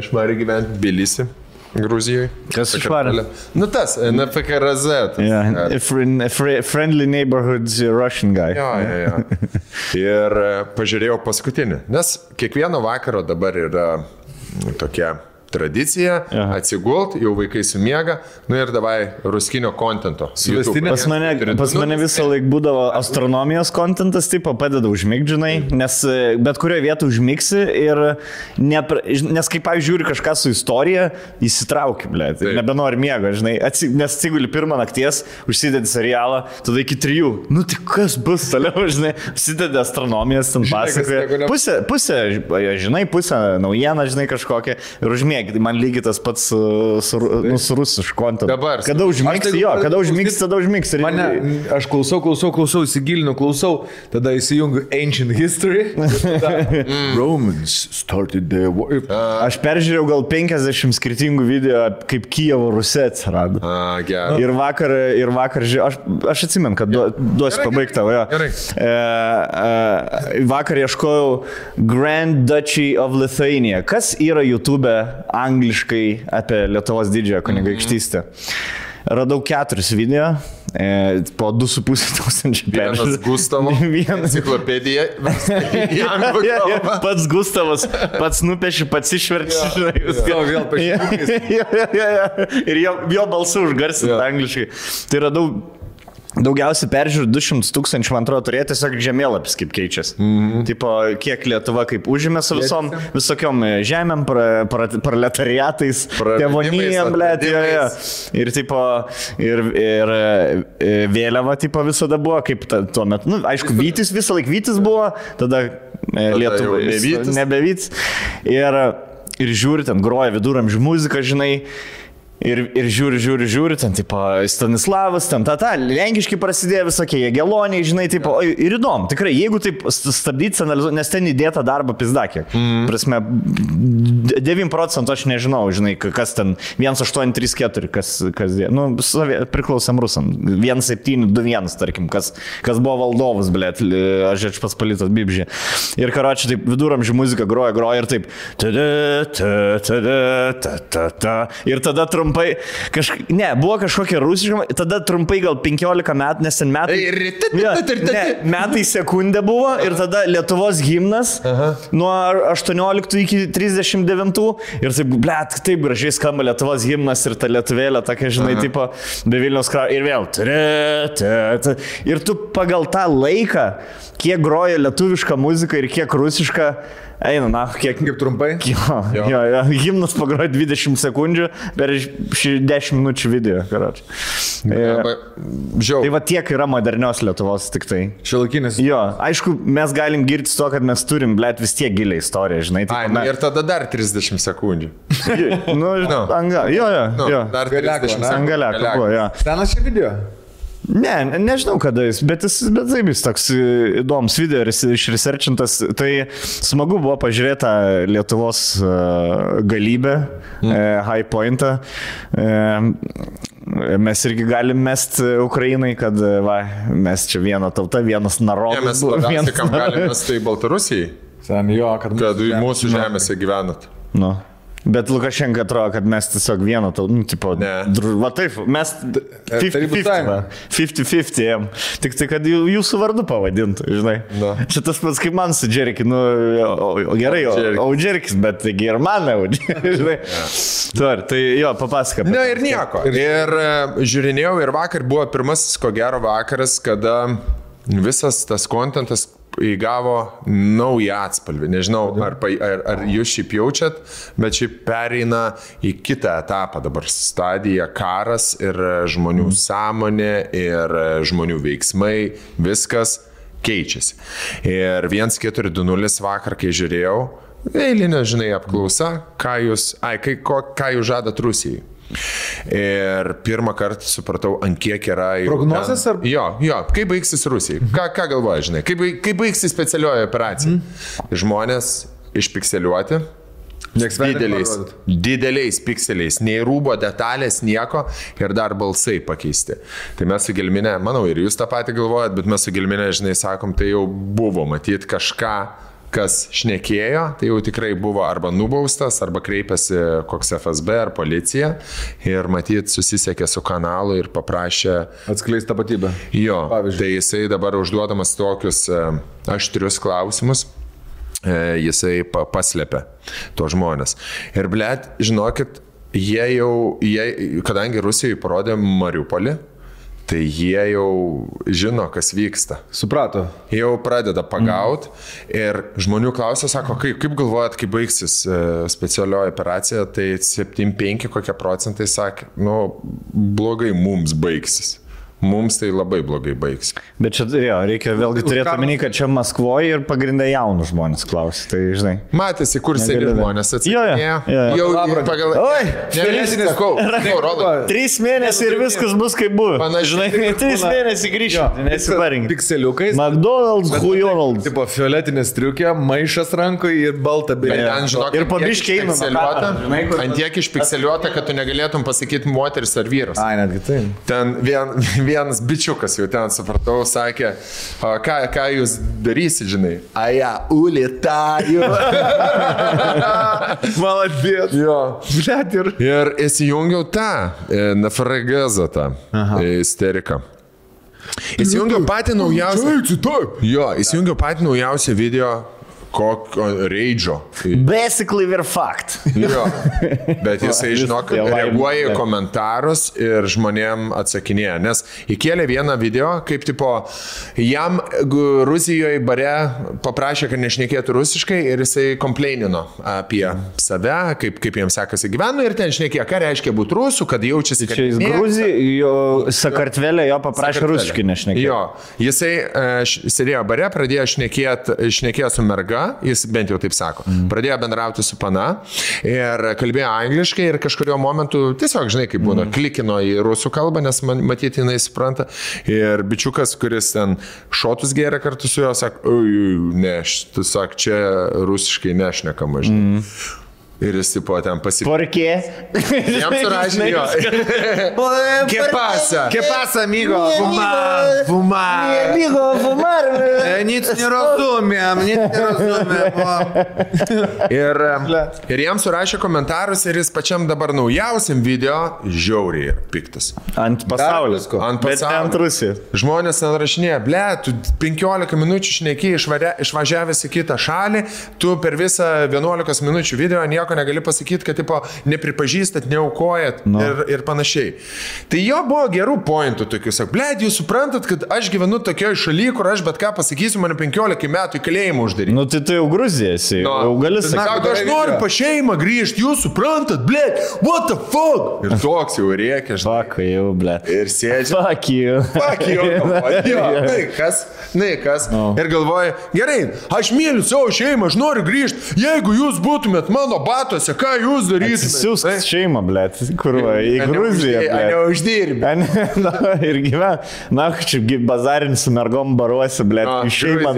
išvarė gyventi Tbilisi, Gruzijoje. Kas išvarė? Nu tas, NFKRZ. Friendly neighborhood Russian guy. Jo. Ir pažiūrėjau paskutinį, nes kiekvieno vakaro dabar yra tokia tradicija, atsigult, jau vaikai sumiega, nu ir davai ruskinio kontento. Pas mane visą laiką būdavo astronomijos kontentas, taip padeda užmigdžinai, nes bet kurioje vietoje užmigsi ir nes kaip žiūri kažką su istorija, įsitrauki, blėt, nebenori miego, žinai, nes atsiguli pirmą nakties, užsidedi serialą, tada iki 3, nu tai kas bus toliau, žinai, užsidedi astronomijos, ten pasakoja, pusę, žinai, pusę naujieną, žinai, kažkokią ir užmėgi. Tai man lygiai tas pats su rusišku kontentu. Dabar. Kada užmigsi, tada užmigsi. Aš klausau, įsigilinu, tada įsijungiu Ancient History. Romans started the war. Aš peržiūrėjau gal 50 skirtingų video, kaip Kijevo Rusija atsirado. Gerai. Ir vakar aš atsimenu, kad duosiu pabaigtą. Vakar ieškojau Grand Duchy of Lithuania. Kas yra YouTube angliškai apie Lietuvos didžiąją kunigaikštystę? Radau 4 video, po 2,5 peržiūrų. Vienas Gustavo, enciklopedija. Pats Gustavas, pats nupeši, pats išverčia. Vėl pašykis. Ir jo balsu užgarsinti angliškai. Tai radau daugiausiai peržiūrų 200 000, man atrodo, turėjo tiesiog žemėlapis, kaip keičiasi. Tipo, kiek Lietuva kaip užėmė su visokiom žemėm, proletariatais, tėvonijam, blėt, ir tipo, ir vėliava, tipo, visada buvo, kaip tuo metu, nu, aišku, Vytis, visą laiką Vytis buvo, tada Lietuva nebevytis. Ir žiūri, ten groja viduramžių muziką, žinai, ir žiūri, ten, tipo, Stanislavas, ten, lenkiški prasidėjo visokie, Jageloniai, žinai, tipo, ir įdomu, tikrai, jeigu taip stabdyti, nes ten įdėta darbo pizdakė. Prasme, 9% aš nežinau, žinai, kas ten, 1834, kas nu, priklausėm rusam, 1721, tarkim, kas buvo valdovas, blėt, aš pats palitas Bibžė. Ir karočiui, taip, viduramžių muzika groja ir taip, ir tada trumpai, buvo kažkokia rusiška, tada trumpai gal 15 metų, nes ten metai sekundė buvo ir tada Lietuvos himnas nuo 18 iki 39 ir taip, blėt, taip gražiai skamba Lietuvos himnas ir ta lietuvėlė, tokia, žinai, tipo, be Vilniaus kraujo ir vėl. Ir tu pagal tą laiką, kiek groja lietuviška muzika ir kiek rusiška, eina, kiek trumpai? Jo, himnas pagroja 20 sekundžių per 10 minučių video, karoči. Tai va tiek yra modernios Lietuvos tik tai. Šiuolaikinis. Jo, aišku, mes galim girtis to, kad mes turim, blėt, vis tiek gilią istoriją, žinai. Ir tada dar 30 sekundžių. Jo. Dar 30 sekundžių. Angaliako buvo, jo. Senas šį video? Ne, nežinau kada jis, bet taip jis toks įdomus video ir išresearchintas. Tai smagu buvo pažiūrėti Lietuvos galybę, high pointą. Mes irgi galim mest Ukrainai, kad mes čia viena tauta, vienas narodas. Mes labiausiai, kam galim mest tai Baltarusijai. Kad mūsų žemėse gyvenat. Nu. Bet Lukašenka atrodo, kad mes tiesiog vieną tau, nu, tipo, va taip, mes 50-50, tik tai, kad jūsų vardu pavadintų, žinai. Čia tas pats kaip man su Džeriki, nu, gerai, o Džerikis, bet taigi ir man, žinai. Tai jo, papasaka. Ne, ir nieko. Ir žiūrinėjau, ir vakar buvo pirmasis, ko gero vakaras, kada visas tas kontentas įgavo naują atspalvį. Nežinau, ar jūs šiaip jaučiat, bet šiaip pereina į kitą etapą dabar. Stadija karas ir žmonių sąmonė ir žmonių veiksmai, viskas keičiasi. Ir 1420 vakar, kai žiūrėjau, eilinė, žinai, apklausa, ką jūs žadat Rusijai. Ir pirmą kartą supratau, ant kiek yra... Prognozės ar... Jo, kaip baigsis Rusijai? Ką galvoja, žinai? Kaip baigsis specialioji operacija? Žmonės išpikseliuoti, dideliais pikseliais, nei rūbo detalės, nieko ir dar balsai pakeisti. Tai mes su Gelminė, manau, ir jūs tą patį galvojat, bet mes su Gelminė, žinai, sakom, tai jau buvo matyti kažką kas šnekėjo, tai jau tikrai buvo arba nubaustas, arba kreipėsi koks FSB ar policija ir matyt susisiekė su kanalu ir paprašė Atskleis tapatybę. Jo, Pavyzdžiui. tai jisai dabar užduodamas tokius aštrius klausimus, jisai paslėpė to žmonės. Ir blėt, žinokit, kadangi Rusijai parodė Mariupolį, tai jie jau žino, kas vyksta. Suprato. Jau pradeda pagaut ir žmonių klausia, sako, kaip galvojat, kaip baigsis specialioji operacija, tai 7-5 kokie procentai sakė, blogai mums baigsis. Mums tai labai blogai baigs. Bet čia, reikia vėlgi turėti omeny, kad čia Maskvoje ir pagrindai jaunų žmonės klausia, tai žinai. Matėsi, kur seni žmonės atsakinėjo. Jo. Pagal... Oi, Nelėsinis, sakau. 3 mėnesiai ir viskas bus kaip buvo. Panašiai. 3 mėnesiai grįžti, nesiparinkit. Pikseliukais. McDonald's, Hujonald's. Tipo, fioletinė striukė, maišas rankoje ir balta bėlė. Ir pabiškiai ant tiek išpikseliuota, kad tu negalėtum pasakyti moteris ar vyras. Ai, netgi tai. Ten vienas bičiukas jau ten, supratau, sakė, ką jūs darysit, žinai? Aja, ulitaju. Maladėt. Jo. Blet ir. Ir įsijungiau tą nafragazą, tą isteriką. Įsijungiau patį naujausią. Jo, įsijungiau patį naujausią video. Kokio reidžio. Basically we're fucked. Jo, bet jisai, žinok, reaguoja į komentarus ir žmonėm atsakinėja, nes įkėlė vieną video, kaip tipo, jam Rusijoje bare paprašė, kad nešnekėtų rusiškai ir jisai kompleinino apie save, kaip jiems sekasi gyvenu ir ten šnekėjo, ką reiškia būti rusų, kad jaučiasi, kad... Čia jis Gruzijoje, Sakartvelė jo paprašė rusiškai nešnekėti. Jo, jisai sėdėjo bare, pradėjo šnekėjo su merga, jis bent jau taip sako. Pradėjo bendrauti su pana ir kalbėjo angliškai ir kažkurio momentu tiesiog, žinai, kaip būna, klikino į rusų kalbą, nes matyti jinai supranta. Ir bičiukas, kuris ten šotus gėrė kartu su juo, sako, ne, tu sak, čia rusiškai nešnekama, žinai. Ir jis tipo ten pasipildė. Porkė? Jam surašė jo. ¿Qué pasa, amigo? Fumar. Amigo, fumar. Nic nerozumiem. Ir jam surašė komentarus ir jis pačiam dabar naujausiam video žiauriai piktas. Ant pasaulio. Bet ne ant Rusijos. Žmonės ten rašinėja, ble, tu 15 minučių šneki išvažiavęs į kitą šalį, tu per visą 11 minučių video nieko negali pasakyti, kad tipo, nepripažįstat, neaukojat ir panašiai. Tai jo buvo gerų pointų tokių, sak, ble, jūs suprantat, kad aš gyvenu tokioje šalyje, kur aš bet ką pasakysiu, mane 15 metų į kalėjimą uždaryti. Nu tai tu jau Gruzijasi, jau gali sakyti. Aš noriu pa šeimą grįžti, jūs suprantat, ble, what the fuck? Ir toks jau rėkia, žinai. Fuck you, ble. Ir sėdži. Fuck you. Fuck you. Kas. Ir galvoja, gerai, aš myliu savo šeimą, aš noriu grįžti. Jeigu jūs būtumėt mano batuose, ką jūs darytumėt? Siūsk šeimą, blėt, kurva, į Gruziją, blėt. Neuždirbė. Ir gyven. Na, čia bazarinis su mergom baruosi, blėt, šeimą,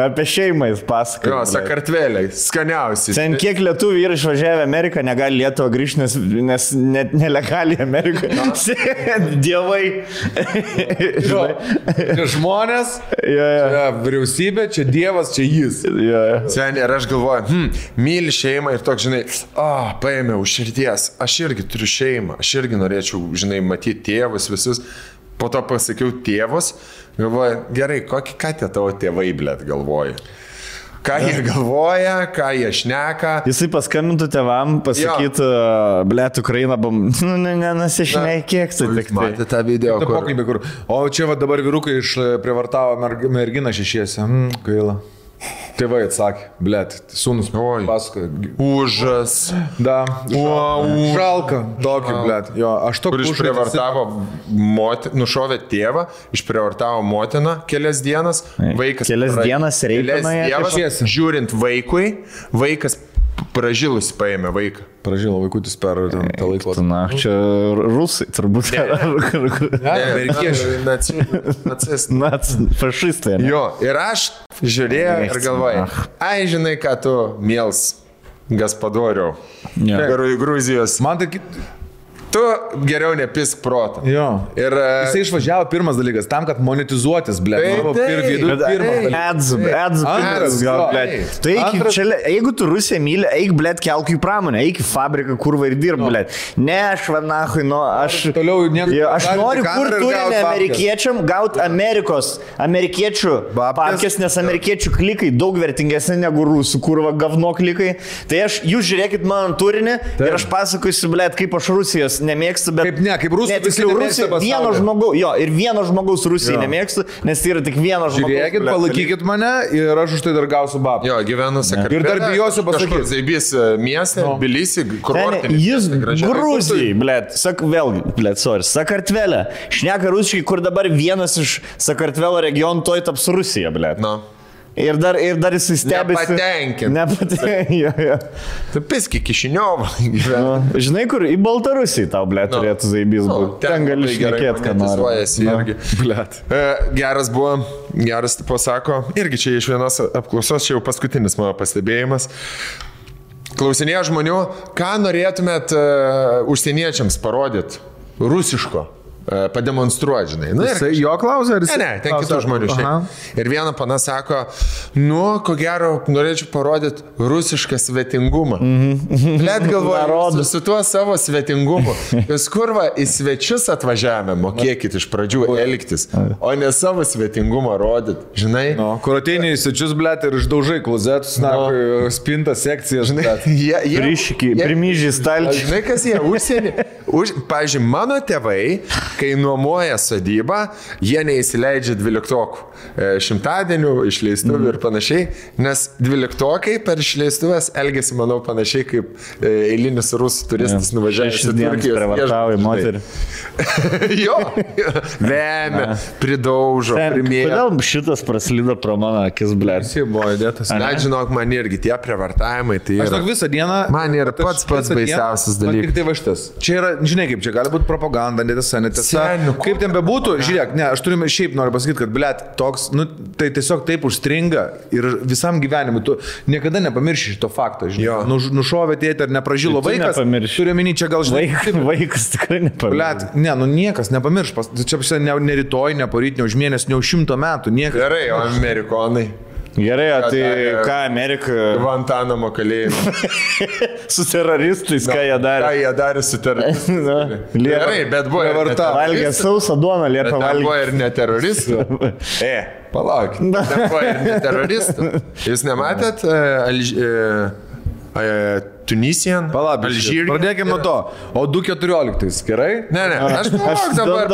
apie šeimą jis pasakoja. Jo, Sakartvelė, skaniausiai. Ten kiek lietuvių yra išvažiavę Ameriką, negali Lietuvą grįžti, nes net nelegaliai Amerikoje. Dievai. Čia žmonės, čia vyriausybė, čia Dievas, čia jis. Sen, ir aš galvoju, myli šeimą ir toks, žinai, paėmiau širdies, aš irgi turiu šeimą, aš irgi norėčiau, žinai, matyti tėvus visus, po to pasakiau tėvus, galvoju, gerai, ką tie tavo tėvai, blėt, galvoja? Ką jie galvoja, ką jie šneka. Jisai paskambintų tėvam, pasakytų, blėt, Ukraina, nesišnekėk, tai tik tai. Matė tą video, kur... O čia va dabar vyrukai išprivartavo merginą šešiese. Gaila. Tėvai atsakė, blėt, sūnus pasakoja. Užas. Da. Žalka. Tokį, blėt. Jo, aš to kur išprivartavo nušovė tėvą, išprivartavo motiną kelias dienas, vaikas. Kelias dienas reikėjo. Žiūrint vaikui, vaikas pražilus paėmė vaiką. Pražilo vaikutis per tą laiką. Na, čia rusai turbūt. Amerikiečiai. Fašistai. Jo, ir aš žiūrėjau ir galvoju, ai, žinai, ką tu miels gaspadoriau. Gruzijos. Man tai... tu geriau nepisk proto. Jo. Ir Jisai išvažiavo pirmas dalykas, tam, kad monetizuotis, ble. Ads, gal, ble. Tai jeigu tu Rusiją myli, eik, ble, kelk į pramonę, eik į fabriką, kurva ir dirb, ble. Ne, aš vanachui, aš noriu kur turinį amerikiečiam gauti amerikiečių papkės, nes amerikiečių klikai daug vertingesni negu rusų, kurva gavno klikai. Tai jūs žiūrėkit mano turinį ir aš pasakoju, ble, kaip aš Rusijos nemėgstu, bet... Kaip rusų, vieno žmogaus Rusijai nemėgstu, nes tai yra tik vieno žmogaus. Žiūrėkit, palaikykit mane ir aš už tai dar gausiu babą. Jo, gyvenu Sakartvele. Ir dar bijosiu pasakyti. Zaibys miestą, Tbilisį, kurortinį. Jis Gruzijai, ble, Sakartvele. Šneka rusiškai, kur dabar vienas iš Sakartvelo regionų toj taps Rusija, ble. Ir dar jisai stebisi. Nepatenkinti. Tu piski Kišiniovą. Žinai, kur į Baltarusiją tau, ble, turėtų Zaibys būti. Ten gali šnekėti, ką nori. Geras buvo, geras tipo sako, irgi čia iš vienos apklausos, čia jau paskutinis mano pastebėjimas. Klausinėjo žmonių, ką norėtumėt užsieniečiams parodyti rusiško. Pademonstruoti, žinai. Jisai jo klausė, ar jis? Ne, ten kitų žmonių šiaip. Ir viena pana sako, ko gero, norėčiau parodyti rusišką svetingumą. Let galvoju, su tuo savo svetingumu. Jūs kurva į svečius atvažiavę, mokėkit iš pradžių elgtis, o ne savo svetingumą rodyti, žinai. Kur ateini į svečius, blėt, ir išdaužai klozetus, spintą sekciją, žinai. Primyžiai stalčiai. Žinai, kas jie užsienį? Pavyzdžiui, mano tėvai, kai nuomoja sodybą, jie neįsileidžia 12 šimtadienių, išleistuvių ir panašiai, nes 12 per išleistuvės elgesi, manau, panašiai kaip eilinis rusų turistas nuvažiavęs į Turkijos. Prievartauja moterį. Jo, vemia, pridaužo, primėja. Kodėl šitas praslydo pro mano akis, ble? Jis buvo įdėtas. Net žinok, man irgi tie prievartavimai, tai yra. Aš visą dieną. Man yra pats baisiausias dalykas. Tik tai va šitas. Čia yra, žinai kaip, čia gali būti propaganda, netiesa. Kaip ten bebūtų, žiūrėk, ne, aš turime šiaip noriu pasakyti, kad, blėt, toks, tai tiesiog taip užstringa ir visam gyvenimui, tu niekada nepamirši šito fakto, žinai. Nušovė tėtį ar nepražilo vaikas, turiu minį čia gal, žinai. Vaikas tikrai nepamirš. Blėt, niekas nepamirš, čia ne rytoj, ne poryt, ne už mėnesį, ne už 100 metų, niekas. Gerai, o amerikonai. Gerai, o tai ką Amerika... Guantanamo kalėjimą. Su teroristais, ką jie darė? Ką jie darė su teroristais? Gerai, bet buvo ir valgė sausą duoną, liepą valgė. Buvo ir ne teroristų. Palaukit. Buvo ir ne teroristų. Jūs nematėt Tunisian? Alžyriją. Pradėkime nuo to. O 2014, gerai? Ne, aš dabar...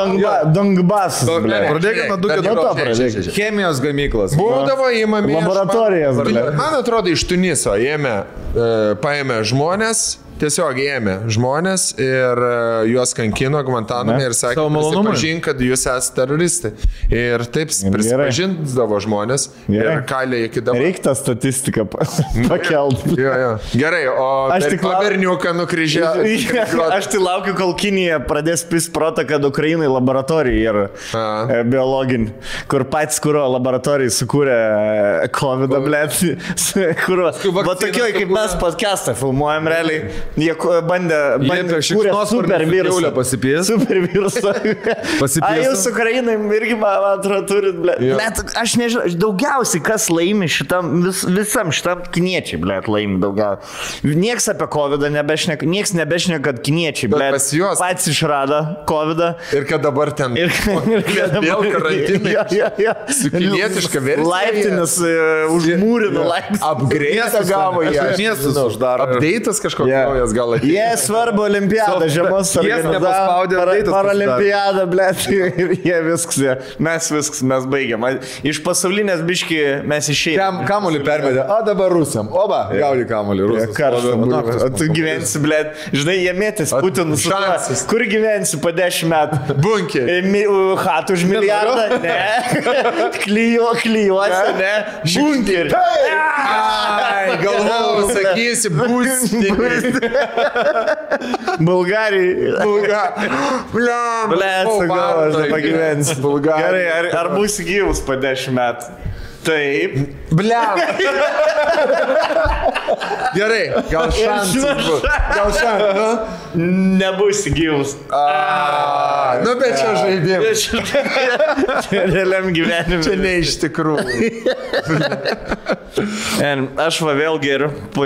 Dongbasas. Pradėkime nuo 2014. Chemijos gamyklas. Būdavo įmami. Laboratorijas. Man atrodo, iš Tuniso paėmė žmonės. Tiesiog ėmė žmonės ir juos kankino Guantaname ir sakė, prisipažink, kad jūs esate teroristai. Ir taip prisipažindavo žmonės ir kalė iki dabar. Reikia tą statistiką pakelti. Gerai, o berniuką nukryžiavo. Aš tai laukiu, kol Kinija pradės pis protą, kad Ukrainai laboratorija yra biologinė, kur patys kuro laboratorijai sukūrė COVID-ą, blėt. Va tokioj, kaip mes podcastą filmuojam realiai. Jie bandė kūrė super virusą. Super virusą. A, jūs Ukrainai irgi, man atrodo, turit, ble. Aš nežinau, daugiausiai kas laimi šitam, visam šitam kiniečiai, ble, laimi daugiausiai. Nieks apie COVID-ą nebešneka, nieks nebešneka, kad kiniečiai, ble, pats išrado COVID-ą. Ir kad dabar ten vėl karantinai. Su kinietiška versija. Laiptinis užmūrino laiptinis. Apgreitą gavo jie. Miestus uždaro. Apdeitas kažkoks. Jie svarbu olimpiadą, žiemos paralimpiadą, blėt, ir jie viskas, mes baigiam. Iš pasaulinės biški mes išėjom. Kamulį pervedė, o dabar Rusiam, oba, gauni kamulį, Rusas. O tu gyvensi, blėt, žinai, jie mėtis Putinų su šansis. Kur gyvensi po 10 metų? Bunkerį. Hatų už milijardą? Ne. Klijuosi, ne. Bunkerį. Galvojau, sakysi, būstinį. Bulgarijai. Blėt, sakau, aš nepagyvensiu. Gerai, ar būsi gyvus po 10 metų? Taip. Bliam. Gerai, gal šansas bus. Gal šansas. Nebus gyvus. Nu, bet čia žaidimas. Realiam gyvenimui. Čia ne iš tikrųjų. Aš va vėl geriu po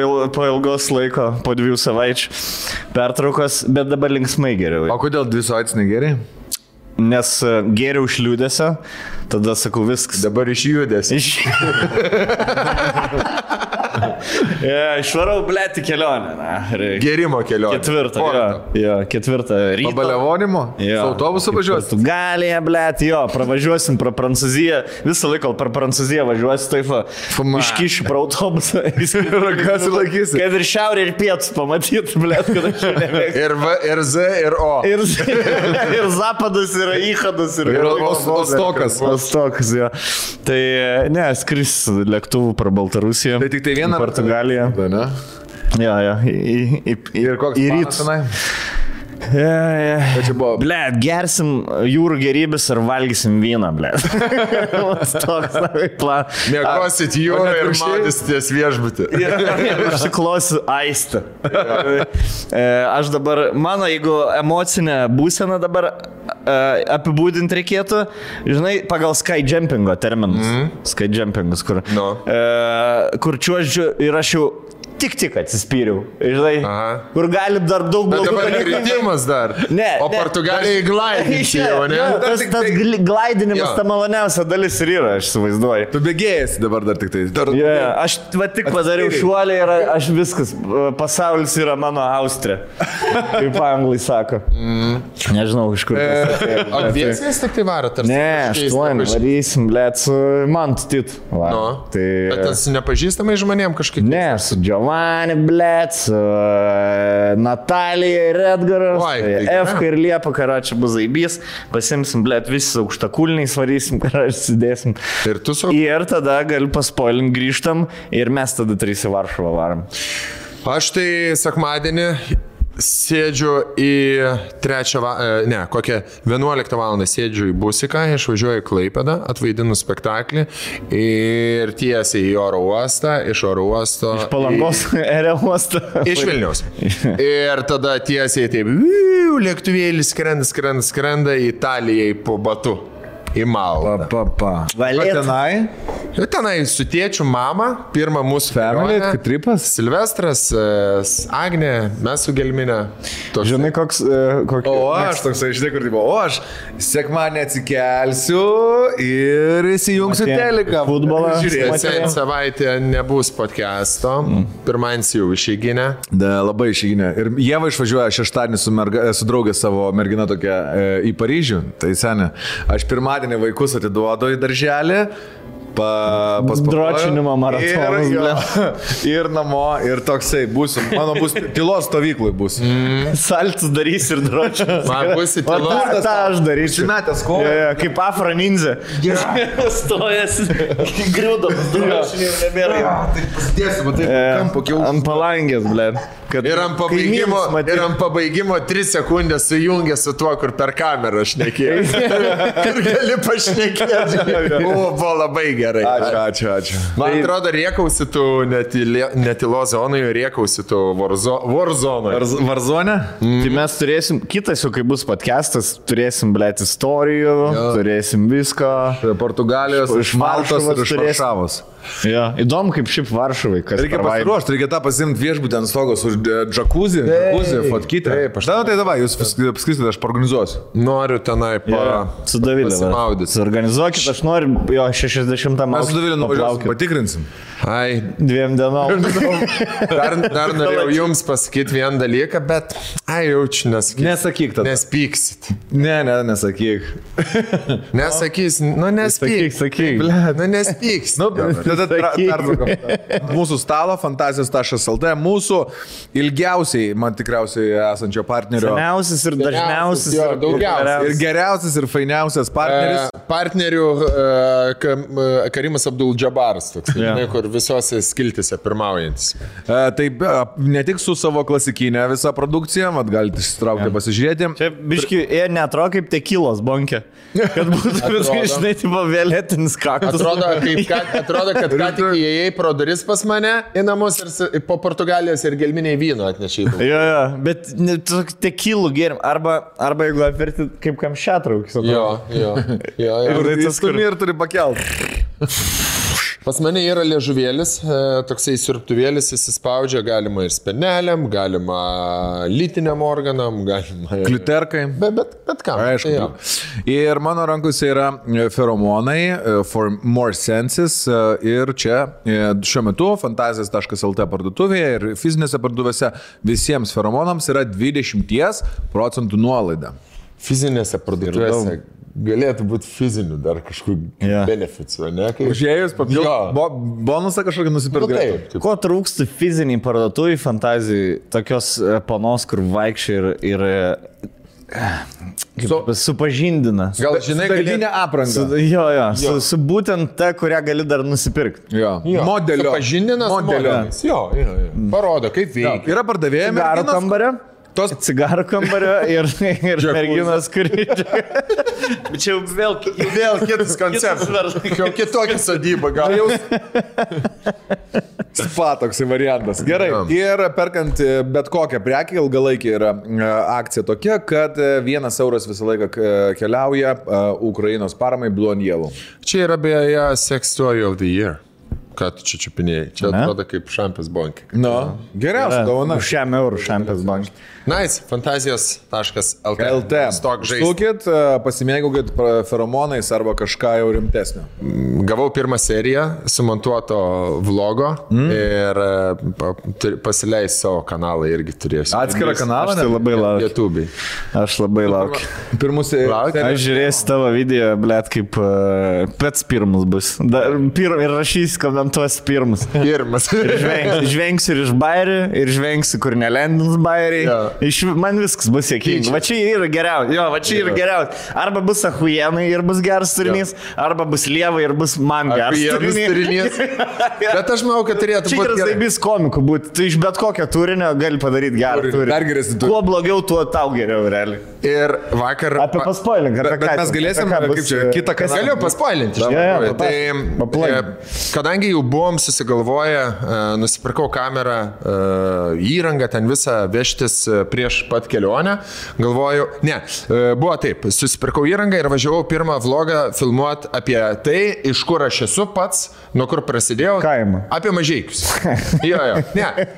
ilgos laiko, po 2 savaičių pertraukos, bet dabar linksmai geriau. O kodėl 2 savaitės negeriai? Nes geriau iš liūdėsio, tada sakau viskas. Dabar iš judesio. Išvarau, blėti kelionę. Gerimo kelionę. 4 ryto. Pabaliavonimo? Su autobusu važiuosi? Portugalija, blėti, pravažiuosim pro Prancūziją. Visą laiką per Prancūziją važiuosi, taip, iškišiu pro autobusą. Ragas laikysi. Kad ir šiaurė ir pietus pamatyti, blėti, kad aš nemėgstu. Ir Z, ir O. Ir Zapadas, ir Ichadas, ir Ostokas. Ostokas, jo. Tai ne, skris lėktuvų pro Baltarusiją. Tai tik tai vieną Portugaliją. Jo. Ir koks planas tenai? Blet, gersim jūrų gerybės ir valgysim vyną, blet. Toks planas. Mėgosit jūrą ir maudysitės viešbutį. Užsiklosiu aistą. Aš dabar, mano, jeigu emocinę būseną dabar apibūdinti reikėtų, žinai, pagal skyjumpingo terminus. Skyjumpingas, kur čiuožiu ir aš jau tik atsispyriau, žinai, kur gali dar daug blogų dalykų. Bet dabar kritimas dar. Ne. O Portugalijai glaidinti jau, ne? Tas glaidinimas ta maloniausia dalis ir yra, aš suvaizduoju. Tu bėgėjasi dabar dar tik tai. Aš tik padariau šuolį ir aš viskas, pasaulis yra mano Austrija, kaip anglai sako. Nežinau, iš kur. O dviesiais tik tai varo, tarsi? Ne, 8 varysim, blėt, su Mantu Titu. Bet tas nepažįstamai žmonėm kažkaip? Ne, su Giovanni, blėt, su Natalija ir Edgaras, Efka ir Liepa, karočią bus zaibys, pasimsim, blėt, visi aukštakulniai svarysim, karočią sudėsim. Ir tada galiu paspoilint, grįžtam ir mes tada 3 į Varšuvą varom. Aš tai sekmadienį sėdžiu į 11 valandą sėdžiu į Busiką, išvažiuoju į Klaipėdą, atvaidinu spektaklį ir tiesiai į oro uostą, iš oro uosto... Iš Palangos oro uosto. Iš Vilniaus. Ir tada tiesiai taip, lėktuvėlis skrenda į Italijai po Batu. Į Maltą. Tenai? Tenai su tėčiu, mama, pirmą mūsų family, tripas. Silvestras, Agnė, mes su Gelminė. Žinai, koks... O aš toksai, žinai, kur tipo, o aš sekmadienį atsikelsiu ir įsijungsiu teliką. Futbolą. Žiūrėsiu, savaitę nebus podcast'o. Pirmadienį jau išeiginę. Labai išeiginę. Ir Ieva išvažiuoja šeštadienį su draugė savo mergina tokia į Paryžių. Tai senė. Aš pirmadienį vaikus atiduodu į darželį, dročinimo maratonas. Ir namo, ir toksai būsiu. Mano bus tylos stovyklai bus. Saltus darys ir dročinas. Man bus į tylos. Ta aš darysiu. Šimetės kovo. Kaip Afro ninja. Stojas, griūdamas, dročinį jau nebėra. Tai pasidėsiu, matai, kampo kiaus. Ant palangės, blėd. Ir ant pabaigimo 3 sekundės sujungė su tuo, kur per kamerą šnekėjai. Kur gali pašnekėti. Buvo labai gerai. Ačiū. Man atrodo, riekausi tu netilo zonai, riekausi tu Warzone. Warzone? Tai mes turėsim, kitas jau kai bus podcastas, turėsim, blėt, istorijų, turėsim visko. Portugalijos, iš Maltos ir iš Varšavos. Ja, įdomu, kaip šiaip Varšuvai. Reikia pasiruošti, reikia tą pasimti viešbutį ant stogos už džakuzį, fotkytę. Taip, tai davai, jūs paskrisite, aš paorganizuosiu. Noriu tenai su Davilė pasimaudyti. Suorganizuokit, aš noriu jo 60 metų. Mes su Davilė nuvažiuosim, patikrinsim. Ai, 2 dienom. Dar norėjau jums pasakyti vieną dalyką, bet jaučiu, nesakyk tada. Nespyksit. Ne, nesakyk. Nesakys, nespyk. Sakyk. Nu, nespyks. Mūsų stalo fantazijos.lt, mūsų ilgiausiai, man tikriausiai esančio partnerio. Seniausias ir dažniausias. Ir geriausias ir fainiausias partneris. Partnerių Karimas Abdul Džabaras, toks, kur ir visose skiltise pirmaujantis. Taip, ne tik su savo klasikinė visa produkcija, mat galite išsitraukti pasižiūrėti. Čia biški, jie netrodo kaip tekilos bonkė. Kad būtų viskai, žinai, tipo vėlėtinis kaktus. Atrodo, kad ką tik įėjai pro duris pas mane į namus ir po Portugalijos ir gelminiai vyno atnešai. Jo, bet tekilų gėrim. Arba jeigu apverti kaip kamščiatraukis. Jo. Ir stumi ir turi pakelt. Pas mane yra liežuvėlis, toksai siurbtuvėlis, įsispaudžia, galima ir speneliam, galima lytiniam organam, galima... Kliuterkai. Bet kam. Aišku. Tai ir mano rankose yra feromonai, for more senses. Ir čia šiuo metu fantazijas.lt parduotuvėje ir fizinėse parduotuvėse visiems feromonams yra 20% nuolaida. Fizinėse parduotuvėse galėtų būti fizinių dar kažkokių beneficijų, ne? Užėjus bonusą kažkokį nusipirkti. Taip. Ko trūksta fiziniai parduotuvai fantazijai, tokios panos, kur vaikščiai ir supažindina. Gal žinai, darbinę aprangą. Su būtent ta, kurią gali dar nusipirkti. Modelio. Supažindinas. Jo. Parodo, kaip veikia. Yra pardavėjai Cigarų kambario. Cigarų kambario ir merginos, kuri... Bet čia jau vėl kitas konceptas. Jau kitokia sodyba, gal jau... Spa toksai variantas. Gerai. Ir perkant bet kokią prekę, ilgalaikį yra akcija tokia, kad 1 euras visą laiką keliauja Ukrainos paramai Blue and Yellow. Čia yra beje Sex Toy of the Year. Ką tu čia čiupinėjai? Čia atrodo kaip šampės bankė. Geriausia dovana. Už 100 eurų šampės bankė. Nice, fantazijos.lt. Stukit, pasimėgaukit feromonais arba kažką jau rimtesnio. Gavau pirmą seriją sumontuoto vlogo ir pasileis savo kanalą irgi turėsiu. Atskirą kanalą? Aš tai labai laukiu. YouTube'ai. Aš labai laukiu. Pirmus Aš žiūrėsiu tavo video, blėt, kaip pets pirmus bus. Ir rašys, komentuos pirmus. Žvengsiu ir iš bairių, ir žvengsiu, kur nelendins bairiai. Man viskas bus sėkminga. Va čia yra geriausia. Arba bus ahuienai ir bus geras turinys, arba bus lievai ir bus man geras turinys. Bet aš manau, kad turėtų būti gerai. Čia yra bus komikų būti. Tu iš bet kokio turinio gali padaryti gerą turinį. Kuo blogiau, tuo tau geriau, realiai. Ir vakar... Apie paspoilink. Bet mes galėsim, kaip čia, kitą kasą. Galiu paspoilinti. Tai kadangi jau buvom susigalvoję, nusipirkau kamerą, įrangą ten visą vežtis prieš pat kelionę, galvoju, buvo taip, susipirkau įrangą ir važiavau pirmą vlogą filmuoti apie tai, iš kur aš esu pats, nuo kur prasidėjau. Kaimą. Apie Mažeikius.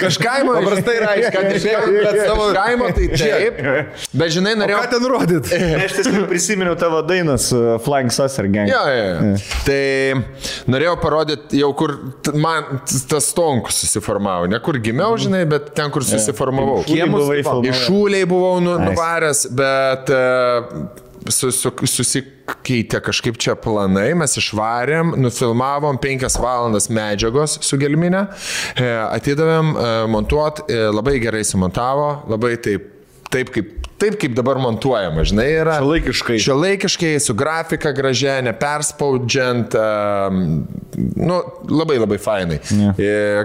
Kažkaimo. Paprastai Iš kaimo tai taip, bet žinai, norėjau... Ką ten rodyt? Aš tiesiog prisiminiau tavo dainą su Flying Saucer Gang. Tai norėjau parodyti jau, kur man tas stonkus susiformavo. Ne kur gimiau, žinai, bet ten, kur susiformavau. Išūliai buvau nuvaręs, bet susikeitė kažkaip čia planai, mes išvarėm, nufilmavom 5 valandas medžiagos su gelminė, atidavėm montuot, labai gerai sumontavo, labai taip kaip dabar montuojama, žinai, yra. Šiuolaikiškai, su grafika gražia, neperspaudžiant, labai fainai.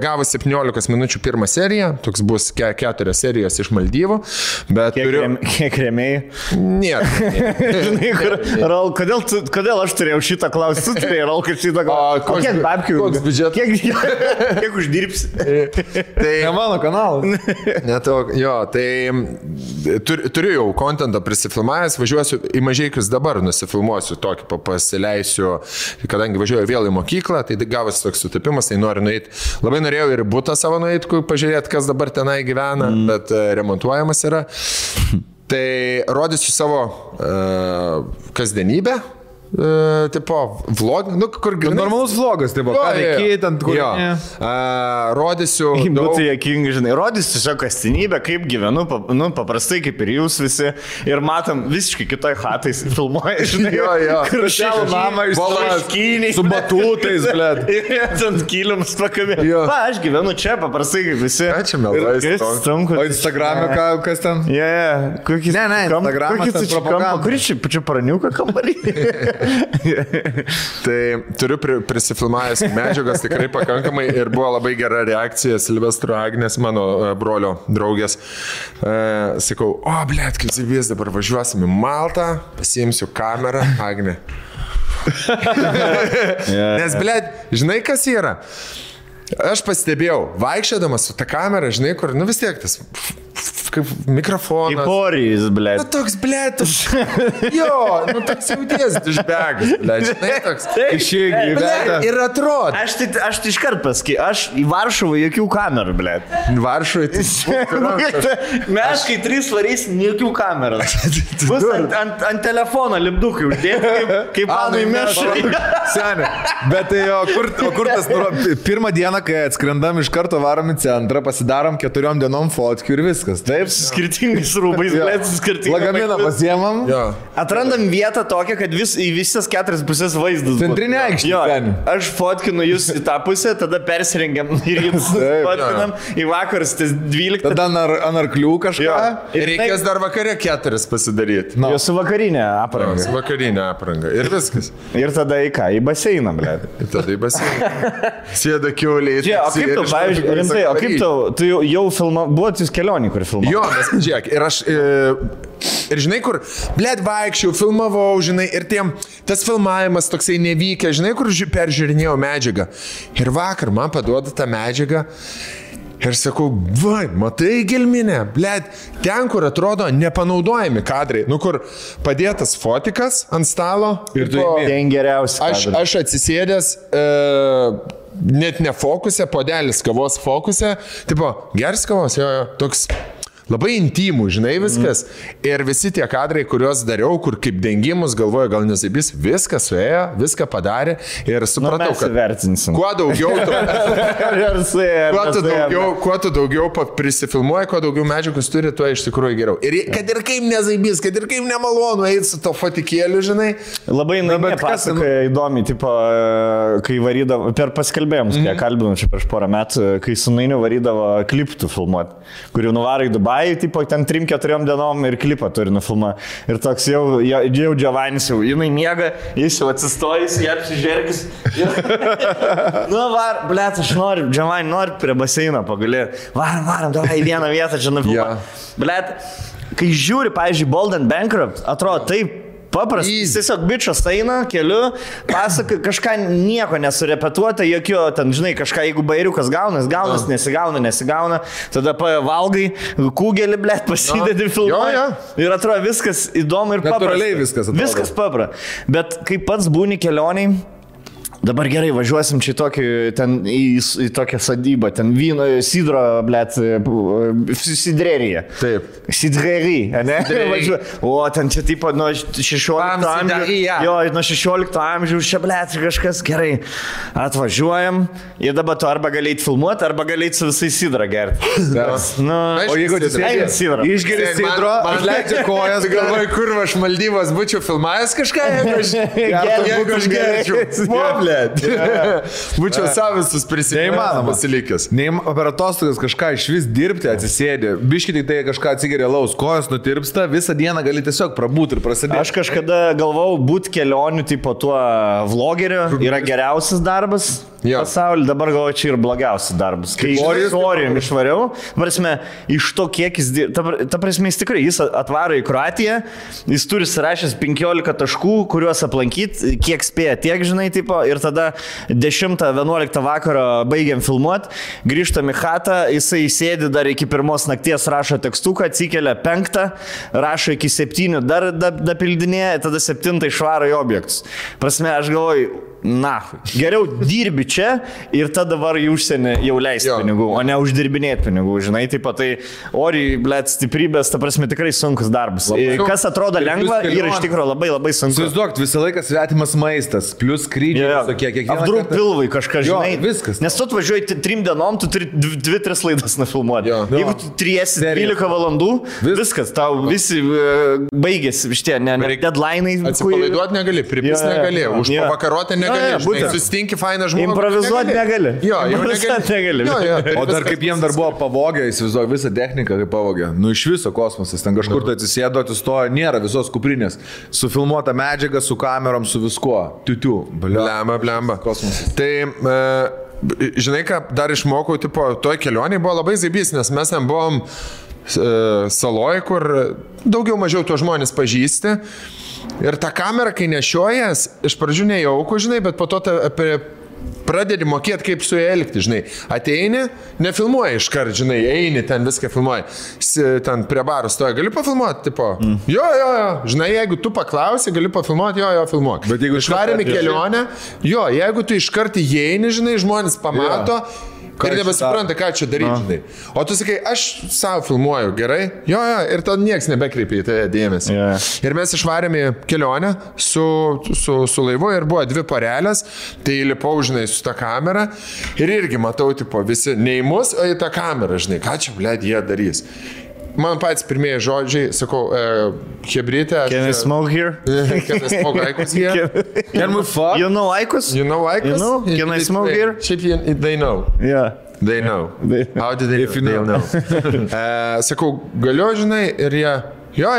Gavo 17 minučių pirmą seriją, toks bus 4 serijos iš Maldyvų, bet Kiek rėmėjai? Nėra. Raul, kodėl aš turėjau šitą klausimą? Tu turėjai, Raul, kad šitą klausimą. Kiek babkių? Koks biudžetas? Kiek uždirbsi? Tai ne mano kanalas. Tai turiu jau kontentą prisifilmavęs, važiuosiu į Mažeikius dabar, nusifilmuosiu tokį, pasileisiu, kadangi važiuoju vėl į mokyklą, tai gavosi toks sutapimas, tai noriu nueiti. Labai norėjau ir butą savo nueiti, pažiūrėti, kas dabar tenai gyvena, bet remontuojamas yra. Tai rodysiu savo kasdienybę. Tipo, vlog, kur grinai. Normalus vlogas, tipo, ką veikiai, ten kur. Rodysiu. Būtų jokingai, žinai, rodysiu tiesiog kasdienybę, kaip gyvenu, paprastai kaip ir jūs visi. Ir matom visiškai kitoj hatais filmuoja, žinai. Kur šiandien namą išskyniai. Su batutais, blėt. Ant kilimus pakabė. Aš gyvenu čia, paprastai kaip visi. Ačiū, melais. O Instagram'e kas ten? Kokis? Ne, Instagram'as ten propaganda. Kuris čia praniuką kambarį? Tai turiu prisifilmavęs medžiagas tikrai pakankamai ir buvo labai gera reakcija Silvestro Agnės, mano brolio draugės. Sakau, blėt, kaip zivės, dabar važiuosim į Maltą, pasiimsiu kamerą, Agnė. Nes, blėt, žinai, kas yra? Aš pastebėjau, vaikščiodamas su ta kamera, žinai, kur, vis tiek tas kaip mikrofonas. Kaip orijus, blėt. Toks, blėt, jo, toks jauties dušbegas, blėt, žinai, toks. Išėgi, blėt. Ir atrodo. Aš tai iškart pasakysiu, aš į Varšuvą jokių kamerų, blėt. Varšuvai, tai... Mes, kai 3 varysim, jokių kamerų. Bus ant telefono lipdukai uždėti, kaip panui mešai. Senė, bet tai kur tas, pirmą dieną, kai atskrendam iš karto varom į centrą, pasidarom 4 dienom fotkių ir viskas. Taip, su skirtingais rūbais, blėt, su skirtingais. Lagaminą pasiemam. Atrandam vietą tokią, kad į visas 4 pusės vaizdas. Centrinė aikštė. Aš fotkinu jūs į tą pusę, tada persirengiam ir jums fotkinam į vakarus, tas 12. Tada ant arklių kažką. Ir reikės dar vakarė 4 pasidaryti. Jo su vakarinė apranga. Su vakarinė apranga. Ir viskas. Ir tada į ką? Į baseiną, blėt. Ir tada į baseiną. Sėda kiauliai. O kaip tau, pavyzdžiui, rimtai, o kaip tu jau buvot jūs kelionį, kur filmavo? Jo, nes, žiūrėk, ir aš, ir žinai, kur, blėt, vaikščiau, filmavau, žinai, ir tas filmavimas toksai nevykė, žinai, kur peržiūrinėjau medžiagą. Ir vakar man paduoda tą medžiagą ir sakau, matai gelminę, blėt, ten, kur atrodo nepanaudojami kadrai, kur padėtas fotikas ant stalo. Ir tu ten geriausi. Aš atsisėdęs... net ne fokusė, podelis kavos fokusė, tipo, gers kavos, jo, toks labai intimų, žinai, viskas. Ir visi tie kadrai, kuriuos dariau, kur kaip dengimus, galvoju, gal nesibis, viską suėjo, viską padarė ir supratau, kad kuo daugiau kuo tu daugiau prisifilmuoji, kuo daugiau medžiagos turi, tuo iš tikrųjų geriau. Ir kad ir kaip nezaibys, kad ir kaip nemalonu eiti su to fotikėliu, žinai. Labai pasakoja įdomi, tipo, kai varydavo, per paskelbėjimus, kai kalbinau čia prieš porą metų, kai su Nainiu varydavo kliptų filmuoti, kurių nuvarai Dubai, tipo, ten 3-4 dienom ir klipą turi nufilmuoti. Ir toks jau Džiavanis jau, jinai miega, jis jau atsistojęs, jie apsižergis. Blėt, aš noriu, Džiavani, noriu prie baseino pagulėti. Varam, davai į vieną vietą čia nufilmuoti. Blėt, kai žiūri, pavyzdžiui, Bold and Bankrupt, atrodo taip, paprastas, jis tiesiog bičas eina keliu, pasaka, kažką nieko nesurepetuota, jokio, ten, žinai, kažką, jeigu bairiukas gaunas, nesigauna, tada valgai, kūgelį, blėt, pasidedi filmuoja. Ir atrodo viskas įdomu ir paprasta. Natūraliai viskas atrodo. Viskas paprasta. Bet kai pats būni kelioniai, dabar gerai, važiuosim čia į tokią sadybą, ten vyno, sidro, blėt, sidrerija. Taip. Sidrerija, ne? O, ten čia tipo nuo 16 amžiaus. Jo, nuo 16 amžiaus čia, blėt, kažkas gerai. Atvažiuojam ir dabar tu arba galėjai filmuoti, arba galėjai su visai sidrą gerti. O jeigu išgeri sidro, atleidžia kojas, galvoju, kur aš Maldyvas būčiau filmavęs kažką, jeigu aš gerčiau. Būčiau savisus prisiminimas pasilikęs. Per atostogas kažką iš vis dirbti, atsisėdė. Biškit tik tai kažką atsigeria laus, kojas nutirpsta, visą dieną gali tiesiog prabūti ir prasidėti. Aš kažkada galvau, būti kelionių tipo tuo vlogeriu yra geriausias darbas pasaulyje, dabar galvoju, čia ir blogiausias darbas. Kai orijum išvariau, prasme, iš to kiek jis dirba, ta prasme, jis tikrai, jis atvaro į Kroatiją, jis turi surašęs 15 taškų, kuriuos aplankyti, kiek spėja, tiek, žinai, tipo, ir tada 10-11 vakaro baigiam filmuoti, grįžtam į chatą, jisai sėdi dar iki 1 nakties, rašo tekstuką, atsikelia 5, rašo iki 7, dar dapildinėja, tada 7 išvaro į objektus. Prasme, aš galvoju, geriau dirbi čia ir tada var į užsienį jau leisti pinigų, o ne uždirbinėti pinigų, žinai, taip pat tai oriai, blėt, stiprybės, ta prasme, tikrai sunkus darbas. Kas atrodo lengva, yra iš tikrųjų labai labai sunku. Įsivaizduok, visą laiką svetimas maistas, plus skrydžiai, kiekvieną apdruk pilvai kažką, žinai. Viskas. Nes tu atvažiuoji 3 dienom, tu turi 2-3 laidas nufilmuoti. Jeigu tu 12 valandų, viskas, tau visi baigėsi, šitie, ne deadline'ai. Atsipalaiduoti negali, pripis negali, užpavakaroti negali. negali. Susitinki fainą žmogų. Improvizuoti negali. Jo, jau negali. O dar kaip jiem dar buvo pavogę, įsivaizduoju visą techniką, kaip pavogė. Nu iš viso kosmosas, ten kažkur tai atsisėdo, atsistojo, nėra visos kuprinės. Sufilmuota medžiaga, su kamerom, su viskuo. Tiu. Blemba. Kosmosas. Tai... Žinai, ką dar išmokau, tipo, toj kelionėje buvo labai zaibys, nes mes ten buvom saloj, kur daugiau mažiau tuos žmonės pažįsti. Ir tą kamerą, kai nešiojas, iš pradžių nejauku, žinai, bet po to pradedi mokėti, kaip su juo elgti, žinai. Ateini, nefilmuoji iškart, žinai, eini ten viską filmuoji. Ten prie baro stoja, gali pafilmuoti, tipo. Jo. Žinai, jeigu tu paklausi, gali pafilmuoti, jo, filmuok. Bet jeigu išvarėme kelionę, jo, jeigu tu iškart įeini, žinai, žmonės pamato. Ir nebesupranta, ką čia daryti, žinai. O tu sakai, aš savo filmuoju, gerai? Jo, ir tada nieks nebekreipia į tai dėmesį. Ir mes išvarėme kelionę su laivu ir buvo 2 porelės, tai lipau, žinai, su tą kamerą ir irgi matau, tipo, visi ne į mus, o į tą kamerą, žinai, ką čia, blėd, jie darys. Man patys pirmieji žodžiai, sakau, hebrytė. Can I smoke here? Can I smoke Aikus here? Can we fuck? You know Aikus? You know Aikus? You know? Can I smoke here? Šiaip they know. Yeah. They know. How did they know? Sakau, galiu, žinai, ir jie... Jo.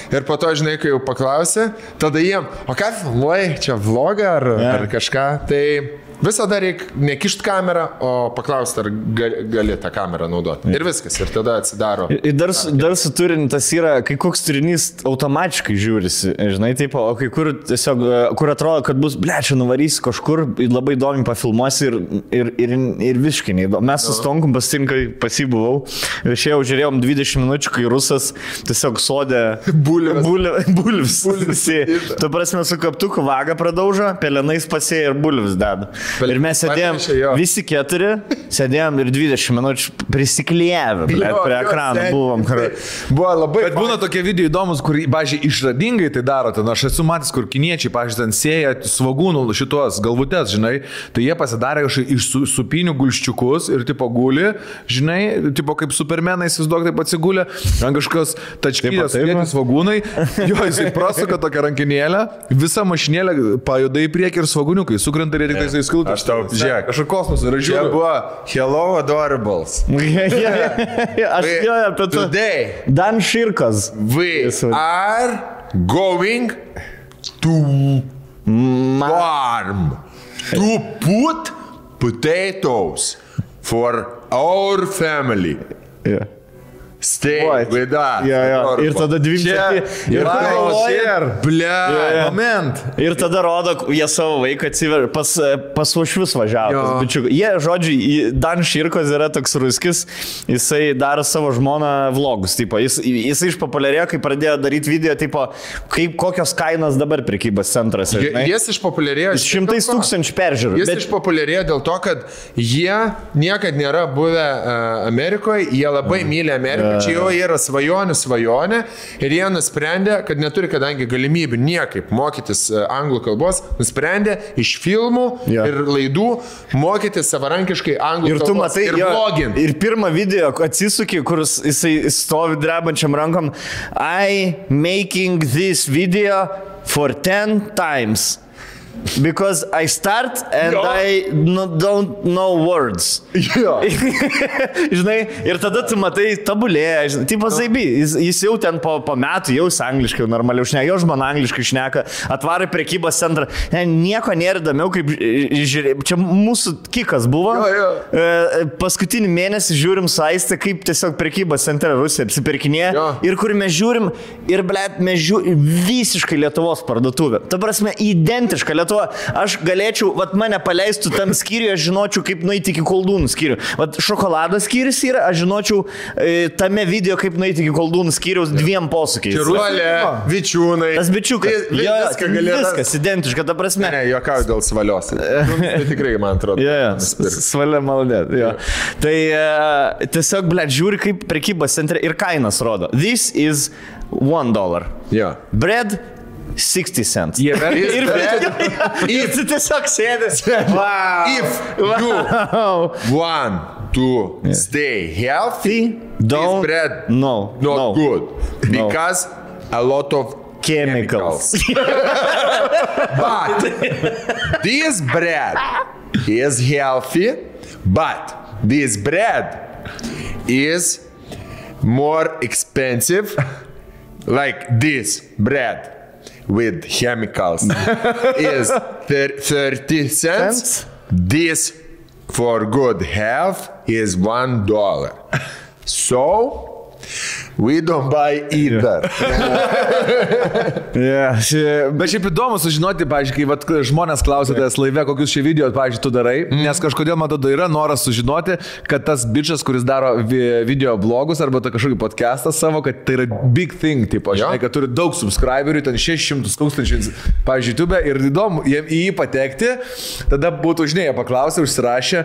Ir po to, žinai, kai jau paklausė, tada jiem, o ką filmuoji, čia vlogą ar kažką, tai... Visada reikia nekišti kamerą, o paklausti, ar gali tą kamerą naudoti. Ir viskas, ir tada atsidaro. Ir dar su turiniu tas yra, kai koks turinys automatiškai žiūrisi, žinai, taip, o kai kur tiesiog, kur atrodo, kad bus, čia nuvarysi kažkur, labai įdomi pafilmuosi ir visiškai neįdomu. Mes su Stonkum pasitinkai pasibuvau ir šiandien žiūrėjom 20 minučių, kai rusas tiesiog sodė bulvis. Tu prasme su kaptuku vagą pradaužo, pelenais pasėja ir bulvis deda. Ir mes sėdėjom, visi 4, sėdėjom ir 20 minučių prisiklijavę, prie ekrano buvom. Buvo labai... Bet būna tokie video įdomus, kur, pažiūrėjau, išradingai tai daro. Ten aš esu matęs, kur kiniečiai, pažiūrėjau, ten sėja svogūnų šitos galvutės, žinai, tai jie pasidarė kažkaip iš supinių gulščiukus ir tipo guli, žinai, tipo kaip supermenai, įsivaizduok, taip atsigulė, ant kažkokios tačkylės vietį svogūnai, jo, jisai prasuka tokią rankinėlę, visa mašinėlė pajuda į priekį ir svogūniukai sukrenta ir tik tai skiltas. Aš tau, žiūrėk, aš kosmosą ir žiūriu. Čia buvo Hello Adorables. Aš jau apie tai. Today. Dan Širkas. We are going to farm to put potatoes for our family. Yeah. Stay with us. Ir tada 2 moment. Ir tada rodo, jie savo vaiką atsiver, pas Uošvius važiavo. Jie, žodžiu, Dan Širkos yra toks ruskis, jisai daro savo žmoną vlogus. Tipo, jisai išpopuliarėjo, kai pradėjo daryti video, tipo, kokios kainos dabar prekybos centruose. Jis išpopuliarėjo. 100 000 peržiūrų. Jis išpopuliarėjo dėl to, kad jie niekad nėra buvę Amerikoje, jie labai myli Ameriką. Čia jau yra svajonė ir jie nusprendė, kad neturi kadangi galimybių niekaip mokytis anglų kalbos, nusprendė iš filmų ir laidų mokytis savarankiškai anglų kalbos ir vloginti. Ir pirmą video atsisukė, kur jisai stovi drebančiam rankom, I making this video for 10 times. Because I start and I don't know words. Žinai, ir tada tu matai tabulėje, žinai, tipo zaibi, jis jau ten po metų jau angliškai normaliau šneka, jau žmona angliškai šneka, atvarai prekybos centrą, nieko nėra įdomiau, kaip žiūrėjau, čia mūsų kikas buvo, paskutinį mėnesį žiūrim su Aiste, kaip tiesiog prekybos centre Rusija apsipirkinėja ir kur mes žiūrim, ir blėt, mes žiūrim visiškai Lietuvos parduotuvę. Ta prasme, identiška Lietuva. Aš galėčiau, vat mane paleistų tam skyriui, aš žinočiau, kaip nueiti iki koldūnų skyrių. Vat šokoladas skyrius yra, aš žinočiau tame video, kaip nueiti iki koldūnų skyriaus 2 posūkiais. Čirulė, vičiūnai. Tas bičiukas. Viskas identiška, ta prasme. Ne, juokauju dėl svalios. Tai tikrai, man atrodo. Svalia malonė. Tai tiesiog, blėt, žiūri, kaip prekybos centre ir kainas rodo. This is $1. Bread 60 cents. Ir tu tiesiog sėdė. If you want to stay healthy, this bread not good. Because a lot of chemicals. But this bread is healthy, but this bread is more expensive, like this bread with chemicals is 30 cents. This for good health is $1. So we don't buy either. Bet šiaip įdomu sužinoti, pavyzdžiui, kai vat, žmonės klausia tavęs laive, kokius šie video, pavyzdžiui, tu darai, nes kažkodėl, man atrodo, yra noras sužinoti, kad tas bičias, kuris daro video blogus arba kažkokį podcastą savo, kad tai yra big thing, tipo, žinai, kad turi daug subscriberių, ten 600 tūkstančių, pavyzdžiui, YouTube, ir įdomu į jį patekti, tada būtų, žinai, paklausę, užsirašę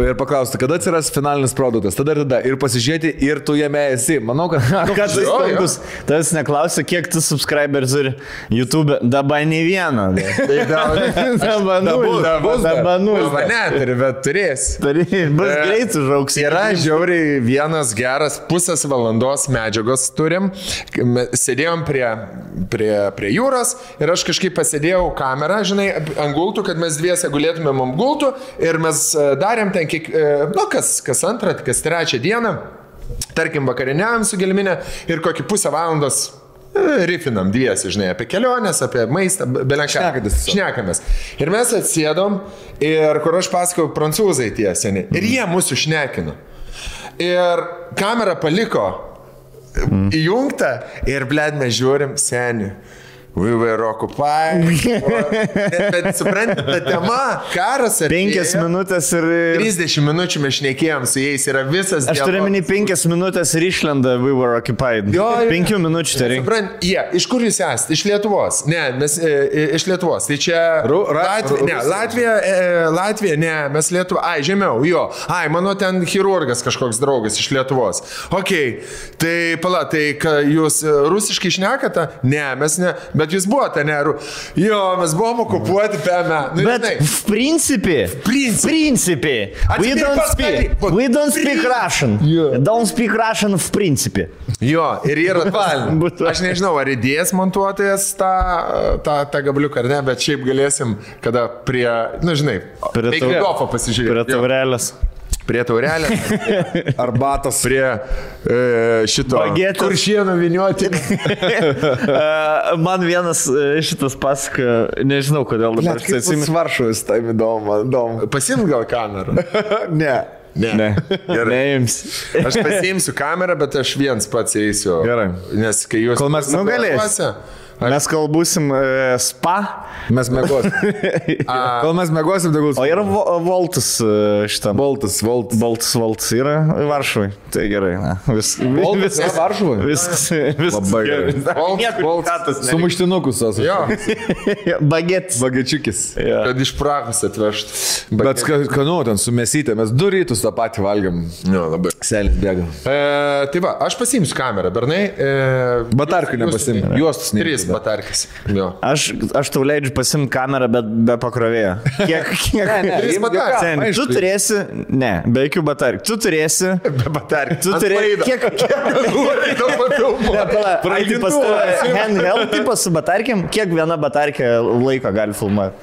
ir paklausti, kada atsiras finalinis produktas, tada ir pasižiūrėti, ir tu jame esi. Manau, kad tas neklausia, kiek tu subscribers turi YouTube, dabar nei vieno. Dabar nul. Neturi, bet turės. Bus greit užauks. Yra žiauriai vienas geras pusės valandos medžiagos turim. Sėdėjom prie jūros ir aš kažkaip pasėdėjau kamerą, žinai, ant gultų, kad mes dviese gulėtumėm ant gultų ir mes darėm ten kas antrą, kas trečią dieną. Tarkim, vakariniam su Gelminė ir kokį pusę valandos rifinam dviesi, žinai, apie keliones, apie maistą, belenką. Šnekamės. Ir mes atsėdom ir kur aš pasakau, prancūzai tie seni. Ir jie mūsų šnekino. Ir kamera paliko įjungtą ir, bled, mes žiūrim seni. We were occupied. Bet suprantate, ta tema, karas ar 5 minutės ir 30 minučių mes šnekėjom su jais, yra visas dialogas. Aš turiu minį 5 minutės ir išlenda we were occupied. 5 minučių tai reikia. Suprantate, iš kur jūs esate? Iš Lietuvos. Ne, mes iš Lietuvos. Tai čia Latvija, ne, mes Lietuva. Ai, žemiau, jo. Ai, mano ten chirurgas kažkoks draugas iš Lietuvos. Okei, tai pala, tai jūs rusiškai šnekate? Ne, mes ne. Bet jūs buvote, ne? Jo, mes buvom okupuoti PM. Nu, bet v principė, we don't speak Russian. Don't speak Russian v principė. Jo, ir yra aš nežinau, ar idėjas montuotojas tą gabliuką ar ne, bet šiaip galėsim, kada prie, nu žinai, prie gofo pasižiūrėti. Prie taurelės. Prie taurelės, arbatos, prie šito kuršienų viniuoti. Man vienas šitas pasaka, nežinau kodėl dabar. Kaip tas Varšuvas, tai įdomu. Pasiimt gal kamerą? Ne. Gerai. Neims. Aš pasiimsiu kamerą, bet aš viens pats eisiu. Gerai. Nes kai jūs... Kol mes nugalėsi. Mes kol būsim spa. Mes mėgosim. Kol mes mėgosim, tai gulsim. O yra Voltas šitam. Voltas yra Varšuvai. Tai gerai. Voltas yra Varšuvai? Viskas. Labai gerai. Voltas. Sumuštinukus esu. Jo. Bagečiukis. Kad iš Prahos atvežtų. Bet skanu, ten su mesytė. Mes 2 rytus tą patį valgiam. Jo, labai. Selis bėga. Tai va, aš pasiimsiu kamerą, bernai. Batarkių nepasiimsiu. Juostus nereikia. 3 batarkis. Jo. Aš tau leidžiu pasimti kamerą, bet be pakrovėjo. Kiek? 3 batarkis. Tu turėsi, ne, be jokių batarkių. Tu turėsi, be batarkių. Tu turėsi, kiek nori to papilmo. Handheld tipas su batarkiam, kiek viena batarkė laiko gali filmuoti?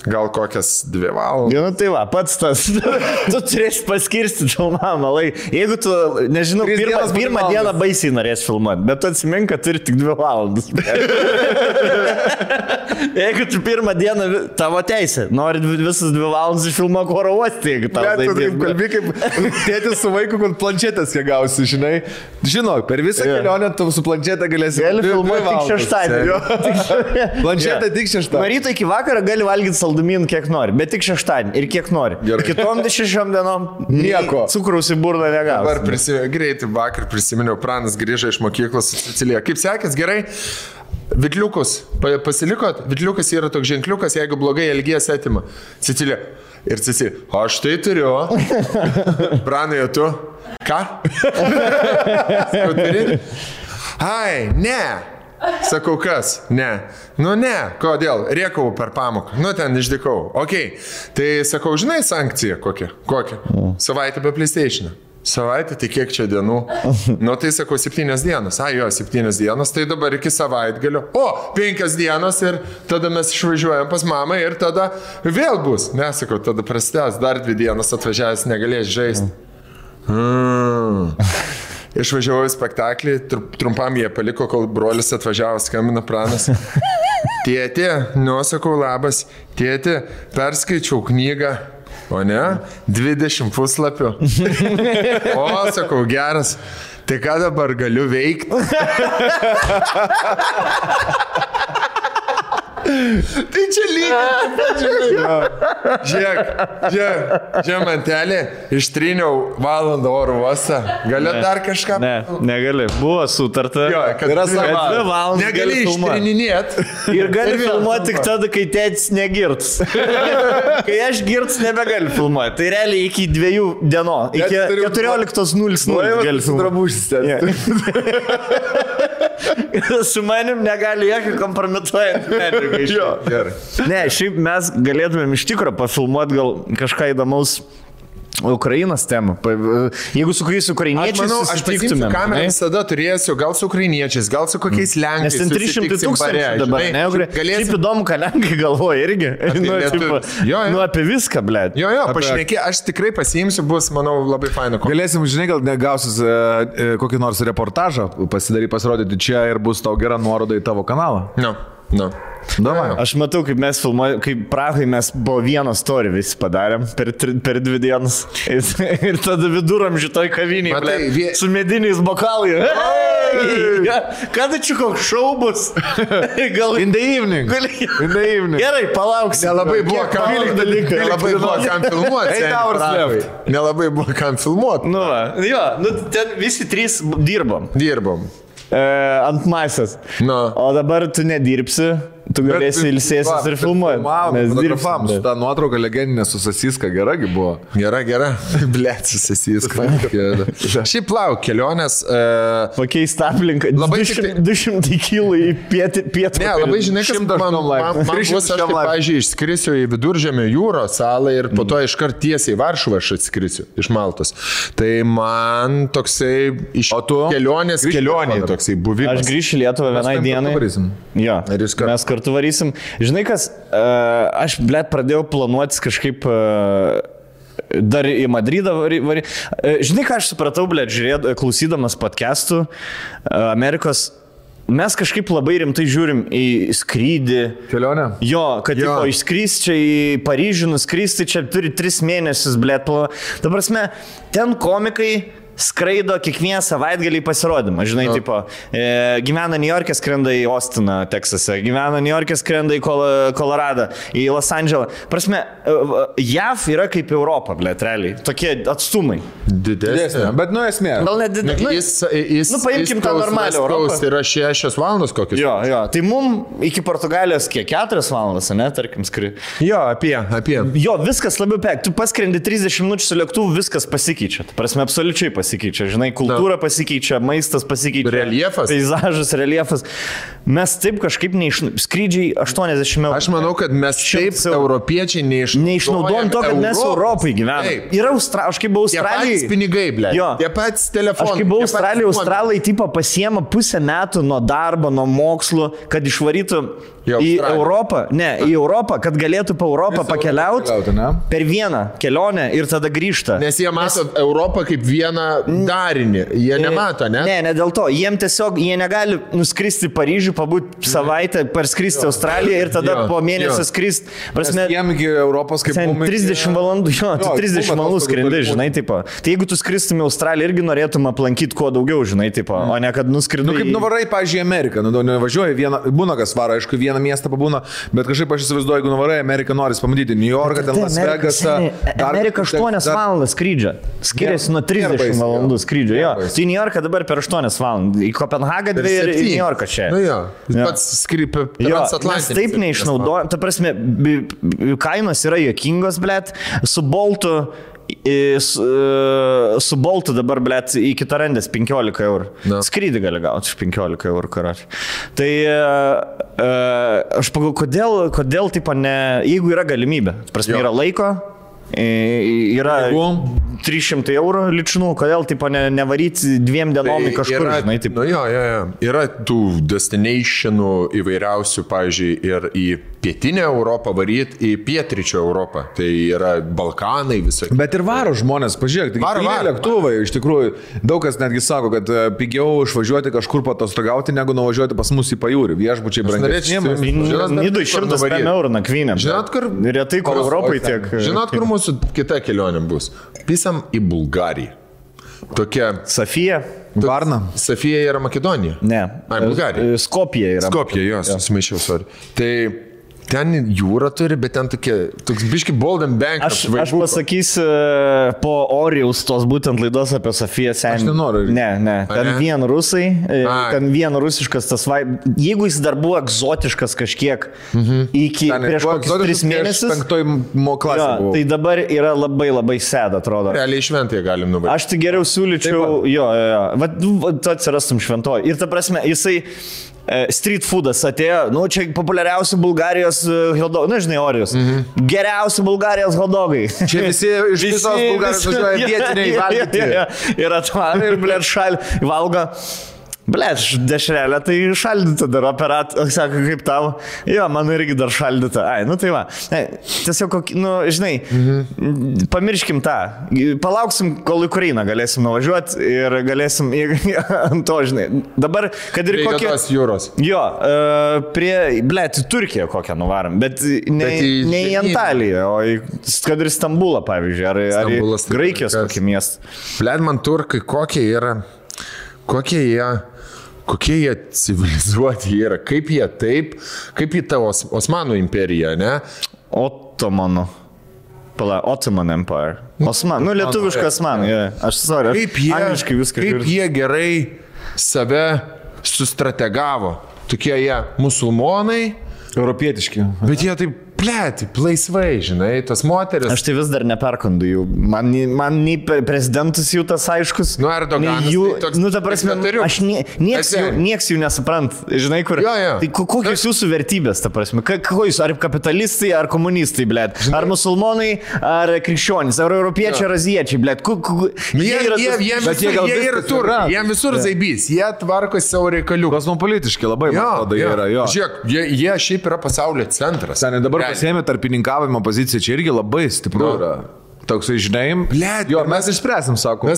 Gal kokias 2 valandas. Nu tai va, pats tas. Tu turėsi paskirstyti filmavimą laiką. Jeigu tu, nežinau, pirmą dieną baisiai norės filmuoti, bet tu atsimink, kad turi tik 2 valandas. Jeigu tu pirmą dieną, tavo teisė, nori visas 2 valandas išfilmuok oro uostį, jeigu tau tai taip. Kalbi kaip tėtis su vaiku, kad planšetės kiek gausi, žinai. Žinok, per visą kelionę tu su planšetė galėsi. Gali filmuoti tik šeštadienį. Planšetė tik šeštadienį. Nuo ryto iki vakaro gali valgyti saldumynų kiek nori, bet tik šeštadienį ir kiek nori. Kitom 6 dienom nieko. Cukraus į burną negausi. Dabar greitai vakar prisiminiau, Pranas grįžo iš mokyklos su Cecilija. Kaip sekės, gerai? Vitliukus, pasilikot? Vitliukas yra toks ženkliukas, jeigu blogai elgies atima. Cecilija. Ir Cecilija, aš tai turiu. Pranai, o tu? Ką? Turi? Ai, ne. Sakau, kas? Ne. Nu ne, kodėl? Rėkau per pamoką. Nu ten išdykau. Ok. Tai sakau, žinai sankciją kokią? Kokią? Savaitę be PlayStation. Savaitė, tai kiek čia dienų? Nu, tai sakau, 7 dienos. Jo, 7 dienos, tai dabar iki savaitgalio. O, 5 dienos ir tada mes išvažiuojam pas mamą ir tada vėl bus. Nesakau, tada prasidės, dar 2 dienos atvažiavęs negalės žaisti. Išvažiavau į spektaklį, trumpam jie paliko, kol brolis atvažiavo, skambina Pranas. Tėti, sakau, labas, tėti, perskaičiau knygą. O ne? 20 puslapių. O, sakau, geras. Tai ką dabar galiu veikti? Tai čia lygiai. Žiūrėk, mantelė, ištryniau valandą oro uostą. Gali dar kažką? Ne, negali. Buvo sutarta. Jo, kad yra 2 valandas. Negali ištryninėt. Ir gali filmuoti tik tada, kai tėtis negirts. Kai aš girts, nebegali filmuoti. Tai realiai iki 2 dienų. Iki 14:00 gali filmuoti. Su manim negali jokio kompromituojant medžiagą. Gerai. Ne, šiaip mes galėtumėm iš tikrųjų pafilmuoti gal kažką įdomaus Ukrainos temą. Jeigu su kuriais ukrainiečiais susitiktumėm. Kamerą visada turėsiu, gal su ukrainiečiais, gal su kokiais lenkais. Nes ten 300 000 dabar. Šiaip įdomu, ką lenkai galvoja irgi. Apie viską, blėt. Jo, pašnekė, aš tikrai pasiimsiu, bus, manau, labai faina. Galėsim, žinai, gal negausis kokį nors reportažą pasirodyti čia ir bus tau gera nuoroda į tavo kanalą. No. Aš matau, kaip mes filmuojame, kaip Prahai mes po vieną story visi padarėm per 2 dienas. Ir tada viduramžių toj kavinėje, su mediniais bokalai. Kada čia koks šou bus? In the evening. Gerai, palauksiu. Nelabai buvo kam filmuoti. Nelabai buvo kam filmuoti. Ten visi 3 dirbom. Ant masės. O dabar tu nedirbsi. Tu galėsi ilsėsis ir filmuoti. Mes dirbam. Ta nuotrauka legendinė su Sasiska geragi buvo. Gera. Blet, su Sasiska. Šiaip lauk, kelionės. Pakeist aplinką. 200 kilų į pietų. Ne, labai žinai, kas man bus, aš taip, pavyzdžiui, išskrisiu į Viduržemio jūros salą ir po to iškart tiesiai į Varšuvą aš atskrisiu iš Maltos. Tai man toksai iš kelionės toksai buvimas. Aš grįšiu į Lietuvą vienai dienai. Jo, mes kartu varysim. Žinai kas, aš, blėt, pradėjau planuotis kažkaip dar į Madridą varyti. Žinai ką aš supratau, blėt, klausydamas podcastų Amerikos, mes kažkaip labai rimtai žiūrim į skrydį. Kelionę? Jo, kad išskrys čia į Paryžių, nuskristi čia turi 3 mėnesius, blėt. Ta prasme, ten komikai skraido kiekvieną savaitgalį pasirodymą. Žinai, tipo, gyvena New York'e, skrenda į Austiną, Teksase, gyvena New York'e, skrenda į Koloradą, į Los Andželą. Prasme, JAV yra kaip Europa, blėt, realiai. Tokie atstumai. Didesnė. Bet, esmė. Gal net didesnė. Paimkim tą normalią Europą. Tai yra 6 valandos kokius. Jo. Tai mum iki Portugalijos kiek 4 valandas, ne, tarkim, skridi. Jo, apie. Jo, viskas labiau pek. Tu paskrendi 30 minučių su lėktuvu, viskas pasikeičia. Prasme, absoliučiai pasikeičia. Žinai, kultūra pasikeičia, maistas pasikeičia. Reljefas. Peizažas, reljefas. Mes taip kažkaip skrydžiai 80 eurų. Aš manau, kad mes taip europiečiai neišnaudojam to, kad mes Europai gyvename. Yra aš kaip buvau Australijai. Tie patys pinigai, blė. Tie patys telefonai. Aš kaip buvau Australijai, Australai tipo pasiema pusę metų nuo darbo, nuo mokslo, kad išvarytų į Europą. Ne, į Europą, kad galėtų po Europą pakeliauti per vieną kelionę ir tada grįžta. Nes jie mato Europą kaip vieną darinį. Jie nemato, ne? Ne dėl to. Jiem tiesiog, jie negali nuskristi Paryžių, pabūti savaitę, parskristi Australiją ir tada po mėnesio skristi. Jiem iki Europos kaip 30 valandų, 30 valandų skrendi, žinai, tipo. Tai jeigu tu skristum į Australiją, irgi norėtum aplankyti kuo daugiau, žinai, tipo, o ne kad nuskridai. Kaip nuvarai, pavyzdžiui, Ameriką, nevažiuoji, būna kas varo, aišku, vieną miestą pabūna, bet kažkaip aš įsivaizduoju, jeigu nuvarai Ameriką, noris pamatyti New Yorką, ten Las Vegasą. Amerika 8 valandas skrydžio. Skiriasi nuo 30 valandų skrydžio. Jo. Tai New Yorką dabar per 8 valandas. Į Kopenhagą 2 ir į New Yorką čia. Nu jo. Pats skrypia transatlantinis. Mes taip neišnaudoja. Ta prasme, kainos yra juokingos, blėt. Su Boltu dabar, blėt, į Kitarandės 15 eurų. Skrydį gali gauti iš 15 eurų, karoči. Tai aš pagalvoju, kodėl taip ne, jeigu yra galimybė, prasme, yra laiko, yra 300 eurų ličinų, kodėl tipo nevaryti 2 dienom į kažkur, yra, žinai, taip. Nu jo. Yra tų destinationų įvairiausių, pavyzdžiui, ir į pietinę Europą varyti, į pietryčio Europą. Tai yra Balkanai visokie. Bet ir varo žmonės, pažiūrėk, tai lėktuvai, iš tikrųjų, daug kas netgi sako, kad pigiau išvažiuoti kažkur patostogauti, negu nuvažiuoti pas mus į pajūrį. Viešbučiai brangesni. Nidui 105 eurų nakvynė. Žinot, kur? Retai, kur Europai tiek. Žinot, kur mūsų kita kelionė bus? Pisam į Bulgariją. Tokia... Sofija. Varna. Sofija yra Makedonija? Ne. Bulgarija. Skopija yra. Skopija, jos, susimaišiau, sorry. Tai ten jūra turi, bet ten toks biški bold and bank. Aš pasakysiu po Orijaus tos būtent laidos apie Sofiją senį. Aš nenoriu. Ne. Ten vien rusai, ten vien rusiškas tas jeigu jis dar buvo egzotiškas kažkiek iki prieš kokius 3 mėnesius. 5 klasė buvo. Tai dabar yra labai sėda, atrodo. Realiai šventėje galim nuvaryti. Aš tai geriau siūlyčiau, tu atsirastum šventoji. Ir ta prasme, jisai street foodas atėjo, čia populiariausi Bulgarijos hotdogai, žinai, Orijus. Geriausi Bulgarijos hotdogai. Čia visi iš visos Bulgarijos važiuoja vietiniai valgyti. Ir atvarė, ir blėt šalį valgo. Blėt, dešrelė, tai šaldyta dar sako, kaip tavo. Jo, man irgi dar šaldyta. Tai va. Tiesiog, žinai, pamirškim tą. Palauksim, kol į Ukrainą galėsim nuvažiuoti ir galėsim ant to, žinai. Dabar, kad ir kokie... Tos jūros. Jo, blėt, į Turkiją kokią nuvarom, bet ne į Antaliją, o kad ir Stambulą, pavyzdžiui, ar į Graikijos kokį miestą. Blėt, man turkai kokie jie civilizuoti yra, kaip į tavo Osmanų imperiją, ne? Ottoman Empire. Lietuviškas Osmanų, aš angliškai viską. Kaip jie gerai save sustrategavo, tokie jie musulmonai, europietiški. Bet jie taip laisvai, žinai, tas moteris. Aš tai vis dar neperkandu jų. Man nei prezidentus jų tas aiškus. Erdoganas. Ta prasme, nieks jų nesuprant. Žinai, kur. Tai kokios jūsų vertybės, ta prasme? Jūs, ar kapitalistai, ar komunistai, blėt? Ar musulmonai, ar krikščionys, ar europiečiai, ar aziečiai, blėt? Jie yra tur. Jie visur zaibys. Jie tvarko savo reikalių. Kosmopolitiški labai, man atrodo, yra. Žiūrėk, jie šiaip yra pasaulio centras. Dabar pasėmė tarpininkavimo poziciją, čia irgi labai stipru yra. Toksai, žinai, mes išspręsim, sako.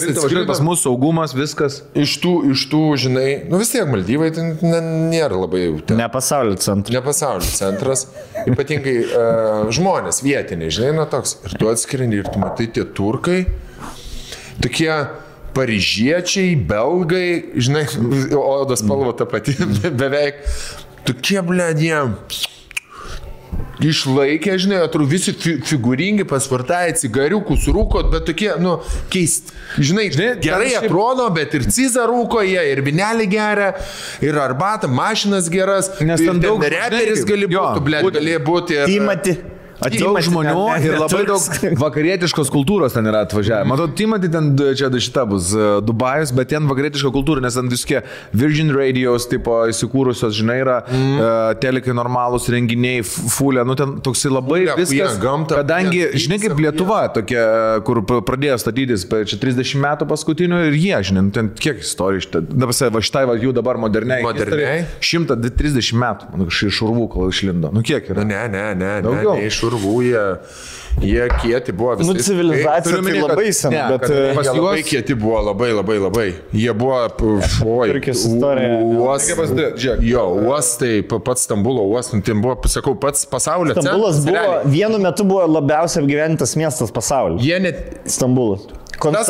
Pas mūsų saugumas, viskas. Iš tų, žinai, vis tiek Maldyvai tai nėra labai jau. Ne pasaulio centras. Ne pasaulio centras. Ypatingai žmonės vietiniai, žinai, toks. Ir tu atskrendi ir tu matai tie turkai, tokie paryžiečiai, belgai, žinai, odos spalva ta pati beveik. Tokie, jie išlaikė, žinai, atrodo visi figūringi, pasvartai, cigariukus rūkot, bet tokie, keisti. Žinai, gerai atrodo, bet ir cizą rūko jie, ir vinelį geria, ir arbatą, mašinas geras, nes ten daug reperis gali būti, galėjo būti. Timati. Daug žmonių ir labai daug vakarietiškos kultūros ten yra atvažiavę. Matau, Timati ten čia šita bus Dubajus, bet ten vakarietiška kultūra, nes ten visokie Virgin Radios tipo įsikūrusios, žinai, yra telekai normalūs renginiai, fulė, ten toksai labai viskas. Kadangi, žinai, kaip Lietuva tokia, kur pradėjo statytis čia 30 metų paskutinių ir jie, žinai, ten kiek istorijų, va šitai jų dabar moderniai. 130 metų, iš urvų, kol išlindo. Kiek yra? Ne, daugiau. Jie kieti buvo visai. Civilizacija tai labai sena, bet pas juos labai kieti buvo, labai. Jie buvo, uostai, pats Stambulo uostas, tai buvo, sakau, pats pasaulio centras. Stambulas buvo, vienu metu buvo labiausiai apgyventas miestas pasaulyje. Stambulas. Tas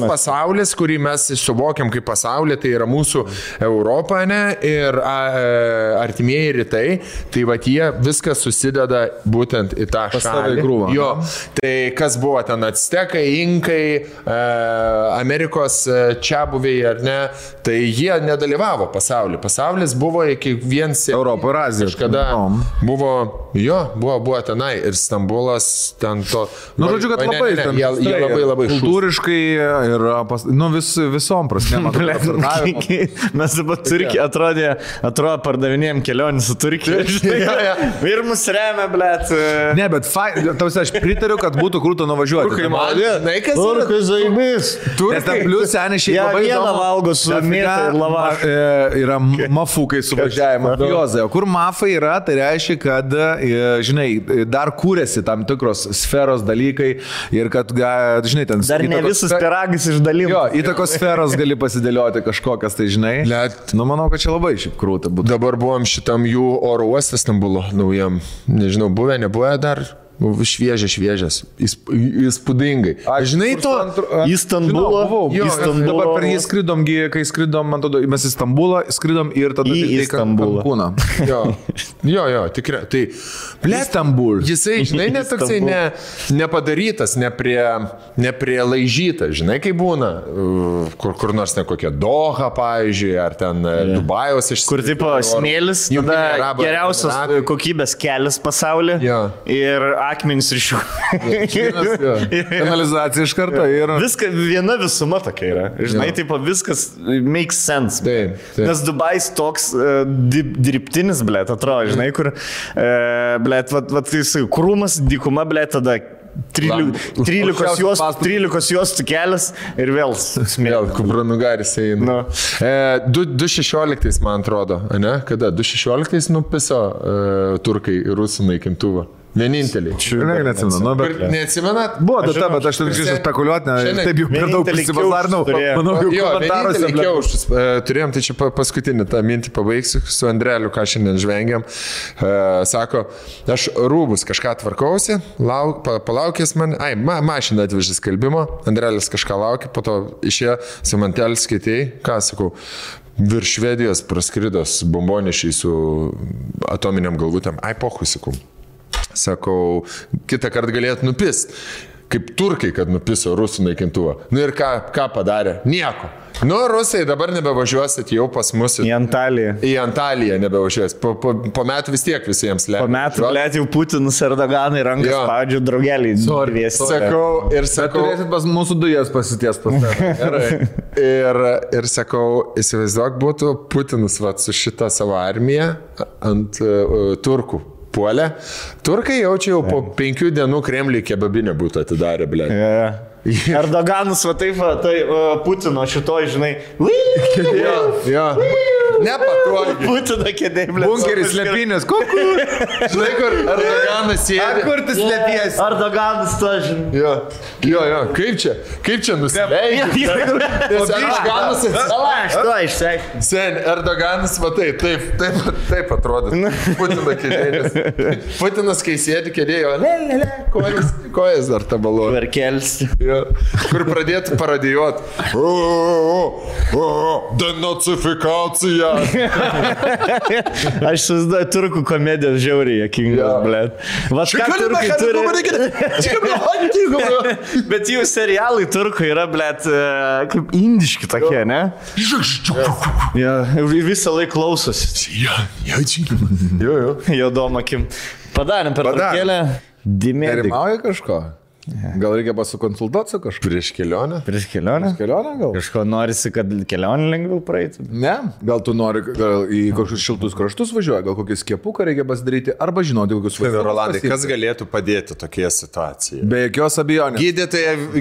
pasaulis, kurį mes suvokiam kaip pasaulį, tai yra mūsų Europa, ne, ir artimieji rytai, tai va jie viskas susideda būtent į tą šalį. Jo, tai kas buvo ten Actekai, Inkai, Amerikos čiabuviai ar ne, tai jie nedalyvavo pasaulyje. Pasaulis buvo iki viens Europo ir Azijos. Kažkada buvo tenai ir Stambulas ten to. Žodžiu, kad labai labai kultūriškai ir visom prasmėm. Mes dabar Turkija atrodo pardavinėjom kelionį su Turkija. Ir mus remia, blėt. Ne, bet aš pritariu, kad būtų krūto nuvažiuoti. Turkai zaibys. Nes ten plius seniai šiaip labai vieną valgo su mėta ir lavašu. Yra mafukai suvažiavimo. Jozai, o kur mafai yra, tai reiškia, kad, žinai, dar kūrėsi tam tikros sferos dalykai ir kad, žinai, ten... Dar ne visus piragus išdalymus. Jo, įtakos sferos gali pasidėlioti kažkokias, tai žinai. Manau, kad čia labai šiaip krūta būtų. Dabar buvom šitam jų oro uostą Stambulo naujam. Nežinau, buvę dar. Šviežias, įspūdingai. Žinai to? Į Stambulą. Dabar per jį skridom, kai skridom, man atrodo, mes į Stambulą skridom ir tada į Stambulą. Jo, tikrai. Tai, Stambul. Jisai, žinai, netoksai nepadarytas, neprilaižytas, žinai, kai būna, kur nors kokia Doha, pavyzdžiui, ar ten Dubajaus išsiskirti. Kur tipo smėlis, tada geriausios kokybės kelias pasaulyje. Ir akmenys iš jų. Kanalizacija iš karto yra. Viskas, viena visuma tokia yra. Žinai, taip, viskas makes sense. Taip. Nes Dubajs toks dirbtinis, blėt, atrodo, žinai, kur, blėt, krūmas, dykuma, blėt, tada 13 juostų kelias ir vėl smėlis. Kupranugaris eina. 2016, man atrodo, ne? Kada? 2016 nupiso turkai rusų naikintuvą. Vieninteliai. Neatsimenat? Buvo data, bet aš turiu spekuliuoti, taip jau per daug prisivazarnau. Manau, jau komentaruose kiaušus turėjom, tai čia paskutinį tą mintį pabaigsiu su Andreliu, ką šiandien žvengiam. Sako, aš rūbus kažką tvarkausi, palaukės man, mašiną atvežė skelbimo, Andrelis kažką laukia, po to išėjo, Simantelis skaitėjai, ką sakau, virš Švedijos praskridos bombonešiai su atominiam galvutėm, pohui, sakau. Sakau, kitą kartą galėtų nupist, kaip turkai, kad nupiso rusų naikintuvą. Nu ir ką padarė? Nieko. Nu, rusai dabar nebevažiuosit jau pas mus. Į Antaliją. Į Antaliją nebevažiuosit. Po metų vis tiek visiems leidžia. Po metų, blėt, jau Putinus Erdoganai rankas spaudžia draugelį. Sakau. Turėsit pas mūsų dujas pasities pas tave. Ir sakau, įsivaizduok, būtų Putinus su šitą savo armiją ant turkų. Puolė. Turkai jaučia jau po 5 dienų Kremliui kebabinę būtų atidarę, blė. Erdoganas, taip, Putino šitoj, žinai. Jo. Nepatogiai. Putino kėdė, blė. Bunkeris slėpinės. Žinai, kur Erdoganas sėdi. Kur tu slėpiesi? Erdoganas to, žinai. Jo. Kaip čia nusileidžia? Erdoganas išsek. Sen, Erdoganas, taip atrodo. Putino kėdė. Putinas, kai sėdi kėdėjo, kojas dar tabaluoja. Verkelsi. Kur pradėtų paradijuoti. Denacifikacija. Aš susiduoju turkų komedijos žiauriai jokingas, blėt. Vas ką turkai turi? Bet jų serialai turkai yra, blėt, kaip indiški tokie, ne? Visą laiką klausosi. Jodom akim. Padarėm per turkėlę. Nerimauja kažko? Gal reikia pasikonsultuoti su kažkuo? Prieš kelionę? Prieš kelionę gal? Kažko norisi, kad kelionė lengviau praeitų? Ne, gal tu nori į kažkokius šiltus kraštus važiuoja, gal kokį skiepuką reikia pasidaryti, arba žinoti, kokius važiuoja. Rolandai, kas galėtų padėti tokioje situacijoje? Be jokios abejonės.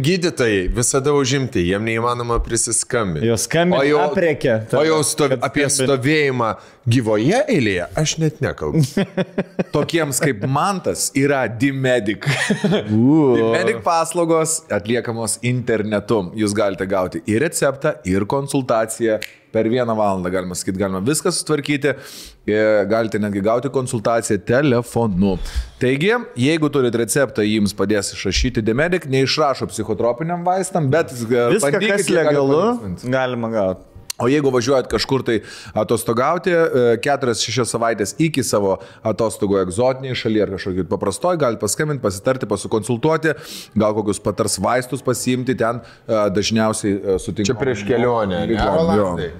Gydytojai visada užimti, jiem neįmanoma prisiskambinti. Jo skambinti apriekia. O jau apie stovėjimą gyvoje eilėje aš net nekalbu. Tokiems kaip Mantas yra D-Medic. D-Medic paslaugos atliekamos internetu. Jūs galite gauti ir receptą, ir konsultaciją. Per 1 valandą, galima sakyti, galima viską sutvarkyti. Galite netgi gauti konsultaciją telefonu. Taigi, jeigu turite receptą, jums padės išrašyti D-Medic, neišrašo psichotropiniam vaistam, bet viską, kas legalu, galima gauti. O jeigu važiuojat kažkur tai atostogauti, 4-6 savaitės iki savo atostogų egzotiniai šalyje ar kažkokį paprastoj, galite paskambinti, pasitarti, pasikonsultuoti, gal kokius patars vaistus pasiimti, ten dažniausiai sutinkame. Čia prieš kelionę.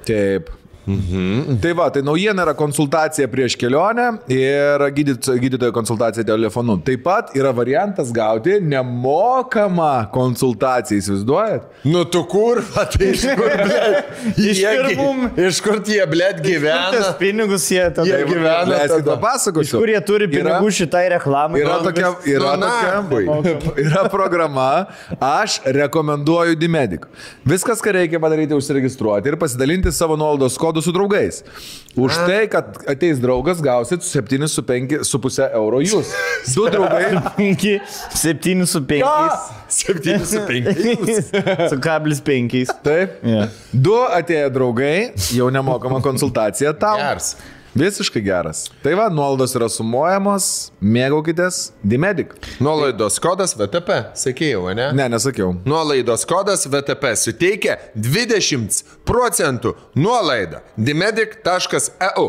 Taip. Tai va, tai naujiena yra konsultacija prieš kelionę ir gydytojo konsultacija telefonu. Taip pat yra variantas gauti nemokamą konsultaciją, įsivaizduojat? Nu tu kur, tai iš kur, blėt? Iš kur tie, blėt, gyvena? Tas pinigus jie tada. Jie gyvena. Leiskit papasakosiu. Kur jie turi pinigų šitai reklamai? Yra programa, aš rekomenduoju D-Medic. Viskas, ką reikia padaryti, užsiregistruoti ir pasidalinti savo nuolaidos kodų su draugais. Už tai, kad ateis draugas, gausit 7,5 euro jūs. 2 draugai. 7,5. 7,5. Su kablis 5. Taip. Yeah. 2 atėję draugai, jau nemokama konsultacija tau. Geras. Visiškai geras. Tai va, nuolaidos yra sumuojamos, mėgaukitės, D-Medic. Nuolaidos kodas VTP, sakėjau, ne? Ne, nesakiau. Nuolaidos kodas VTP suteikia 20% nuolaidą dmedic.eu.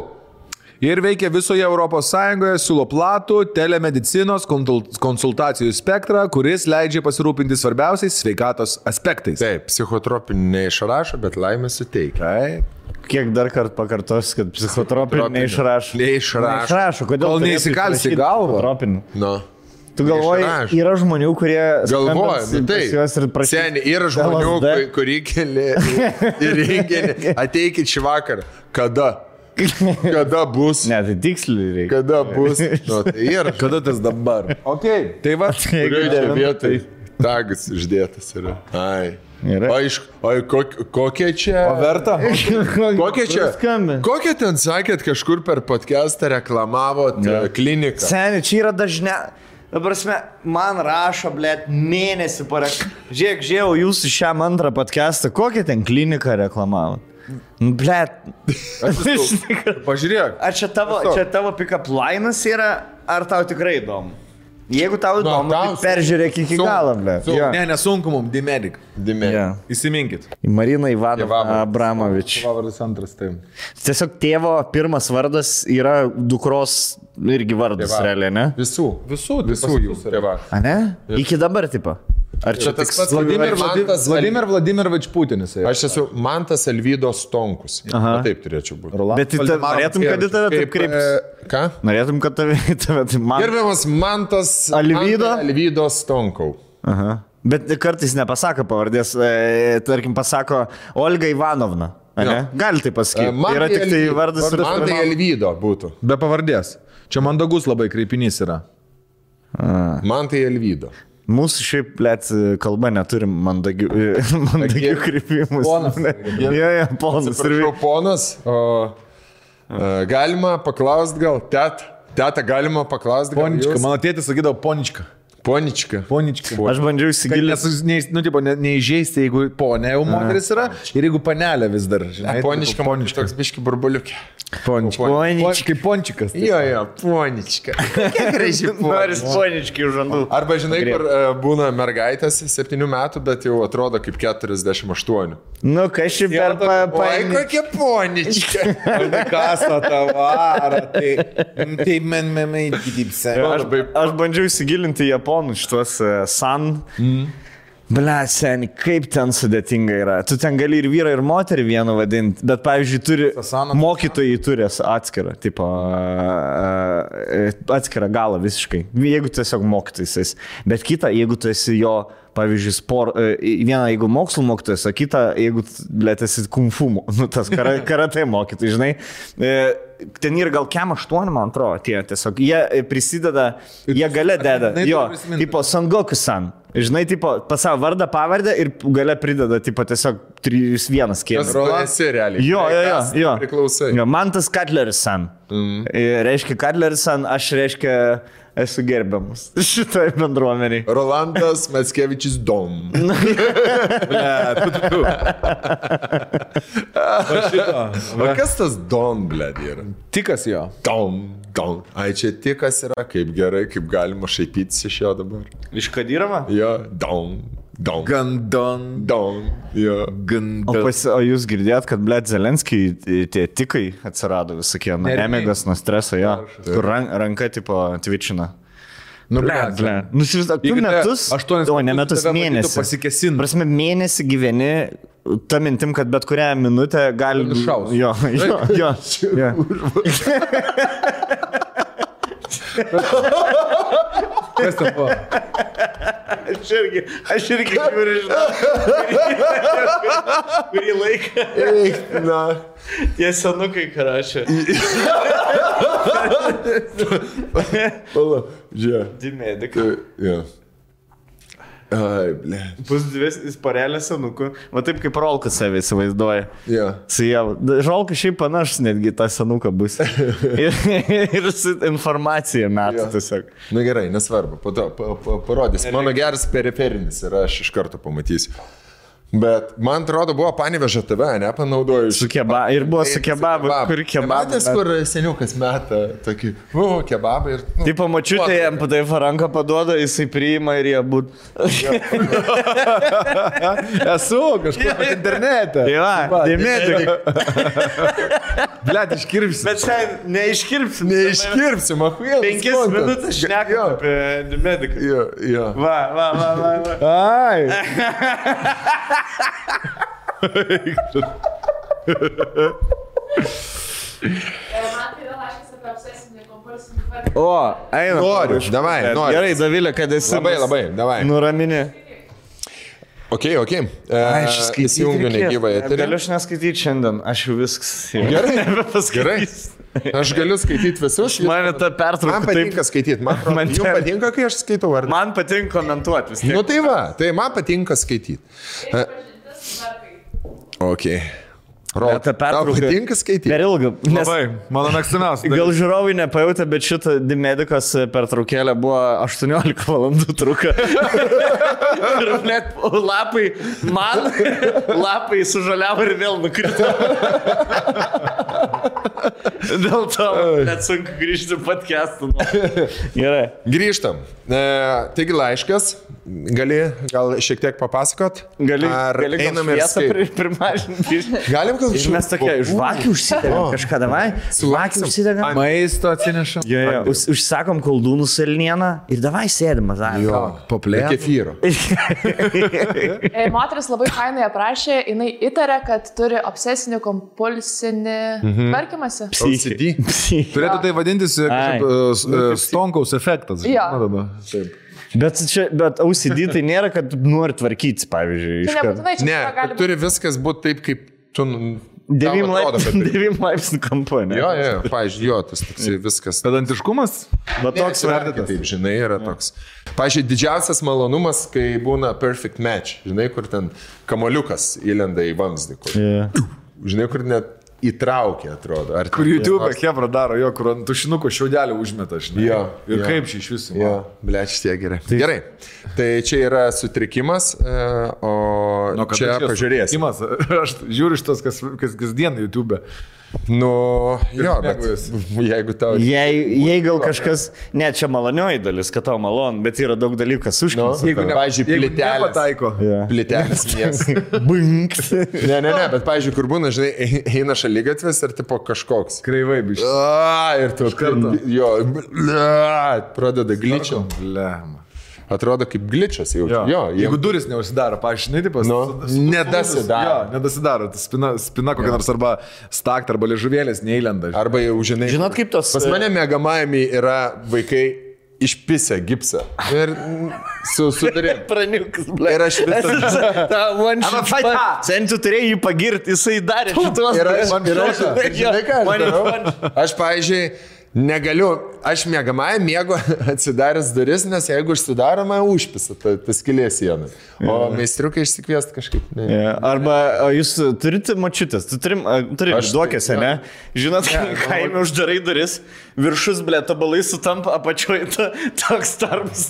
Ir veikia visoje Europos Sąjungoje, siūlo platų telemedicinos konsultacijų spektrą, kuris leidžia pasirūpinti svarbiausiais sveikatos aspektais. Taip, psichotropinį neišrašo, bet laimę suteikia. Taip. Kiek dar kartą pakartos, kad psichotropinį neišrašo. Neišrašo. Kodėl Kol neįsikalsi į galvą. No. Tu galvoji, yra žmonių, kurie... Galvoja, tai. Seniai, yra žmonių, kurie keli į renginį. Ateikit šį vakarą. Kada? Kada bus? Ne, tai tiksliai reikia. Kada bus? No, tai yra. Kada tas dabar? Ok, tai va. Kurioje čia vietoj tagas išdėtas yra. Ai. Kokie čia... O verta? Kokie čia... Kokie ten sakėt, kažkur per podcastą reklamavot kliniką? Seniai, čia yra dažnia... Dabar man rašo, blėt, mėnesį parek. Žiūrėjau jūsų šiam antrą podcastą, kokią ten kliniką reklamavot? Blėt. Pažiūrėk. Ar čia tavo pick-up linas yra, ar tau tikrai įdomu? Jeigu tau įdomu, tai peržiūrėk iki galo, blėt. Ne, nesunku mums, D-Medic. Yeah. Įsiminkit. Marina Ivanova Abramovič. Vardas antras, taip. Tiesiog tėvo pirmas vardas yra dukros irgi vardas, realiai, ne? Visų jūsų tėva. A ne? Iki dabar, tipo. Ar čia tas pats Vladimirovič Putinas? Aš esu Mantas Alvydos Stonkus. Taip turėčiau būti. Bet norėtum, kad į tave taip kreiptis? Ką? Norėtum, kad tave taip... Gerbiamas Mantas Alvydos Stonkau. Aha. Bet kartais nepasako pavardės, tarkim pasako Olga Ivanovna. Gali tai pasakyti. Yra tik tai vardas. Mantai Alvydo būtų. Be pavardės. Čia mandagus labai kreipinys yra. Mantai Alvydo. Mūsų šiaip, blėt, kalba neturim mandagių kreipimų. Ponas. Ponas. Atsiprašau, ponas. Galima paklausti gal, teta, galima paklausti gal. Ponička, mano tėtis sakydavo ponička. Ponička. Aš bandžiau įsigilinti. Neįžeisti, jeigu ponė jau moteris yra ir jeigu panelė vis dar. Ponička, toks biški burbuliukė. Kaip pončikas. Jo, ponička. Kiek gražiai noris poničkai už žandų. Arba žinai, kur būna mergaitės 7 metų, bet jau atrodo kaip 48. Nu, kažkaip per Oi, kokia ponička. Kasa tavara. Tai men gydypse. Aš bandžiau įsigilinti japonų šitos san. Ble, seni, kaip ten sudėtinga yra. Tu ten gali ir vyrą, ir moterį vienu vadinti, bet, pavyzdžiui, mokytojai turi atskirą, tipo, atskirą galą visiškai. Jeigu tiesiog mokytojas. Bet kita, jeigu tu esi jo, pavyzdžiui, vieną, jeigu mokslo mokytojas, o kitą, jeigu, ble, esi kung fu, tas karate mokytojai, žinai. Ten yra gal kem 8, man atrodo, tiesiog. Jie prisideda, jie gale deda. Jo, tipo, Son Goku-san. Žinai, tipo, pas savo vardą, pavardę ir gale prideda, tipo, tiesiog 3-1 kėmė. Tu esi realiai. Jo. Priklausai. Jo, man tas Cutleris-san. Reiškia Cutleris-san, aš reiškia esu gerbiamas šitoj bendruomeniai. Rolandas Mackevičius Dom. O kas tas Dom, blėd, yra? Tikas jo. Dom. Ai, čia tikas yra, kaip gerai, kaip galima šaipytis iš jo dabar. Iš Kadyrovo? Jo, Dom. Gandon. Jo. O jūs girdėjot, kad, blėt, Zelenskiai tie tikai atsirado visokie, nemigas nuo streso, jo. Kur ranka, tipo, twitchina. Nu, ble. Nusivizduok, tu metus, 8 o ne metus, mėnesį. Pasikesin. Prasme, mėnesį gyveni, ta mintim, kad bet kurią minutę gali... Nušaus. Jo. Kas ten buvo? Aš irgi žiūriu, žinau. Kurį laiką. Na. Tie senukai karašė. Pala, žiūrė. Dimedikai. Jo. Ai, ble. Bus dvi parelė senukų. Va taip kaip Rolkas save įsivaizduoja. Jo. Su jie. Rolkas šiaip panašus netgi tą senuką bus. ir su informacija metų tiesiog. Na gerai, nesvarbu. Po to parodys. Mano geras periferinis ir aš iš karto pamatysiu. Bet man atrodo, buvo Panevėžio TV, nepanaudoju. Su kebabu. Ir buvo su kebabu. Kur kebabu. Matęs, kur seniukas meta tokį, kebabą ir... Taip, pamačiutė jam taip ranką paduoda, jisai priima ir jie būt. Esu kažkur internete. Va, dėmėti. Blet, iškirpsi. Bet šiandien neiškirpsim. Neiškirpsim, ahuėl. 5 minutės šnekam apie dėmėdiką. Jo. Va. Ai. O, eina. Noriu, davai, noriu. Gerai, Davilė, kad esi. Labai, davai. Nuramini. Ok. Įsijungiu negyvą eterį. Galiu aš neskaityti šiandien, aš jau viskas. Gerai. Nebepaskaitysiu. Aš galiu skaityti visus. Man ta pertrauka. Man patinka skaityti. Man patinka, kai aš skaitau. Ar... Man patinka komentuoti vis tiek. Nu tai va, tai man patinka skaityti. Ok. Ta pertrauka. Tau patinka skaityti? Per ilgą. Labai, mano mėgstamiausia. Gal žiūrovai nepajautė, bet šitą Dimedikos pertraukėlę buvo 18 valandų truka. Ir net lapai sužaliavo ir vėl nukrito. Dėl to net sunku grįžti podcast'u. Gerai. Grįžtam. Taigi laiškas. Gal šiek tiek papasakot? Gali einam ir primažinti. Galim gal ir mes tokie, žvakių užsidegam kažką, davai? Žvakių užsidegam. Maisto atsinešam. Užsakom koldūnų salnieną ir davai sėdim, mazai. Jo, paplėt. Kefyro. Moteris labai fainai aprašė, jinai įtarė, kad turi obsesinį kompulsinį tvarkymąsi. OCD. Turėtų tai vadintis Stonkaus efektas. Jo. Bet OCD tai nėra, kad nori tvarkytis, pavyzdžiui. Tai nebūtinai čia ne, gali būti. Turi viskas būti taip, kaip tu... 9 laipsnių kampu, ne? Jo, pavyzdžiui, tas toksai viskas. Pedantiškumas? Bet toks vertitas. Taip, žinai, yra toks. Pavyzdžiui, didžiausias malonumas, kai būna perfect match. Žinai, kur ten kamoliukas įlenda į vamzdį. Žinai, kur net įtraukia, atrodo. Kur YouTube Hebra daro, kur ant tušinuko šiaudelį užmeta, žinai. Ir kaip šį iš visų. Jo, blėč, tie gerai. Gerai. Tai čia yra sutrikimas, o čia pažiūrės. Aš žiūriu šitas, kas kasdien YouTube. Nu, jo, bet jeigu tau... Jei gal kažkas, ne, čia malonioji dalis, kad tau malon, bet yra daug dalykų, kas užkins. Jeigu nepataiko. Plitelės mies. Bunks. Ne, bet pavyzdžiui, kur būna, žinai, eina šaligatvis ir tipo kažkoks. Kreivai biškai. Ir tu kartu. Jo, pradeda gličiam. Atrodo kaip gličias jau. Jo, jeigu duris neužsidaro, paaiškinai, tipas, nedasidaro. Nedasidaro. Spina kokia nors arba stakt, arba liežuvėlės neįlenda. Arba jau, žinai. Žinot, kaip tos... Pas mane mėgamajami yra vaikai išpisę gipsą. Ir sudarėm. Praniukas, ble. Ir aš visą... Ta one shot. Sen tu turėjai jį pagirti, jisai darė šitos. Ir aš, žinai ką aš darau? Aš, pavyzdžiui, negaliu, aš mėgamąją mėgo atsidaręs duris, nes jeigu užsidaroma, užpisa ta skylė sienai. O meistriukai išsikviesti kažkaip. Arba jūs turite močiutės, tu turi duokėse, ne? Žinot, kaime uždarai duris, viršus, ble, tabalai sutampa, apačioje toks tarpas.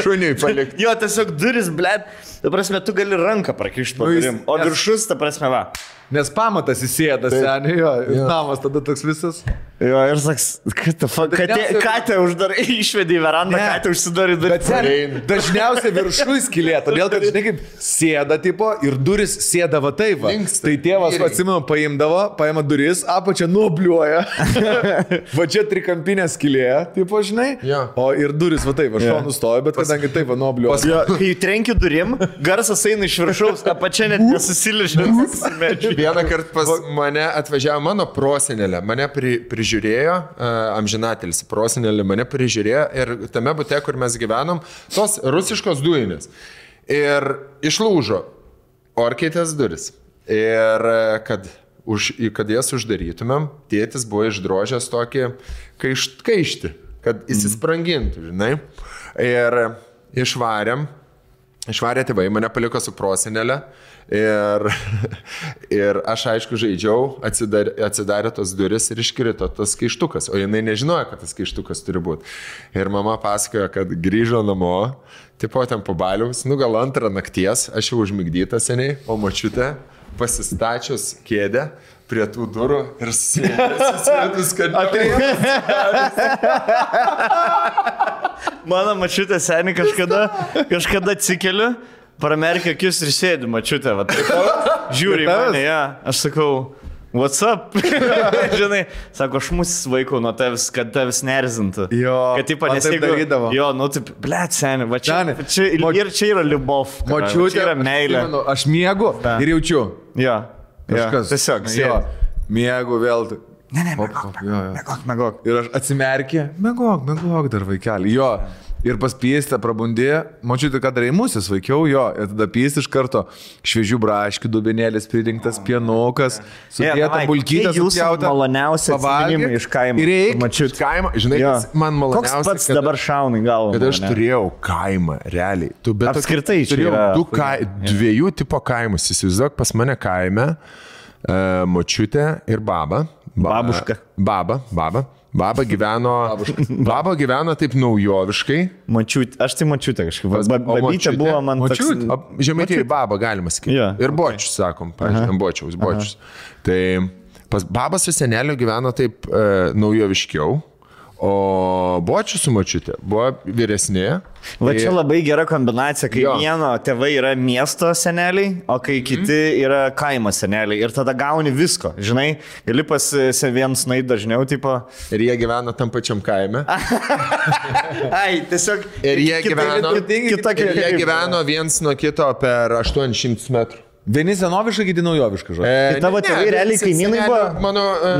Šuniui palikti. Jo, tiesiog duris, ble, ta prasme, tu gali ranką prakišti po durim, o viršus, ta prasme, va. nes pamatas įsėda, seniai, jo, namas tada toks visas. Jo, ir saks, katę uždarai, išvedė į verandą, katę užsidarė duris. Dažniausiai viršui skylė, todėl kad, žinai, kaip sėda tipo ir duris sėda va taip. Va. Tai tėvas, atsimenu, paima duris, apačia nuobliuoja. Va čia trikampinė skylė, tipo, žinai, o ir duris va taip, va šonu stoja, bet kadangi taip va nuobliuoja. Kai trenki durim, garsas eina iš viršaus, apačia net nesusiližė. Vieną kartą pas mane atvažiavo mano prosenelė, mane prižiūrėjo, amžinatelis prosenelė mane prižiūrėjo ir tame bute, kur mes gyvenom, tos rusiškos dujinės. Ir išlūžo orkaitės duris. Ir kad jas uždarytumėm, tėtis buvo išdrožęs tokį kaištį, kad įsisprangintų, žinai. Ir išvarė tėvai, mane paliko su prosenelė. Ir aš aišku žaidžiau, atsidarė tos duris ir iškrito tas kaištukas, o jinai nežinojo, kad tas kaištukas turi būti. Ir mama pasakojo, kad grįžo namo, tipo ten po baliaus, gal 2 nakties, aš jau užmigdyta seniai, o močiutė pasistačius kėdę prie tų durų ir susėdus, kad mano močiutė seniai kažkada atsikeliu, pramerkia akis ir sėdi, mačiutė, va, žiūri į mane, aš sakau, what's up? Žinai, sako, aš mus vaikau nuo tavęs, kad tavęs nerzintų. Jo, kad taip nesidarydavo. Jo, nu taip, blėt, seniai, va čia, ir čia yra liubov. Mačiutė, čia yra meilė. Aš miegu ir jaučiu. Jo, kažkas. Tiesiog, sėdi. Miegu vėl. Ne, megok. Ir aš atsimerkė, megok dar vaikelį. Jo. Ir pas piestę prabundė, mačiuti, kad reimusis vaikiau jo, ir tada piesti iš karto šviežių braškių, dubenėlis pridengtas, pienukas, sudėta bulkytė, supjauta. Maloniausia atsiminimai iš kaimo. Ir reikia iš kaimo, žinai, man maloniausia. Koks pats dabar šauna į galvą? Kad aš turėjau kaimą, realiai. Apskritai čia turėjau yra. Dviejų tipo kaimus, įsivaizduok, pas mane kaime, močiutė ir baba. Babuška. Baba gyveno taip naujoviškai. Aš tai mačiutė kažkaip. Babytė buvo man toks. Žemaitėje baba, galima sakyti. Ir bočius, sakom, pavyzdžiui, bočius. Tai baba su seneliu gyveno taip naujoviškiau, o bočius su mačiutė buvo vyresnė. Va čia labai gera kombinacija, kai vieno tėvai yra miesto seneliai, o kai kiti yra kaimo seneliai. Ir tada gauni visko, žinai, gali pas vienus nueiti dažniau, tipo. Ir jie gyvena tam pačiam kaime. Ai, tiesiog. Ir jie gyveno viens nuo kito per 800 metrų. Vieni senoviškai, kiti naujoviškai, žodžiu. Tai tavo tėvai realiai kaimynai buvo?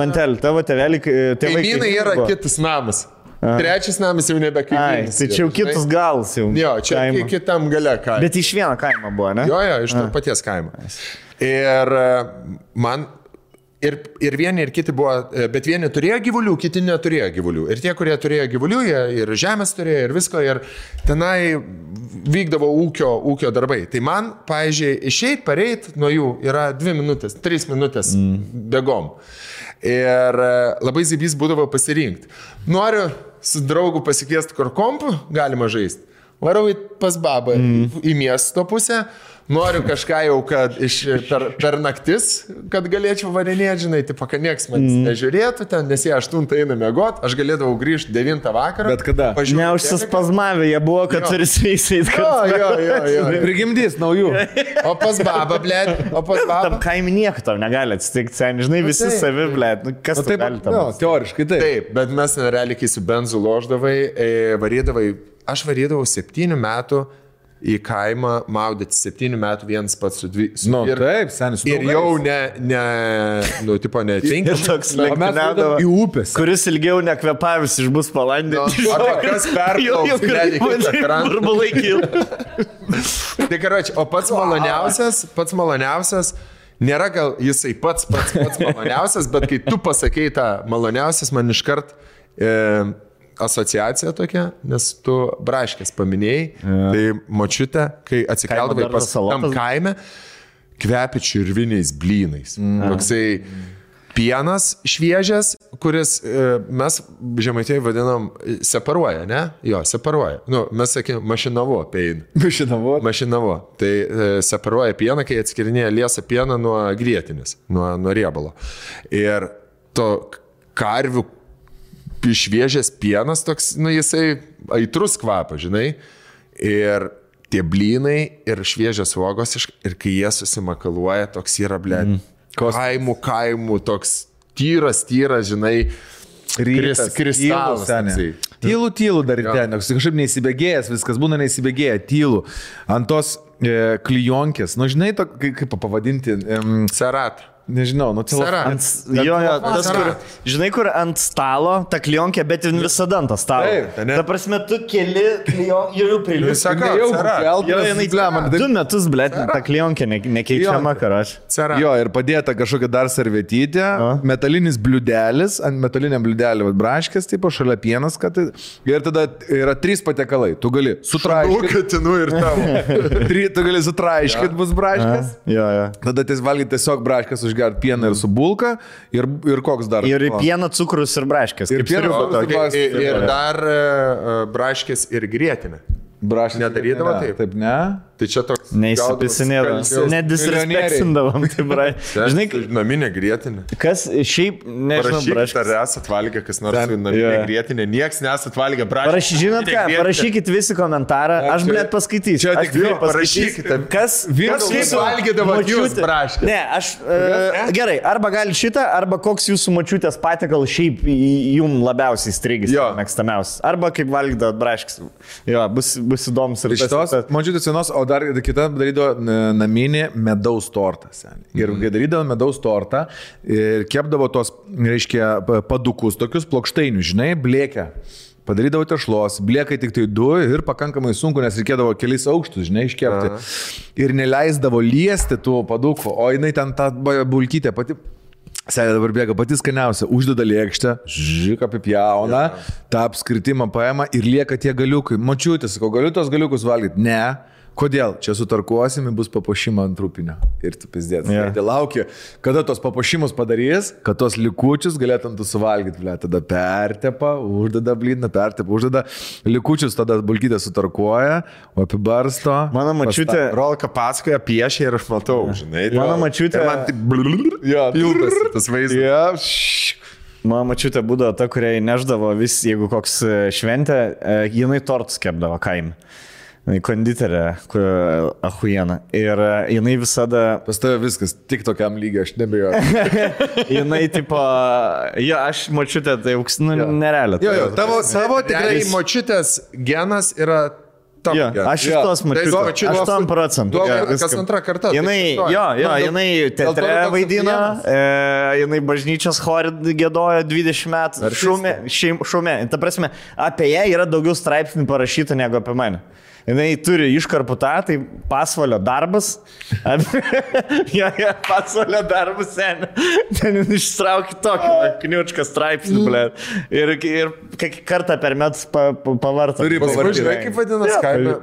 Mantel, tavo tėvai kaimynai yra kitas namas. Trečias namas jau nebe kaimynas. Tai čia jau kitus galas jau. Jo, čia kitam gale kaimo. Bet iš vieno kaimo buvo, ne? Jo, iš to paties kaimo. Ir man... Ir vieni, ir kiti buvo, bet vieni turėjo gyvulių, kiti neturėjo gyvulių. Ir tie, kurie turėjo gyvulių, jie ir žemės turėjo, ir visko, ir tenai vykdavo ūkio darbai. Tai man, pavyzdžiui, išeit, pareit nuo jų yra 2 minutės, 3 minutės bėgom. Ir labai zibys būdavo pasirinkti. Noriu su draugu pasikviesti kur kompų, galima žaisti. Varau pas babą į miesto pusę. Noriu kažką jau, kad per naktis, kad galėčiau varinėti, žinai, tipo, kad nieks manęs nežiūrėtų ten, nes jie 8 eina miegot, aš galėdavau grįžti 9 vakarą. Bet kada? Neužsispazmavę jie buvo, kad turi sveisait. Jo. Prigimdys naujų. O pas babą, blėt, Tam kaimį nieko tau negali atsitikti, seniai, žinai, visi savi, blėt, kas tai gali tam. Teoriškai taip. Taip, bet mes realiai, kai su benzu loždavai, aš varydavau 7 metų į kaimą maudyti 7 metų vienas pats su 2. Taip, senis. Ir jau tipo netinka. Ir toks lenktyniaudavo į upės. Kuris ilgiau nekvepavis išbus palandė. Arba kas perplauks. Burbulai kil. Tai karoči, o pats maloniausias, nėra gal jisai pats maloniausias, bet kai tu pasakei tą maloniausias, man iškart asociacija tokia, nes tu braškės paminėjai, tai močiutė, kai atsikeldavai pas tam kaime, kvepi čirviniais blynais. Toksai pienas šviežias, kuris mes Žemaitijai vadinam separuoja, ne? Jo, separuoja. Nu, mes sakėm, mašinavo pein. Mašinavo. Tai separuoja pieną, kai atskirinėja liesą pieną nuo grietinės, nuo riebalo. Ir to karvių šviežias pienas toks, nu, jisai aitrus kvapas, žinai. Ir tie blynai ir šviežias uogos, ir kai jie susimakaluoja, toks yra, kaimų, toks tyras, žinai, kristalas. Tylu dar ir ten, kažkaip neįsibėgėjęs, viskas būna neįsibėgėję, tylu. Ant tos klijonkės, nu žinai, kaip pavadinti? Cerat. Nežinau, nu cerat. Tas, žinai, kur ant stalo, ta klionkė, bet visada ant stalo. Ta prasme, tu keli klionkė, jau priliūs. Jau 2 metus, blėt, ta klionkė nekeičiama, karač. Jo, ir padėta kažkokia dar servetytė, metalinis bliudelis, ant metaliniam bliudelį braškės, tipo, šalia pienas, kad ir tada yra 3 patiekalai. Tu gali sutraiškyti. Tu gali sutraiškyti bus braškės. Tada valgyti tiesiog braškės užgert pieną ir su bulka ir koks dar. Ir pieną, cukrus ir braškės. Ir dar braškės ir grietinė. Nedarydavo taip? Taip, ne? Tai čia toks... Neįsipisinėdavom. Nedisrespektindavom. Žinai, naminė grietinė. Kas šiaip, nežinau, braškės. Ar esat valgę, kas nors naminė grietinė? Nieks nesat valgę braškės. Žinot ką, parašykit visi komentarą. Aš, blėt, paskaitysiu. Čia tik parašykite. Kas valgydavo jūs braškės? Ne, aš... Gerai, arba gali šitą, arba koks jūsų močiutės patiekal šiaip jum labiausiai strigis, mėgstamiausias. Arba kaip valgydavo braškės. Jo, bus įdomus ir šitos močiutės senos, o dar kita darydavo naminį medaus tortą. Ir kai darydavo medaus tortą ir kepdavo tos, reiškia, padukus, tokius plokštainius, žinai, blėkę. Padarydavo tešlos, blėkai tik tai 2 ir pakankamai sunku, nes reikėdavo kelis aukštus, žinai, iškepti. Ir neleisdavo liesti tų padukų, o jinai ten tą bulkytę pati... Sėdė dabar bėga pati skaniausia, uždeda lėkštę, apipjauna, tą apskritimą paima ir lieka tie galiukai. Močiutė, sakau, galiu tos galiukus valgyti? Ne. Kodėl? Čia sutarkuosime, bus papuošimą ant trupinio. Ir tu pizdėt. Tai laukia, kada tos papuošimus padarys, kad tos likučius galėtum tu suvalgyti. Tada pertepa, uždeda blyną, uždeda likučius, tada bulkytę sutarkuoja, o apibarsto. Mano mačiutė... Rolka pasakoja, piešia ir aš matau, žinai. Mano mačiutė... Man tik pildas tas vaizdas. Mano mačiutė būdavo ta, kuriai neždavo vis, jeigu koks šventė, jinai tortus kepdavo kaime. Konditerė, ahujena. Ir jinai visada... Pas tave viskas, tik tokiam lygiai, aš nebejoju. Jinai, tipo, aš močiutė, tai nerealiai. Tavo savo tikrai močiutės genas yra... Aš iš tos mačiutės, 8%. Kas antrą kartą. Jinai teatre vaidino, jinai bažnyčios chore gėdojo 20 metų, šumė. Ta prasme, apie ją yra daugiau straipsnių parašyta negu apie mane. Jinai turi iškarpų tą, tai pasvalio darbas. Pasvalio darbas, seniai. Ten ištraukė tokį kniučką straipsnį, blė. Ir kartą per metus pavartą. Žinai, kaip vadinas kaime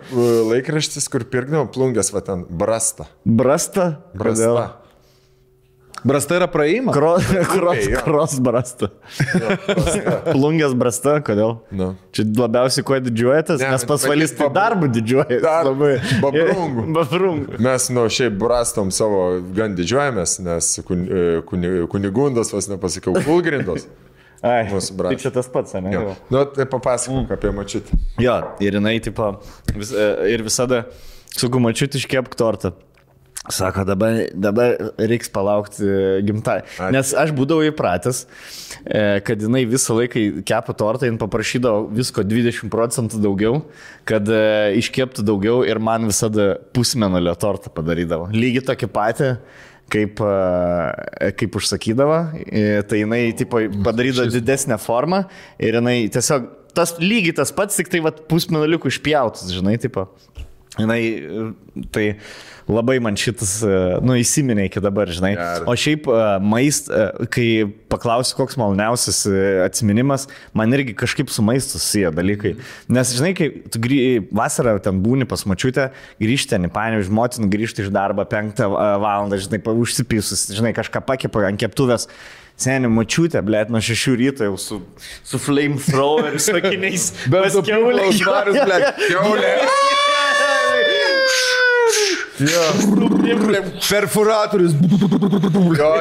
laikraštis, kur pirkdavo plungės, va ten, Brasta. Brasta? Brasta. Brasta yra praėjimą? Kros Brasta. Plungės Brasta, kodėl? Čia labiausiai kuo didžiuojatės, nes pasvalys tai darbų didžiuojatės. Babrungų. Mes šiaip Brastom savo gan didžiuojamės, nes kunigundas, vas nepasakiau, Kulgrindos. Ai, tai čia tas pats, ne? Tai papasakok apie mačiutę. Jo, ir jinai, tipo, ir visada, sakau, mačiutė iškepk tortą. Sako, dabar reiks palaukti gimtai. Nes aš būdavau įpratęs, kad jinai visą laiką kepa tortą, jin paprašydavo visko 20% daugiau, kad iškeptų daugiau ir man visada pusmenulio tortą padarydavo. Lygiai tokį patį, kaip užsakydavo, tai jinai tipo, padarydavo didesnę formą ir jinai tiesiog lygiai tas pats, tik tai pusmenuliukų išpjautus, žinai, tipo. Jinai, tai labai man šitas, įsiminė iki dabar, žinai. O šiaip kai paklausiu, koks maloniausias atsiminimas, man irgi kažkaip su maistu susiję dalykai. Nes, žinai, kai tu vasarą ten būni pas močiutę, grįžti ten į Panevėžį, motina grįžti iš darbo 5 valandą, žinai, užsipisus, žinai, kažką pakepa ant keptuvės. Seniai, močiutė, blėt, nuo 6 ryto jau su flamethrower, su akiniais. Bet su kiaulės švarius, blėt. Kiaulė. Perforatorius.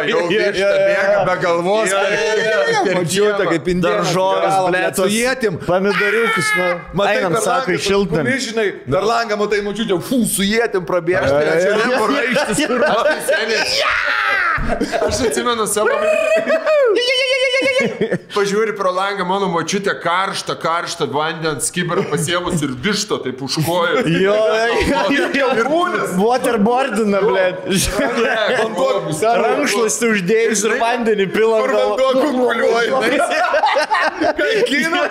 Jau viešta bėga be galvos. Mačiute, kaip indėnas. Daržovės, blėt, su jėtim. Pomidoriukus, einam, sako, išiltam. Žinai, dar langą matai, mačiute, su jėtim prabėžti. Čia nebuvo raištis, kur. Aš atsimenu savo. Pažiūri pro langą, mano močiutė karštą vandens skibirą pasiemus ir višto taip užkojo. Jo, waterboardina, blėt. Rankšluostį uždėjus ir vandenį pilam. Vanduo kunkuliuoja. Kaikino.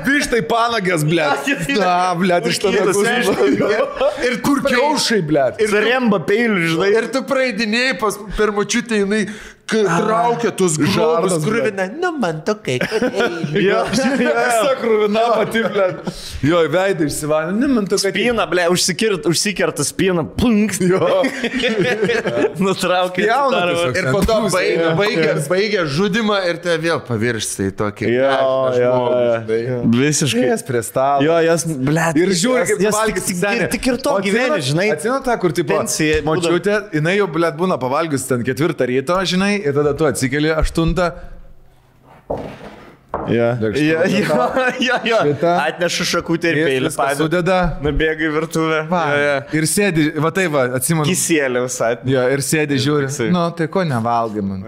Vištai panagės, blėt. Na, blėt, iš tada. Ir kur kiaušai, blėt. Ir remba peilių, žinai. Ir tu praeidinėjai per močiutę, jinai traukia tuos grobus, kruvina. Nu, man tokai, Jo, kruvina pati, blėt. Jo, veidai išsivalė. Nu, man tokai. Spyna, blėt, užsikerta spyna, plunk. Jo. Nutraukia. Ir po to baigia žudimą ir te vėl pavirsti į tokį. Visiškai. Jas prie stalo. Jo, jas, blėt. Ir žiūri, kaip valgys senė. Tik ir to gyvenė, žinai. Atsimenu tą, kur tipo, močiutė, jinai jau, blėt, būna pavalgius ten 4 ryto, žinai, ir tada tu atsikeli 8. Jo. Atnešu šakutę ir peilį. Sudeda. Nubėga į virtuvę. Ir sėdi, va tai va, atsimenu. Kisėlė visai. Jo, ir sėdi, žiūri. Nu, tai ko nevalgai man.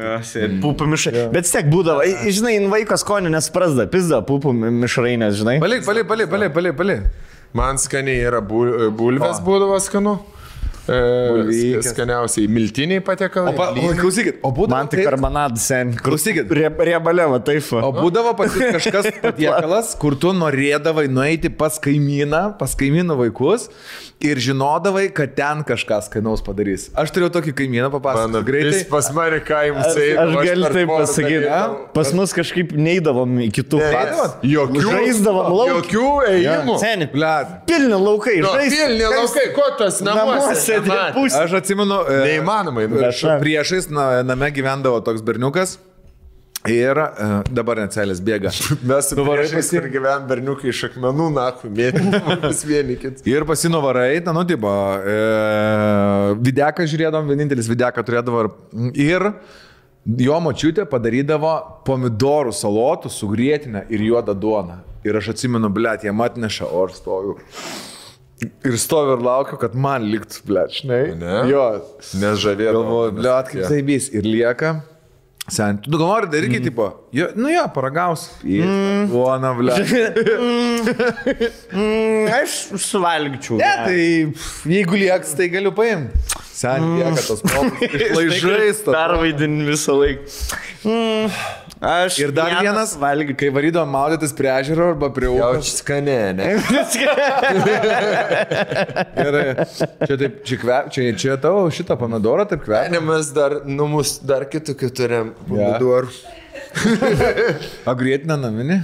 Pupų mišrai. Bet tiek būdavo, žinai, vaiko skonio nesprasda, pizda pupų mišrainės, žinai. Palik. Man skaniai yra bulvės būdavo skanu. Skaniausiai miltiniai patiekalai. Klausykit, o būdavo... Man tik karbonadas sen. Klausykit. Riebalėva, taip. O būdavo kažkas patiekalas, kur tu norėdavai nueiti pas kaimynų vaikus ir žinodavai, kad ten kažką skanaus padarys. Aš turėjau tokį kaimyną, papasakoti greitai. Jis pas mane kaimus eina. Aš galiu taip pasakyti. Pas mus kažkaip neįdavom į kitų patų. Žaisdavom lauk. Jokių ėjimų. Seni, Blet. pilni laukai. Pilni laukai, ko tas namuose? Aš atsimenu, neįmanomai. Priešais name gyvendavo toks berniukas ir dabar net celės bėga. Mes su priešais ir gyven berniukai iš akmenų, naku, mėtymus vienikit. Ir pasinuvarai, tipo, videką žiūrėdom, vienintelis videką turėdavo ir jo močiutė padarydavo pomidorų salotų su grietinę ir juodą duoną. Ir aš atsimenu, blėt, jie atneša, o aš stoju. Ir stoviu ir laukiu, kad man liktų, blėt, žinai. Ne? Jo. Nes žavėdavo. Galvoju, blėt, kaip tai bys. Ir lieka. Sen, tu galvori daryti, tipo, paragaus. Duona, blėt. Aš suvalgyčiau. Ne, tai jeigu lieks, tai galiu paimti. Sen, lieka tos popus išlaižais. Pervaidin visą laiką. Ir dar vienas, kai varydavom maudytis prie ežero arba prie upės. Jaučiu skanė, ne? Ir čia tavo šitą pomidorą taip kvepia. Ne, mes dar kitokių turim pomidorų. O grietinę naminį?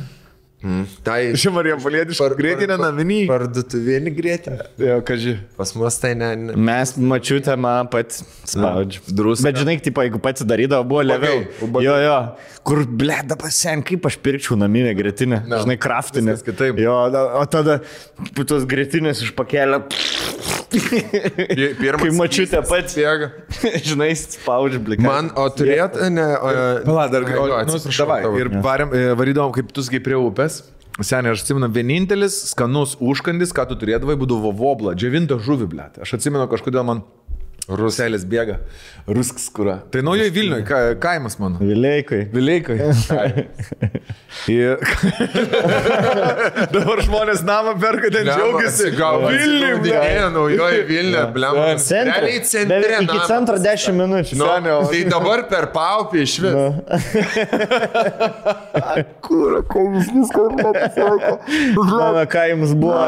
Tai Ši Marija Palietiška grietinę naminį. Parduotuvėlį grietinę. Jo, kaži. Pas mus tai ne. Mes mačiutę man pat spaudžiu. Bet žinai, tipo, jeigu pats darydavo, buvo leviau. Jo. Kur, blėda pasien, kaip aš pirkčiau naminę grietinę. Žinai, kraftinę. Kitaip. Jo, o tada tos grietinės iš pakelio. Kai mačiutė pats. Žinai, spaudžiu blikai. Man, o turėt, ne. Pala, dar, ir varydavom, kaip tu sakai, prie upės. Seniai, aš atsimenu, vienintelis skanus užkandis, ką tu turėdavai, būdavo vobla, džiavinta žuvį, blėt. Aš atsimenu, kažkodėl man Ruselės bėga. Rusks kura. Tai naujoji Vilniuje, kaimas mano. Vileikai. Ir dabar žmonės namą perka, ten džiaugiasi. Vilniuje, naujoji Vilniuje, blem. Realiai centre. Iki centro 10 minučių. Tai dabar per Paupį iš vis. Kūra, kaimis viską nepasako. Mano kaimas buvo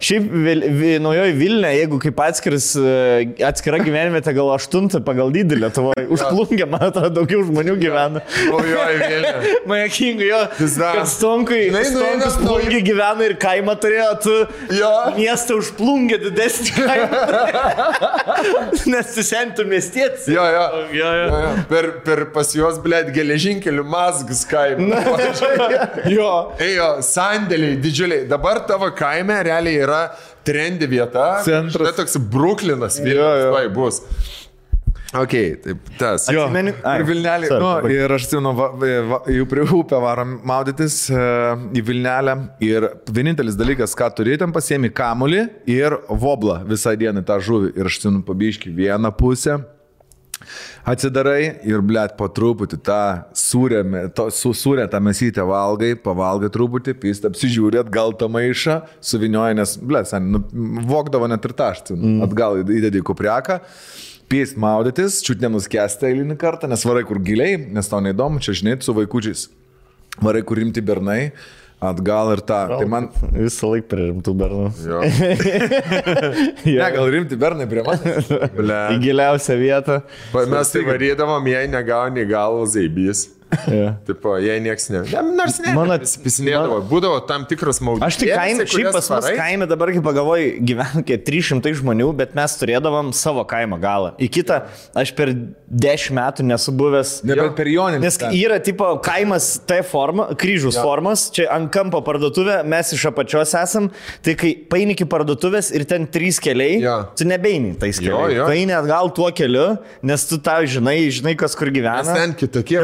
Šiaip naujoji Vilniuje, jeigu kaip atskira gyvenvietė, gal 8 pagal dydį Lietuvoje. Užplungė, man atrodo, daugiau žmonių gyvena. Naujoji Vilniuje. Majakingai jo. Kad Stonkus plungė gyvena ir kaimą turėjo, tu miestą užplungė didesnį kaimą. Nes tu sentų miestietis. Jo. Per pas juos, blėt, geležinkelių mazgas kaimą. Jo, sandėliai didžiuliai. Dabar tavo kaime realiai yra trendi vieta. Centras. Tai toks Bruklinas Vilnius bus. Ok, taip, tas. Ir Vilnelį. Ir aš atsimenu, jau prie upę varom maudytis į Vilnelę. Ir vienintelis dalykas, ką turi, ten pasiemi kamulį ir voblą visą dieną tą žuvį. Ir aš atsimenu, pabiški vieną pusę. Atsidarai ir, blėt, po truputį tą sūrę tą mesytę valgai, pavalgai truputį, pist, apsižiūrė, atgal tą maišą, suvinioja, nes, blėt, vokdavo net ir tą, atgal įdėdė į kupriaką. Pėst maudytis, čiut nenuskęsta eilinį kartą, nes varai kur giliai, nes tau neįdomu, čia žinai, su vaikučiais. Varai kur rimti bernai, atgal ir tą. Tai man visą laiką prie rimtų bernų. Ne, gal rimti bernai prie manęs. Į giliausią vietą. Mes tai varydavom, jei negauni galvo zaibys. Tipo, jei nieks ne. Nors ne. Pisinėdavo. Būdavo tam tikras maudytis. Aš tik kaime, šiaip pas mus kaime dabar, kai pagalvoju, gyvena 300 žmonių, bet mes turėdavom savo kaimo galą. Į kitą aš per 10 metų nesu buvęs. Nebent per Joninį. Nes yra tipo kaimas T forma, kryžius formos, čia ant kampo parduotuvė, mes iš apačios esam, tai kai paini iki parduotuvės ir ten 3 keliai, tu nebeini tais keliais. Tu eini atgal tuo keliu, nes tu tau žinai kas kur gyvena. Nes ten kitokie.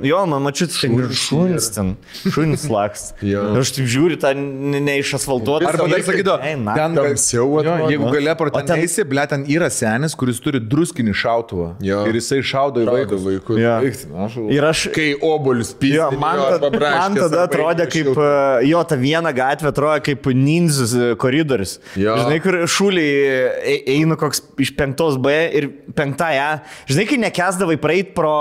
Jo, man mačiut, šunis lakst. Aš taip žiūriu, tą neišasfaltuotą. Arba dar sakydo, ten tamsiau, jeigu galia pro ten eisi, ble, ten yra senis, kuris turi druskinį šautuvą. Ir jisai šaudo į vaikus. Ir aš, kai obuolius pysdė, man tada atrodė kaip, ta viena gatvė atrodė kaip ninzus koridorius. Žinai, kur šūliai eina koks iš 5B ir 5A. Žinai, kai nekesdavai praeit pro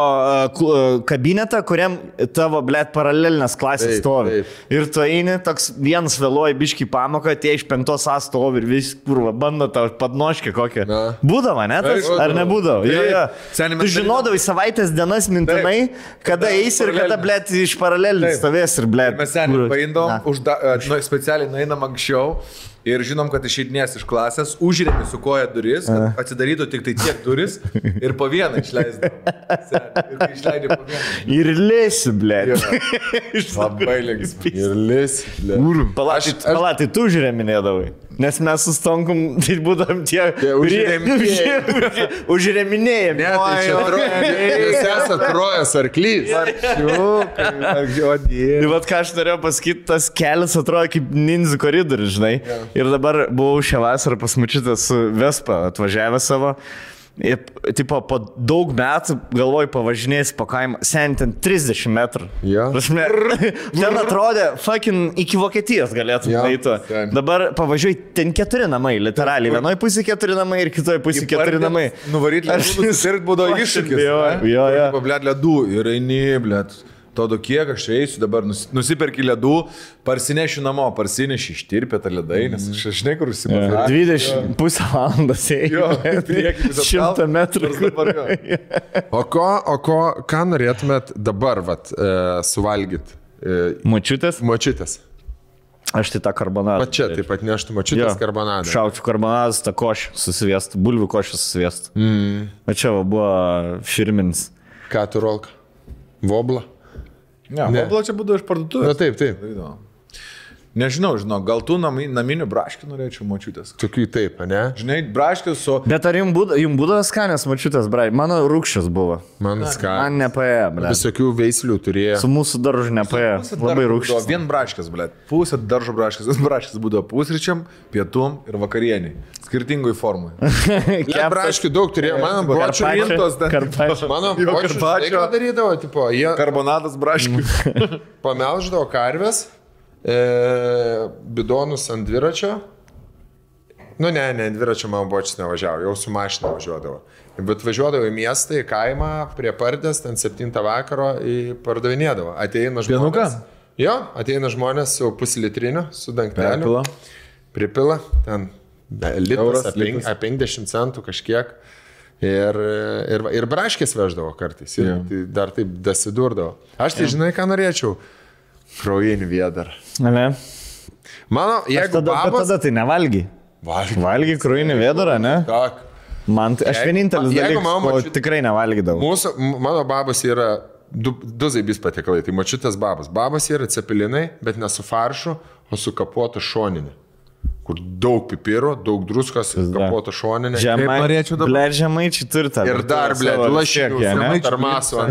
kabinetą, kuriam tavo, blėt, paralelinės klasės stovi. Ir tu eini, toks vienas vėluoja biškį pamoką, tie iš 5A stovi ir vis, kurva, bando tau padnoškį kokią. Būdavo, ne? Ar nebūdavo? Tu žinodavai savaitės dienas mintinai, kada eisi ir kada, blėt, iš paralelinės stovės ir, blėt. Mes seniai paindom, specialiai nueinam anksčiau. Ir žinom, kad išeidinės iš klasės, užrėmi su koja duris, kad atsidarytų tik tai tiek duris ir po vieną išleisdavo. Ir išleidė po vieną. Ir lėsi, blėt. Labai lėgis. Ir lėsi, blėt. Palatai, tu užrėminėdavai. Nes mes su Stonkum, tai būdam tie užrėminėjami. Ne, tai čia jūs esate Trojas arklys. Tai vat ką aš norėjau pasakyti, tas kelias atrodo kaip ninzų koridorius, žinai. Ir dabar buvau šią vasarą pas mačiutę su Vespa atvažiavę savo. Ir, tipo, po daug metų galvoju pavažinėsi po kaimą, sen ten 30 metrų. Ten atrodė, fucking iki Vokietijos galėtum eiti. Dabar pavažiuoju, ten 4 namai, literaliai. Vienoje pusėje 4 namai ir kitoje pusėje 4 namai. Nuvaryti ledų, nusipirkti būdavo iššūkis. Blėt, ledų ir eini, blėt. Todo kiek aš eisiu dabar, nusiperki ledų, parsinešiu namo, parsineši ištirpę tą ledai, nes aš žinai, kur užsipažinau. 20,5 valandas ėjau. 100 metrų. Ką norėtumėt dabar suvalgyti? Močiutės? Močiutės. Aš tai tą karbonadą. Čia taip pat neštų močiutės karbonadą. Šaučiu karbonadas, tą košį susivėstų, bulvių košį susivėstų. O čia buvo firminis. Ką tu rolka? Vobla? Ne, vobla čia būdavo iš parduotuvės. Na taip. Nežinau, gal tu naminių braškių norėčiau močiutės. Tokių taip, ne? Žinai, braškius su... Bet ar jums būdavo skanės mačiutės, brai? Mano rūkščias buvo. Man nepaėjo, ble. Visokių veislių turėjo. Su mūsų daržu nepaėjo. Labai rūkščias. Vien braškės, ble. Pusė daržo braškės. Braškės būdavo pusryčiam, pietum ir vakarieniai. Skirtingoj formai. Braškių daug turėjo. Mano bočių rintos. Mano bočių ką darydavo, tipo, jie... Karbonadas braškių. Pamelždavo karves. Bidonus ant dviračio. Ne, dviračio man bočius nevažiavo, jau su mašina važiuodavo. Bet važiuodavo į miestą, į kaimą, prie Pardės, ten 7 vakaro pardavinėdavo. Ateina žmonės. Jo, ateina žmonės su puslitriniu, su dangteliu. Pripila, ten litras, apie 50 centų kažkiek. Ir braškės veždavo kartais. Ir dar taip dasidurdavo. Aš tai žinai, ką norėčiau. Kraujinį vėdarą. Ne. Mano, jeigu babos... Tada tai nevalgy. Valgy kraujinį vėdarą, ne? Tak. Man, aš vienintelis dalykas, tikrai nevalgydavau. Mano babos yra du zaibys patiekalai, tai močiutės babos. Babos yra cepelinai, bet ne su faršu, o su kapuotu šoninė. Kur daug pipirų, daug druskos, kapuoto šoninė. Žemaičiai turi tą. Ir dar, ble, lašinių, tarmaso.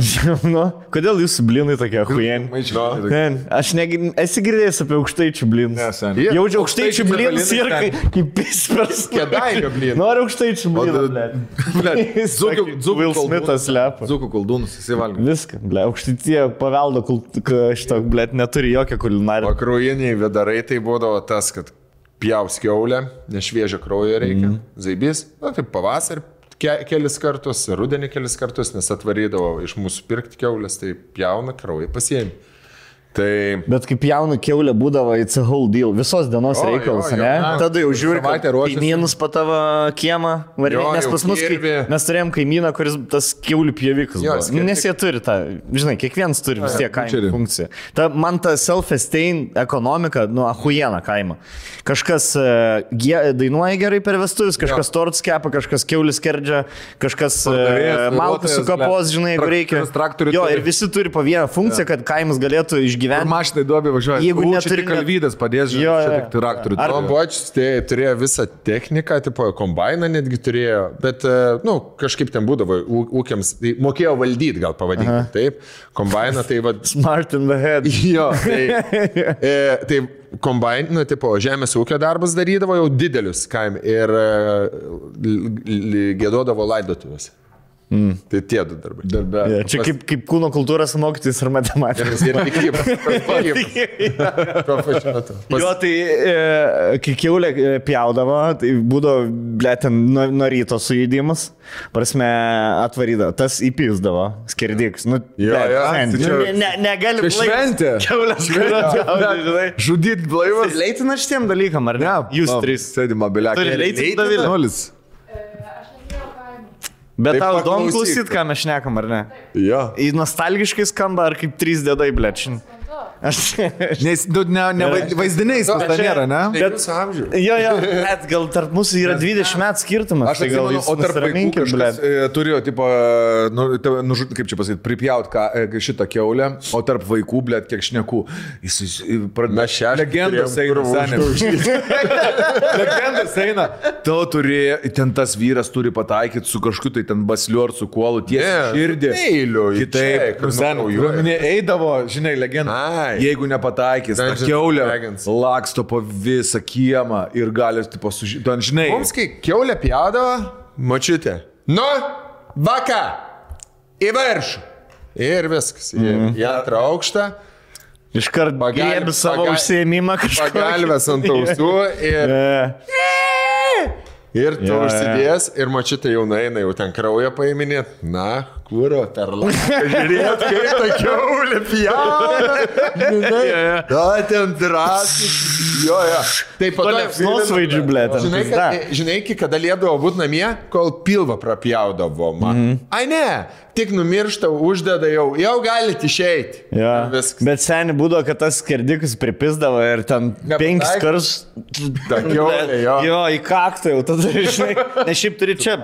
Kodėl jūsų blinai tokie huieni? Aš esi girdėjęs apie aukštaičių blinus. Jaučiu aukštaičių blinus ir kaip pispers. Kėdainio blinus. Noriu aukštaičių blinų, ble. Will Smithas lepa. Dzūkų koldūnus, jisai valgo. Viską, ble. Aukštaitie paveldo šito, ble, neturi jokio kulinarijo. O kraujiniai vėdarai tai būdavo tas, kad pjaus kiaulę, nešviežio kraujo reikia, zaibys, taip pavasarį kelis kartus, rudenį kelis kartus, nes atvarydavo iš mūsų pirkti kiaulės, tai pjauna kraują pasiemi. Tai... Bet kaip jaunų keulė būdavo, it's a whole deal, visos dienos reikalas, ne? Tada jau žiūri, kaimynus pa tavo kiemą, nes pas mus, mes turėjom kaimyną, kuris tas keulių pjovikas buvo. Nes jie turi tą, žinai, kiekvienas turi vis tiek kaimo funkciją. Man ta self-esteem ekonomika, ahujena kaimo. Kažkas dainuoja gerai per vestuvis, kažkas tortus kepa, kažkas keulis skerdžia, kažkas malkas su kapos, žinai, jeigu reikia. Jo, ir visi turi po vieną funkciją, kad kaimas galėtų išgyventi. Mašinai duobė važiuoja. Jeigu neturi kalvydas padės, žinai, traktorių. Bočius turėjo visą techniką, tipo kombainą netgi turėjo, bet, kažkaip ten būdavo ūkiams, tai mokėjo valdyti, gal pavadinti, taip. Kombainą, tai vad... Smart in the head. Jo, tai kombainą, tipo žemės ūkio darbas darydavo jau didelius kaime ir gėdodavo laidotuvės. Tai tie du darbai. Čia kaip kūno kultūros mokytis ir matematikos. Ir tikybos. Jo, tai kai kiaulė pjaudavo, tai būdavo, ble, ten nuo ryto sujėdimas, prasme, atvarydavo, tas įpysdavo, skerdiks. Negali šventė. Kiaulės pjaudavo. Žudyt blaivas. Leitina šitiem dalykam, ar ne? Jūs trys. Sėdi mobiliakai. Turi leitina Davilė. Nulis. Bet tau įdomu klausyt, ką mes šnekam, ar ne? Jo. Į nostalgiškai skamba, ar kaip 3 dėdai, blečin. Nes vaizdiniais pas ten nėra, ne? Jo, bet gal tarp mūsų yra 20 metų skirtumas. Aš atsimenu, o tarp vaikų kažkas turėjo, tipo, kaip čia pasakyti, pripjaut šitą kiaulę, o tarp vaikų, blėt, kiek šnekų. Legendas eina, legendas eina. Tu turėjo, ten tas vyras turi pataikyti su kažkokiu, tai ten basliu ar su kuolu, tiesiai širdį. Kitaip, eidavo, žinai, legenda. Jeigu nepataikys, ta kiaulė laksto po visą kiemą ir gali, tipo, ten, žinai. Mums, kai kiaulė pjaudavo, mačiutė. Nu, vaka, į viršų. Ir viskas. Į antrą aukštą. Iškart griebi savo užsiėmimą kažką. Pagalvės ant ausų ir... Ir tu užsidės, ir mačiutė jau nueina, jau ten kraują paiminėt. Na, kūro, per lanką. Žiūrėt, kaip ta kiaulė pjauna. Žinai, da, ten drąsiai. Jo. Taip, po to svaidžių, blėt. Žinai, kada liedavo būti namie, kol pilvą prapjaudavo man. Ai ne, tik numiršta, uždeda jau galite išeiti. Bet seniai būdavo, kad tas skerdikas pripisdavo ir ten 5 kartus. Ta kiaulė, jo. Jo, į kaktą jau tada, žinai. Nes šiaip turi čia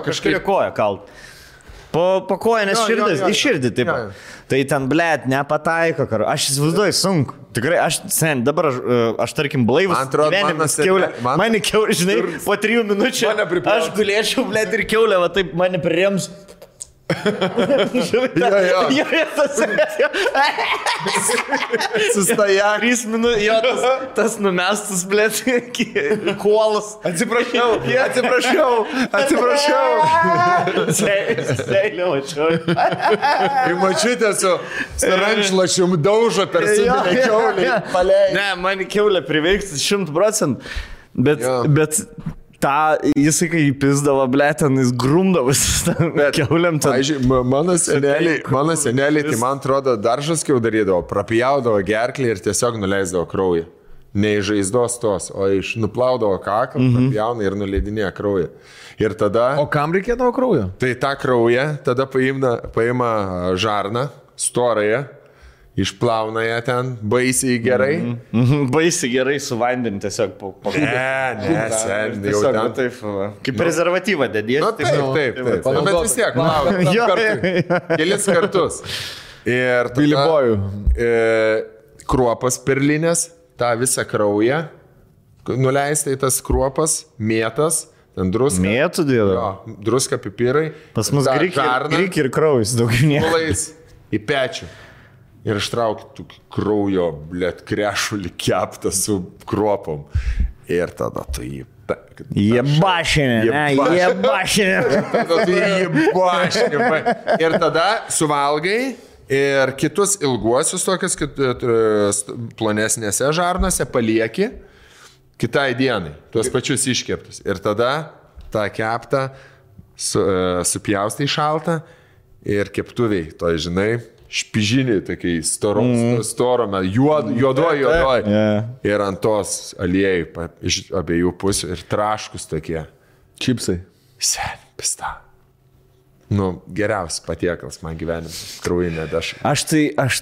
kažkaip koją kalt. po kojonės širdis, į širdį taip. Tai ten, blėt, nepataiko, karo. Aš įsivaizduoju, sunku. Tikrai, dabar aš tarkim, blaivus gyvenimas kiaulė. Mane kiaulė, žinai, po 3 minučių aš gulėčiau, blėt, ir kiaulė, va taip mane prirems. Sustaja. 3 minutės, jo, tas numestas, blėt, kuolas. Atsiprašau. Seilė, mačiau. Ir mačiutė su rančlašium daužo per sudinę kiaulį. Ne, man kiaulė priveiks 100%, bet jisai kai įpizdavo, blėten, jis grumdavosi kiauliam. Mano seneliai, tai man atrodo, daržaskiau darydavo, prapjaudavo gerklį ir tiesiog nuleisdavo kraują. Ne iš žaizdos tos, o iš nuplaudavo kaklą, prapjauna ir nuleidinėja kraują. Ir tada... O kam reikėdavo kraujo? Tai tą kraują tada paima žarną, storąją, išplauna ją ten baisiai gerai. Baisiai gerai su vandeniu tiesiog sen, jau ten. Taip, kaip prezervatyvą dedies. Na taip. Bet vis tiek, kelis kartus. Ir kruopas perlinės, tą visą kraują, nuleista į tas kruopas, mėtas, ten druska. Mėtų dėdo? Jo, druska, pipirai. Pas mus gryk ir kraujas daugiau nieko. Pulais į pečių. Ir ištraukti kraujo, blėt, krešulį keptą su kruopom. Ir tada tu jį... Jie bašinė. Ir tada suvalgai ir kitus ilguosius tokius plonesnėse žarnose palieki kitai dienai, tuos pačius iškeptus. Ir tada tą keptą supjaustai šaltą ir keptuviai, to žinai, špižiniai, tokiai storome, juodoj. Ir ant tos aliejai iš abiejų pusių ir traškus tokie. Čipsai. Sen, pista. Geriausias patiekalas man gyvenimas. Kraujinė dešra. Aš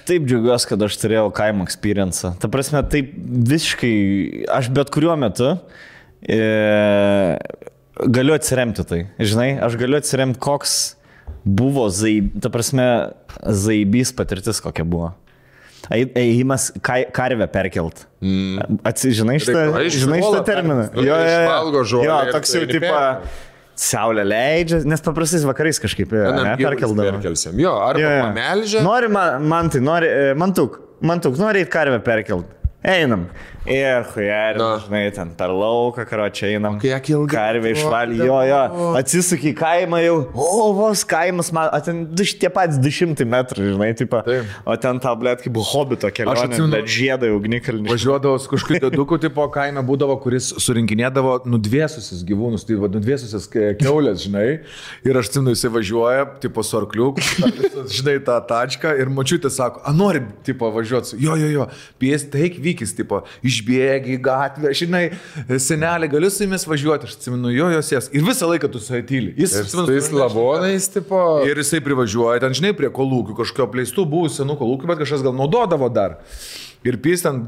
taip džiaugiuosi, kad aš turėjau kaimo experience. Ta prasme, taip visiškai, aš bet kuriuo metu galiu atsiremti tai. Žinai, aš galiu atsiremti, koks buvo zaibys patirtis, kokia buvo. Ėjimas karvę perkelt. Žinai šitą terminą? Išvalgo žolę. Jo, toks jau tipo saulė leidžia, nes paprastais vakarais kažkaip perkeldavo. Jo, arba pamelžia. Nori mantuk, nori eit karvę perkelt. Einam. Ir žinai, ten per lauką, čia einam. Karvė išvalį, jo. Atsisuki į kaimą jau, vos kaimas, ten tie patys 200 metrų, žinai, tipo. O ten ta, blėt, kaip hobito kelionė, bet žiedai ugnikalnį. Važiuodavo su kažkokiu dėduku, tipo kaime būdavo, kuris surinkinėdavo nudvėsusius gyvūnus, tai nudvėsusias keulės, žinai. Ir aš atsimenu, jisai važiuoja, tipo su arkliuku, žinai, tą tačką ir močiutė sako, nori, tipo, važiuoti. Jo, pies, taik vykis, tipo, išbėgi į gatvę, žinai, senelė, galiu su jumis važiuoti, aš atsimenu, jo sės. Ir visą laiką tu su tyli. Jis lavonais, tipo. Ir jisai privažiuoja, ten, žinai, prie kolūkių, kažkokio apleistų buvusių senų kolūkių, bet kažkas gal naudodavo dar. Ir pys ten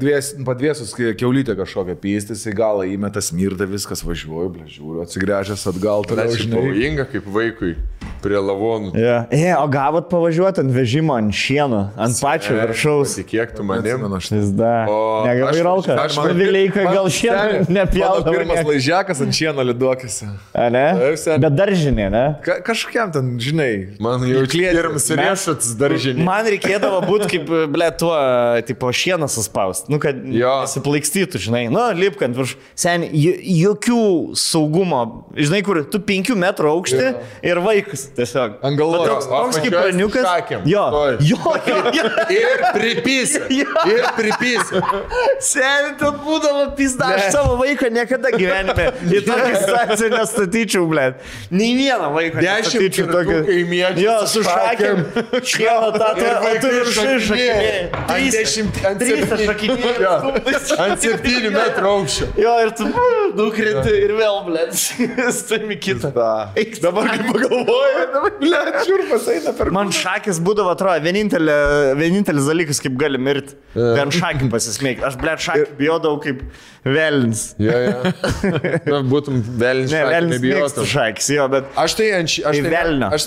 padvėsus kiaulytę kažkokią pystis, į galą įmeta smirda, viskas važiuoju, žiūriu, atsigręžęs atgal. Tai pavojinga kaip vaikui prie lavonų. O gavot pavažiuoti ant vežimo, ant šieno, ant pačio viršaus. Kiek tu manim? Negavai ralką. Aš Vileika gal šieno nepjaudavo. Pirmas laižiakas ant šieno liduokėse. Ne? Bet daržinė, ne? Kažkokiam ten, žinai. Man jau pirmas riešats daržinė. Man reikėdavo būti kaip, tuo, tipo, šieną suspaust. Kad nesiplaikstytų, žinai. Lipkant virš. Sen, jokių saugumo. Žinai, kur tu 5 metrų aukšti ir vaikas. Tiesiog. Angalos. Toks kaip praniukas. Jo. Ir pripysė. Seni, ten būdavo pizda. Aš savo vaiką niekada gyvenime į tokią situaciją nestatyčiau, blėt. Nei vieną vaiką nestatyčiau tokį. Jo, su šakėm. Šieno tatą, o tu viršai šakinėjai. Ant 7 metrų aukščio. Jo, ir tu nukrenti ir vėl, blėt. Stami kitą. Dabar kaip pagalvoju. Blet, šiurpas eina per... Man šakis būdavo, atrodo, vienintelis dalykas, kaip gali mirti. Vien šakį pasismėgti. Aš, blet, šakį bijodavau kaip velnis. Na, būtum velnis. Ne, velnis mėgstu šakis, jo, bet... Aš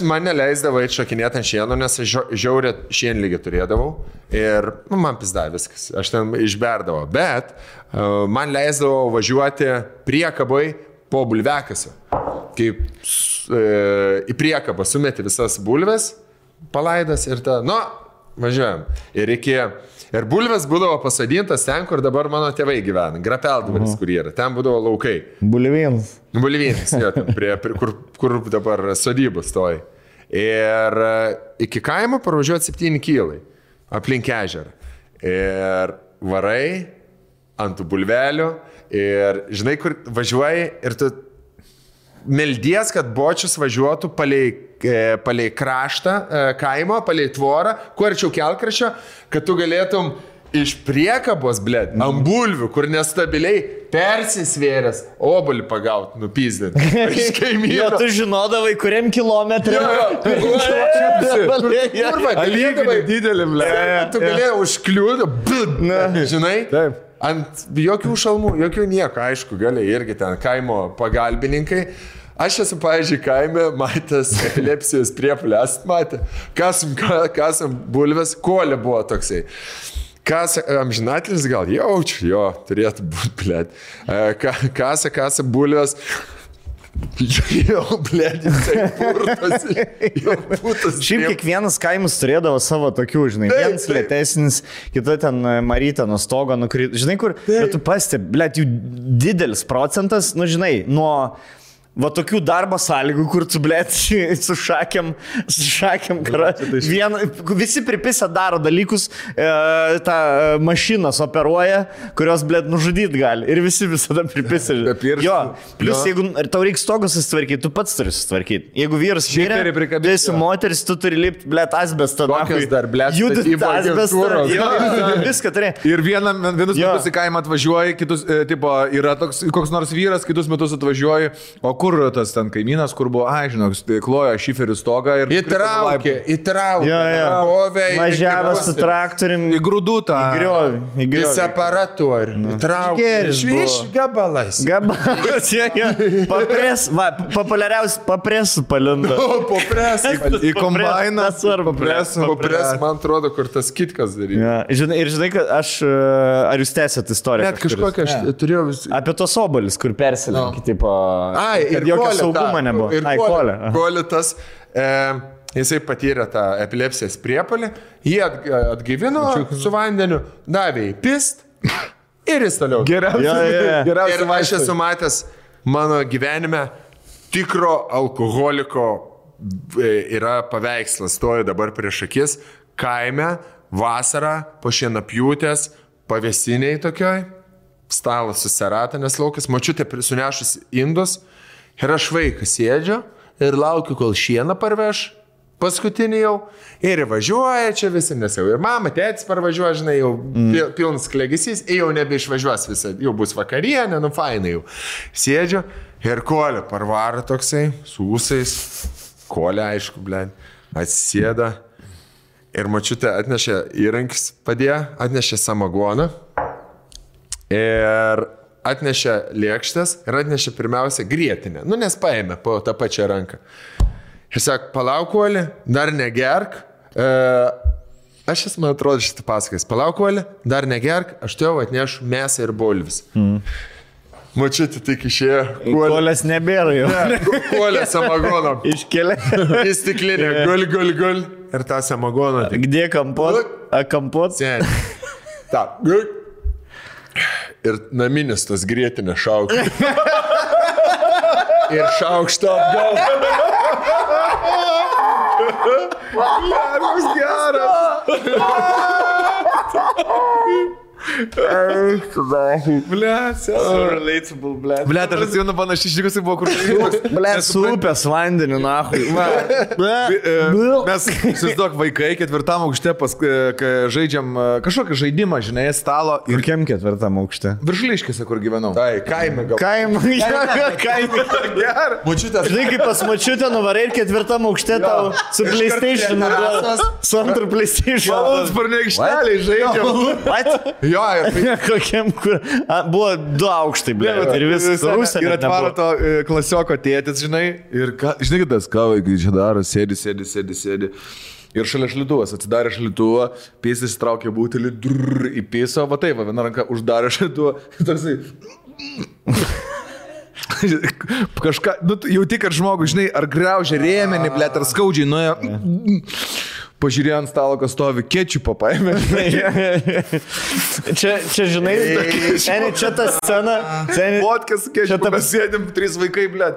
man neleisdavau šakinėti ant šieno, nes žiaurė šienlygį turėdavau. Ir man pizda viskas. Aš ten išberdavau. Bet man leisdavau važiuoti priekabai po bulvekasio. Kaip į priekabą sumeti visas bulves, palaidas ir važiuojam. Ir bulves būdavo pasodintas ten, kur dabar mano tėvai gyvena. Grapeldvaris, kur yra. Ten būdavo laukai. Bulvynas, jo, ten kur dabar sodybos stoji. Ir iki kaimo parvažiuoti 7 kilai aplink ežerą. Ir varai ant tų bulvelių. Ir žinai, kur važiuoji ir tu meldies, kad bočius važiuotų palei kraštą kaimo, palei tvorą, kuo arčiau kelkraščio, kad tu galėtum iš priekabos, blėt, ant bulvių, kur nestabiliai persisvėręs, obolį pagauti, nupyzdinti. Iš kaimyno. Jo, tu žinodavai, kuriam kilometrė. Alyginai didelį, blėt. Tu galėjai užkliūti, žinai? Taip. Ant jokių šalmų, jokių nieko, aišku, gali irgi ten kaimo pagalbininkai. Aš esu, pavyzdžiui, kaime matęs epilepsijos priepulę, matė, kasam bulves, kolė buvo toksai. Amžinatelis gal jaučiu, jo, turėtų būti, blėt. Kasa bulves. Jau, blėt, jisai purtas. Šiaip kiekvienas kaimus turėdavo savo tokių, žinai, vienas lėtesnis, kita ten Marytė nuo stogo nukrito. Žinai, kur, bet tu pastebi, blėt, jų didelis procentas, žinai, nuo... Va tokių darbo sąlygų, kur tu, blėt, su šakiam, visi pripisę daro dalykus, tą mašinas operuoja, kurios, blėt, nužudyti gali. Ir visi visada pripisę. Jo, plus jeigu tau reikia stogus susitvarkyti, tu pats turi susitvarkyti. Jeigu vyras mirė, tu esi moteris, tu turi lipti, blėt, asbestą. Kokios dar, blėt, judit asbestą. Viską turi. Ir vienus metus į kaimą atvažiuoji, kitus, tipo, yra toks, koks nors vyras, kitus metus atvažiuoji, o kur tas ten kaimynas, kur buvo, žinok, klojo šiferių stogą ir... Įtraukė. Važiavo su traktorium. Į grūdų tą. Į griovį. Į separatorių. Įtraukė. Iš gabalais. Populiariausiai papresų palindo. Į kombainą. Papres, man atrodo, kur tas kitkas daryti. Ir žinai, kad ar jūs tęsėt istoriją? Net kažkokią aš turėjau... Apie tos obalis, kur persilinkį, tipo... Ir saugumo nebuvo. Kolė tas, jisai patyrė tą epilepsijos priepalį, jį atgaivino su vandeniu, davė į pist ir jis toliau. Geriausiai. Ir aš esu matęs mano gyvenime tikro alkoholiko yra paveikslas, stoju dabar prieš akis, kaime, vasarą, po šienapjūtės, pavėsiniai tokioj, stalas susirata, nes laukas, močiutė sunešus indus. Ir aš vaikas sėdžiu ir laukiu, kol šieną parveš, paskutinį jau, ir važiuoja čia visi, nes jau ir mama, tėtis parvažiuoja, žinai, jau pilnas klegesys, jau nebeišvažiuos visą, jau bus vakarienė, fainai jau. Sėdžiu ir kolė parvaro toksai, su ūsais, kolė aišku, blėn, atsisėda ir močiutė atnešė įrankis, padėjo, atnešė samagoną ir... atnešė lėkštės ir atnešė pirmiausia grietinę. Nes paėmė po tą pačią ranką. Ir sako, palauk, Oli, dar negerk. Aš esu, man atrodo, šitą pasakais. Palauk, Oli, dar negerk, aš tu jau atnešu mėsą ir bulvis. Mačiutė tik išėjo. Kolės nebėra jau. Kolė samagono. Iškelia. Į stiklinę. Gul. Ir tą samagoną. Gdė kampot? Kampot? Sen. Ta. Gul. Ir naminis tas grietinė šaukštas. Ir šaukštą atgal. Koks geras. Relatable, blėt. Blėt, aš atsimenu panašiai išlikusi buvo, kur... Blėt, su upės vandeniu, nahui. Mes, įsivaizduok, vaikai 4 aukšte žaidžiam kažkokį žaidimą, žinai, stalo. Ir kiem 4 aukšte? Viršuliškėse, kur gyvenau. Tai, kaime gal. Kaime. Močiutės. Žinai, kaip pas močiutę nuvarai ir 4 aukšte tau su PlayStation. Su antru PlayStation. Malūnsparnio aikšteliai žaidžiam. What? Jo, ir Kokiam, kur... Buvo 2 aukštai, blėt. Ir viskas Rusija. Ir atvaro to klasioko tėtis, žinai. Ir žinai, tas ką vaikai čia daro, sėdi. Ir šalia šalituvas, atsidarė šalituvą, pėsis traukė butelį, įpėso, va taip, viena ranka uždarė šalituvą. Toksai... Kažką, nu, jau tik ar žmogus, žinai, ar graužia rėmenį, blėt, ar skaudžiai nuėjo. Pažiūrėjo ant stalo, kas stovi, kečupą paėmė. Čia, žinai, čia ta scena. Vodkas, kečupą, mes sėdim, 3 vaikai, blėt.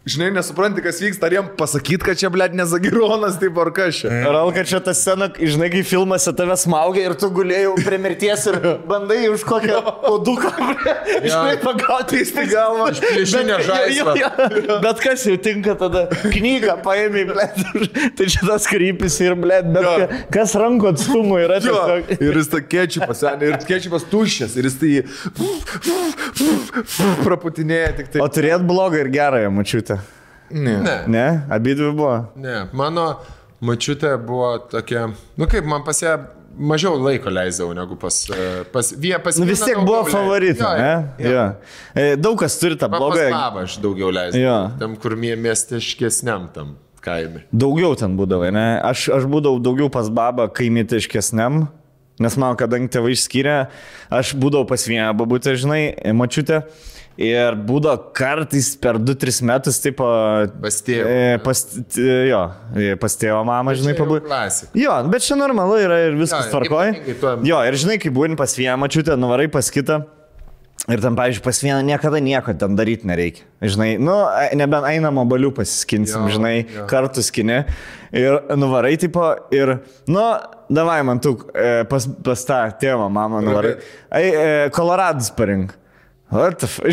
Žinai, nesupranti, kas vyksta, ar jiem pasakyt, kad čia, blėt, nezagironas, taip ar kas čia. Ralka, čia ta scena, žinai, kai filmuose tave smaugia ir tu gulėjai prie mirties ir bandai už kokią poduką, žinai, pagauti į galvą. Išplėšinę žaislą. Bet kas jau tinka tada? Knygą paėmė, blėt. Tai čia tas krypis ir, blėt, bet kas rankų atstumų yra tiesiog. Ir jis ta kečupas, ir kečupas tuščias, ir jis tai praputinėja tik tai. O turėt blogą ir gerąją mačiutę? Ne, abidvi buvo. Ne, mano mačiutė buvo tokia, nu kaip man pas ją mažiau laiko leisdavau negu pas nu vis tiek buvo favoritai, ne? Jo. Daug kas turi tą blogą. Pas babą aš daugiau leisdavau, tam kur miestiškesniam tam kaime. Daugiau ten būdavai, ne? Aš būdavau daugiau pas babą kaimietiškesniam, nes man, kadangi tėvai išskyrė, aš būdavau pas vieną babutę, žinai, mačiutę. Ir būdavo kartais per 2-3 metus, taip, pas tėvą. Pas tėvą mamą, žinai, pabūti. Jo, bet čia normalu yra ir viskas tvarkoj. Jo, ir žinai, kai būni pas vieną mačiutę, nuvarai pas kitą. Ir tam, pavyzdžiui, pas vieną niekada nieko ten daryti nereikia. Žinai, nu, nebent einam obalių pasiskinsim, žinai, kartu skini. Ir nuvarai, tipo, ir, nu, davai man tu pas tą tėvą mamą nuvarai. Koloradus parink. What the fuck?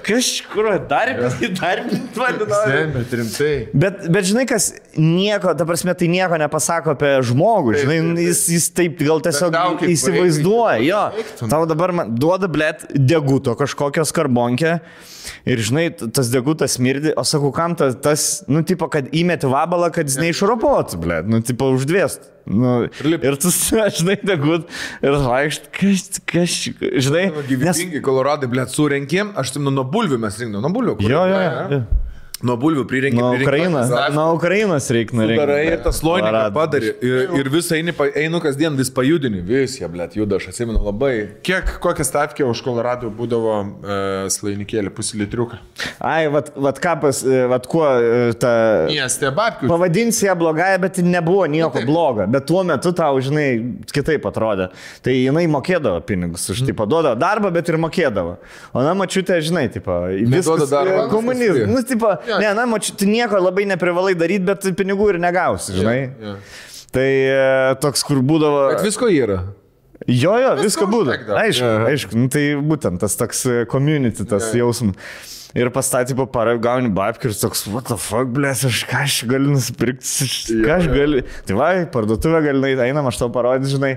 Kas kur darbinti bet rimtai. Bet žinai, kas nieko, ta prasme, tai nieko nepasako apie žmogų, žinai, jis taip gal tiesiog įsivaizduoja, jo. Tau dabar man duoda, blėt, deguto kažkokios karbonkę ir, žinai, tas degutas smirdi, o sakau, kam tas, nu, tipo, kad įmeti vabalą, kad jis neišropotų, blėt, nu, tipo, uždvėstų. Nu, ir tu, žinai, degut ir vaikšt, kas, žinai. Gyvybingi Koloradai, blėt, surenkėm, aš tam nuo bulvių mes rinkdom, nuo bulvių. Jo. Nuo bulvių prirenkėm. Nuo Ukrainos reikia nurinkti. Darai ir tas loiniką padarė. Ir visą einu kasdien vis pajudini. Vis jie, blėt, juda, aš atsimenu labai. Kokią stavkę už Koloradų būdavo slainikėlį, puslitriuką? Ai, vat kapas, vat kuo ta... Miestė babkių. Pavadinsi ją blogąją, bet nebuvo nieko blogo. Bet tuo metu tau, žinai, kitaip atrodė. Tai jinai mokėdavo pinigus už, tipo, duodavo darbą, bet ir mokėdavo. O na, mačiutė, žinai, tipo, viskas komunizmas. Nu, tipo, ne, na, tu nieko labai neprivalai daryti, bet pinigų ir negausi, žinai. Tai toks, kur būdavo... Bet visko yra. Jo, visko būdavo. Aišku, nu, tai būtent tas toks community, tas jausmas. Ir pastatė po parą, gauni babkių ir toks, what the fuck, blės, ką aš galiu nusipirkti, ką aš galiu... Tai va, parduotuvę gali, einam, aš tau parodys, žinai.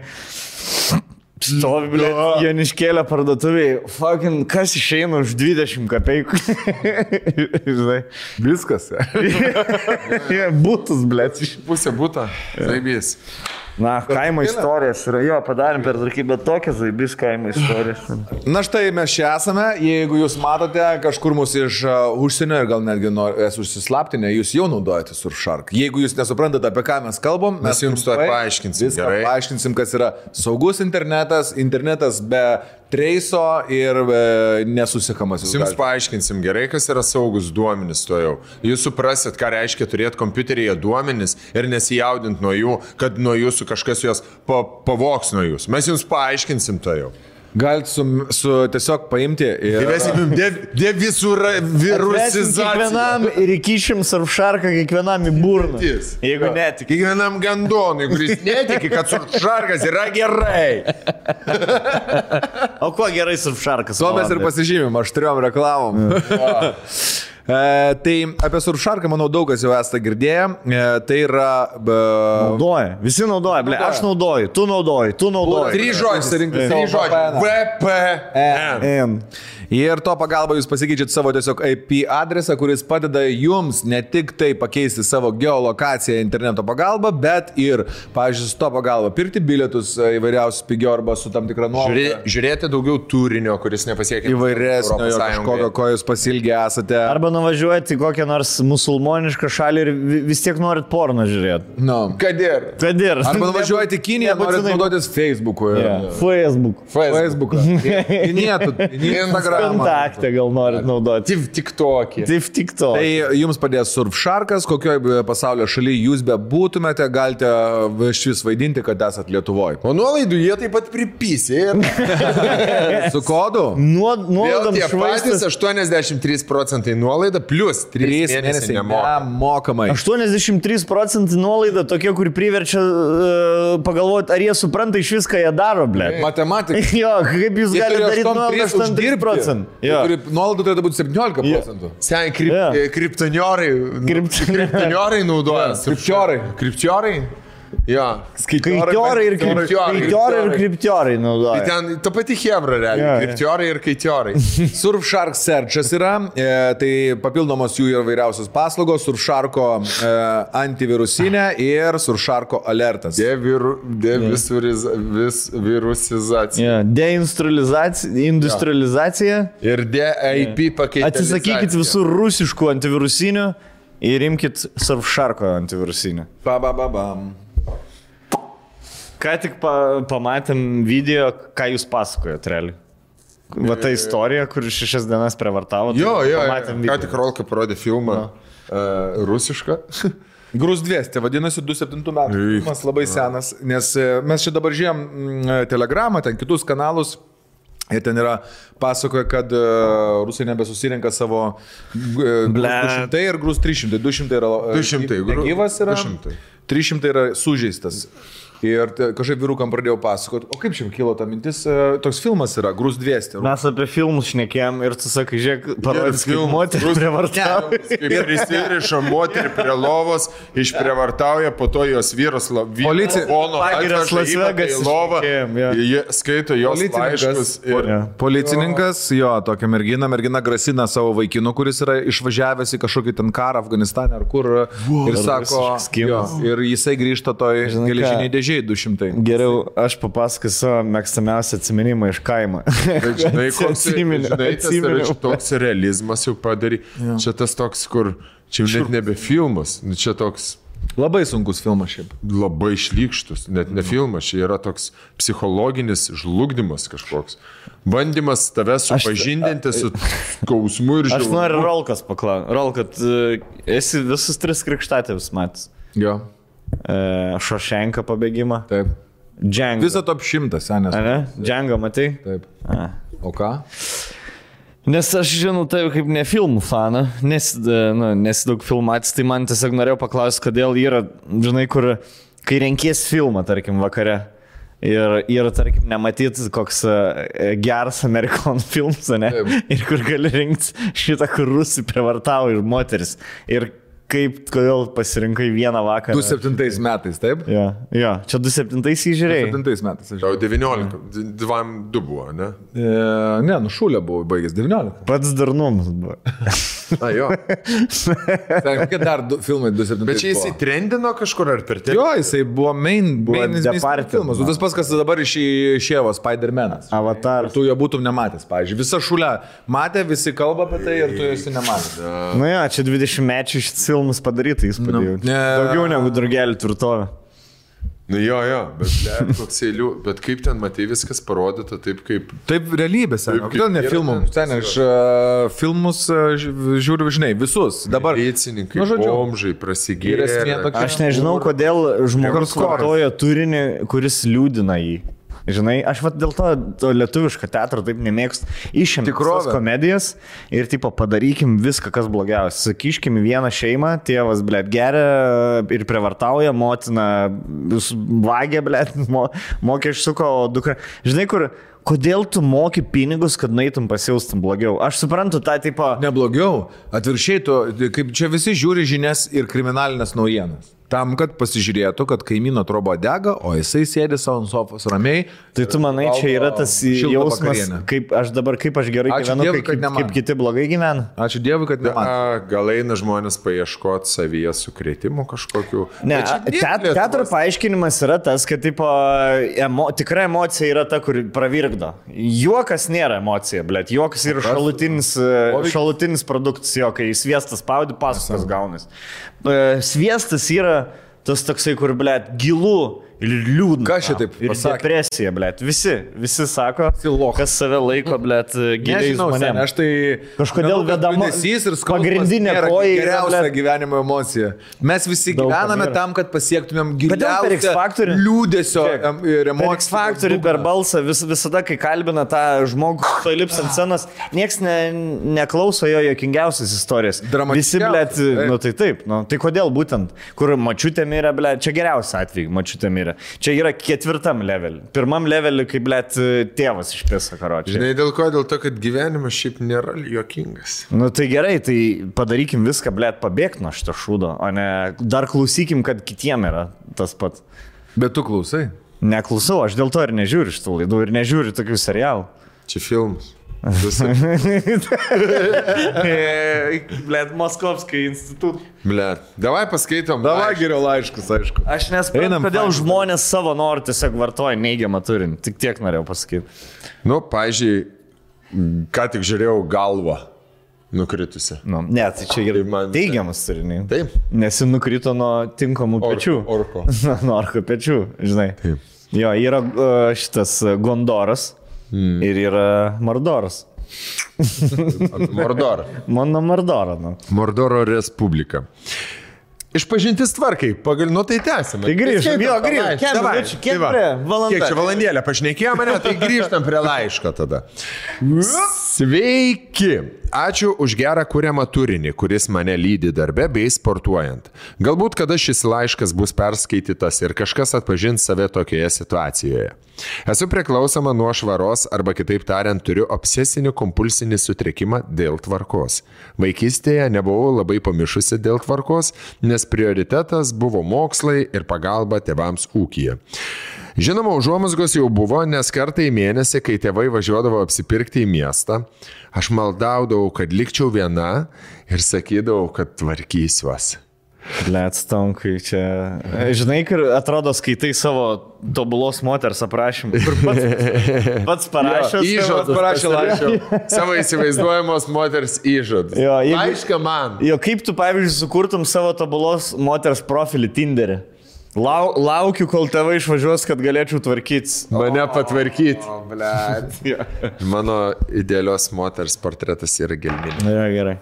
Stovi, blė, Joniškėlė parduotuviai, fucking, kas išeina už 20 kapeikų. Žinai. Viskas. Būtus, blė. Pusė būta, zaibys. Na, kaimo istorijas yra, jo, padarėm per tarkį, bet tokias zaibys kaimo istorijas. Na štai mes čia esame, jeigu jūs matote kažkur mūsų iš užsienio ir gal netgi esu užsislaptinę, jūs jau naudojate Surfshark. Jeigu jūs nesuprantate, apie ką mes kalbam, mes jums to paaiškinsim. Viską paaiškinsim, kas yra saugus internetas be treiso ir nesusikamas. Jums paaiškinsim gerai, kas yra saugus duomenys to jau. Jūs suprasit, ką reiškia turėti kompiuteryje duomenys ir nesijaudinti nuo jų, kad nuo jūsų kažkas juos pavoks nuo jūsų. Mes jums paaiškinsim to jau. Galit su tiesiog paimti ir... Įvesim devirusizaciją. Kiekvienam ir įkišim surfšarką kiekvienam į burną. Jeigu netiki. Kiekvienam gandonui, kuris netiki, kad surfšarkas yra gerai. O kuo gerai surfšarkas? Tuo mes ir pasižymim, aštriom reklamom. Tai apie surfšarką, manau, daug kas jau esate girdėję. Tai yra... Naudoja. Visi naudoja. Ble, aš naudoju. Tu naudoji. 3 žodžiai. VPN. Ir to pagalba jūs pasikeičiat savo tiesiog IP adresą, kuris padeda jums ne tik tai pakeisti savo geolokaciją interneto pagalba, bet ir, pavyzdžiui, su to pagalba pirkti bilietus įvairiausius pigiau arba su tam tikra nuolaida. Žiūrėti daugiau turinio, kuris nepasiekia įvairesnio, kažkokio, ko jūs pasilgę esate. Arba nuvažiuoti į kokią nors musulmonišką šalį ir vis tiek norit porno žiūrėti. No. Kad ir. Arba nuvažiuoti į Kiniją, norit naudotis Facebook'u. Facebook'u. Instagram'ą. Kontaktą gal norit naudoti. TikTok'į. Tai jums padės surfšarkas, kokioje pasaulio šalyje jūs bebūtumėte, galite šis vaidinti, kad esat Lietuvoje. O nuolaidų jie taip pat pripysė. Su kodu? Vėl tie patys 83% nuolaida plus 3 mėnesiai nemokamai. 83% nuolaida tokia, kur priverčia pagalvoti, ar jie supranta iš viską jie daro, ble. Matematika. Jo, kaip jūs galite daryti nuolaidą 83%. Nuolaidų turėtų būti 17%. Sen, kriptoniorai naudoja. Kriptiorai? Jo. Kaitiorai ir kriptiorai naudoja. Tai ten ta pati hebra realiai. Kriptiorai ir kaitiorai. Surfshark Searchas yra, tai papildomos jų yra vairiausios paslaugos, Surfsharko antivirusinė ir Surfsharko alertas. Devirusizacija. Deindustrializacija. Ir DIP pakeitimas. Atsisakykit visų rusiškų antivirusinių ir imkit Surfsharko antivirusinį. Ką tik pamatėm video, ką jūs pasakojot, realiai. Va ta istorija, kur 6 dienas prievartavo. Jo. Ką tik Rolka parodė filmą rusišką. Grūs 200, vadinasi 27 metų. Filmas labai senas, nes mes čia dabar žiūrėjom Telegramą, ten kitus kanalus. Ir ten yra pasakoja, kad rusai nebesusirenka savo 200 ir grūs 300. 200 yra negyvas yra, 300 yra sužeistas. Ir kažkaip vyrukam pradėjau pasakoti, o kaip šiam kilo ta mintis, toks filmas yra, Grūs 200. Mes apie filmus šnekėjom ir tu sakai, žiūrėk, parodys, kaip moterį prievartauja. Kaip prisiriša moterį prie lovos, išprievartauja, po to jos vyras skaito jos laiškus. Policininkas, jo, tokia mergina grasina savo vaikinu, kuris yra išvažiavęs į kažkokį ten karą Afganistane ar kur. Ir sako, ir jisai grįžta toj geležiniai dėžė. 200. Geriau aš papasakosiu savo mėgstamiausią atsiminimą iš kaimo. Žinai, toks realizmas jau padarė. Ja. Čia tas toks, kur čia jau net nebe filmas. Čia toks... Labai sunkus filmas šiaip. Labai šlykštus. Net ne filmas. Čia yra toks psichologinis žlugdymas kažkoks. Bandymas tave supažindinti su skausmu ir žilmu. Aš noriu Rolkas paklausti. Rolkat, esi visus 3 krikštatėvius matęs? Jo. Šošenka pabėgimą. Taip. Django. Visą top 100 senės. Django, matai? Taip. O ką? Nes aš žinau tai kaip ne filmų faną, nes daug filmatys, tai man tiesiog norėjau paklausti, kodėl yra, žinai, kur, kai renkies filmą, tarkim, vakare. Ir tarkim, nematyti koks geras Amerikonų filmas, ne? Taip. Ir kur gali rinkti šitą, kur rusai prievartauja ir moteris. Ir kodėl pasirinkai vieną vakarą? 27 metais, taip? Jo, čia 27 įžiūrėjai. 27 metais. Jau 19, 2 buvo, ne? Ne, Šulė buvo baigęs 19. Pats darnumas buvo. Jo. Kokie dar filmai 27 Bet čia jisai trendino kažkur ar per Jo, jisai buvo filmas. Tas pats, kas dabar išėjo Spider-Man'as. Avatar. Tu jo būtum nematęs, pavyzdžiui. Visa Šulė matė, visi kalba apie tai ir tu esi nematęs. Čia 20 mečių šis filmas padaryta įspūdį. Daugiau negu Drugelį tvirtovė. Jo, bet koks eilių, bet kaip ten matai viskas parodyta, taip kaip... Taip realybės, kodėl ne filmų? Aš filmus žiūriu, žinai, visus. Dabar... Policininkai, bomžai, prasigėrė. Aš nežinau, kodėl žmogus vartoja turinį, kuris liūdina jį. Žinai, aš dėl to lietuviško teatro taip nemėgstu. Išimti tikrovės komedijas ir tipo padarykim viską, kas blogiausia. Sakyškim vieną šeimą, tėvas, blėt, geria ir prievartauja, motina vagia, blėt, mokesčių suko, o dukra. Žinai, kodėl tu moki pinigus, kad nueitum pasijaustum blogiau? Aš suprantu tą tipo... Neblogiau. Atvirkščiai, kaip čia visi žiūri žinias ir kriminalinės naujienas. Tam, kad pasižiūrėtų, kad kaimyno troba dega, o jisai sėdi savo ant sofos ramiai. Tai tu manai, čia yra tas jausmas, kaip aš gerai gyvenu, kaip kiti blogai gyvena? Ačiū Dievui, kad ne man. Gal eina žmonės paieškoti savyje sukrėtimų kažkokių. Ne, teatro paaiškinimas yra tas, kad tipo, tikra emocija yra ta, kur pravirkdo. Juokas nėra emocija, blėt. Juokas yra šalutinis produktas, jo, kai sviestas spaudi, pasakas gaunas. Sviestas yra tas toksai, kur, blėt, gilu ir liūdna. Ką šitaip ir pasakė? Depresija, blėt. Visi sako, kas save laiko, blėt, giliai žmonėm. Aš tai kažkodėl vedama pagrindinė koja geriausia gyvenimo emocija. Mes visi gyvename tam, kad pasiektumėm giliausią liūdesio ir emocijų. Per X-faktorių, per balsą, visada, kai kalbina tą žmogų, to lips ant scenos, nieks neklauso jo juokingiausias istorijas. Visi, blėt, nu tai taip, nu, tai kodėl būtent, kur mačiutė mirė, blėt, čia geriausia atveju, mačiutė mirė. Čia yra 4 levelį. 1 levelį, kai, blėt, tėvas išpisa karočiai. Žinai, dėl ko? Dėl to, kad gyvenimas šiaip nėra juokingas. Nu tai gerai, tai padarykim viską, blėt, pabėgti nuo šito šūdo, o ne dar klausykim, kad kitiem yra tas pats. Bet tu klausai? Neklausau, aš dėl to ir nežiūriu šitų laidų ir nežiūriu tokių serialų. Čia filmas. Blet, Moskovskai institut. Blet, davai paskaitom. Davai geriau laiškus, aišku. Aš nespėjau, kodėl žmonės savo norų tiesiog vartoja neigiamą turinį. Tik tiek norėjau pasakyti. Nu, pavyzdžiui, ką tik žiūrėjau galvą nukritusi. Nu, ne, tai čia yra teigiamas turinys. Taip. Nes jis nukrito nuo tinkamų pečių. Orko. Nuo orko pečių, žinai. Taip. Jo, yra šitas Gondoras. Ir yra Mordoras. Mordor. Mano Mordoro. Nu. Mordoro Respublika. Išpažintis tvarkai, nu tai tęsime. Tai grįžtam, jo, grįžtam. Kiek čia valandėlę pašnekėjo mane, tai grįžtam prie laiško tada. Sveiki! Ačiū už gerą kuriamą turinį, kuris mane lydi darbe bei sportuojant. Galbūt kada šis laiškas bus perskaitytas ir kažkas atpažins save tokioje situacijoje. Esu priklausoma nuo švaros arba kitaip tariant turiu obsesinį kompulsinį sutrikimą dėl tvarkos. Vaikystėje nebuvau labai pamišusi dėl tvarkos, nes prioritetas buvo mokslai ir pagalba tėvams ūkyje. Žinoma, užuomazgos jau buvo, nes kartą į mėnesį, kai tėvai važiuodavo apsipirkti į miestą, aš maldaudavau, kad likčiau viena ir sakydavau, kad tvarkysiuos. Blet, Stonkai, čia... Žinai, kur atrodo skaitai savo tobulos moters aprašymą. Kur pats parašęs. Įžadas parašė laišką. Savo įsivaizduojamos moters įžadas. Laišką man. Jo, kaip tu, pavyzdžiui, sukurtum savo tobulos moters profilį Tinderį? Laukiu, kol tėvai išvažiuos, kad galėčiau tvarkytis. Mane patvarkyti. Mano idealios moters portretas yra gelminė. Ja, gerai.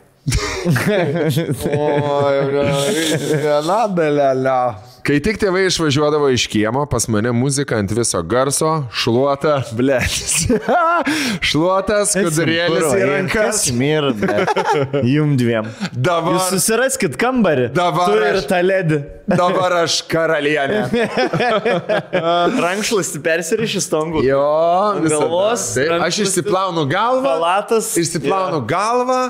Kai tik tėvai išvažiuodavo iš kiemo, pas mane muzika ant viso garso, šluota, blėtis. Šluotas, skudurėlis į rankas. Jum dviem. Dabar... Jūs susiraskit kambarį. Dabar tu ir tą ledį. Dabar aš karalienė. Rankšluostį persiriši Stongų. Jo, galvos. Aš išsiplaunu galvą. Palatas. Išsiplaunu galvą,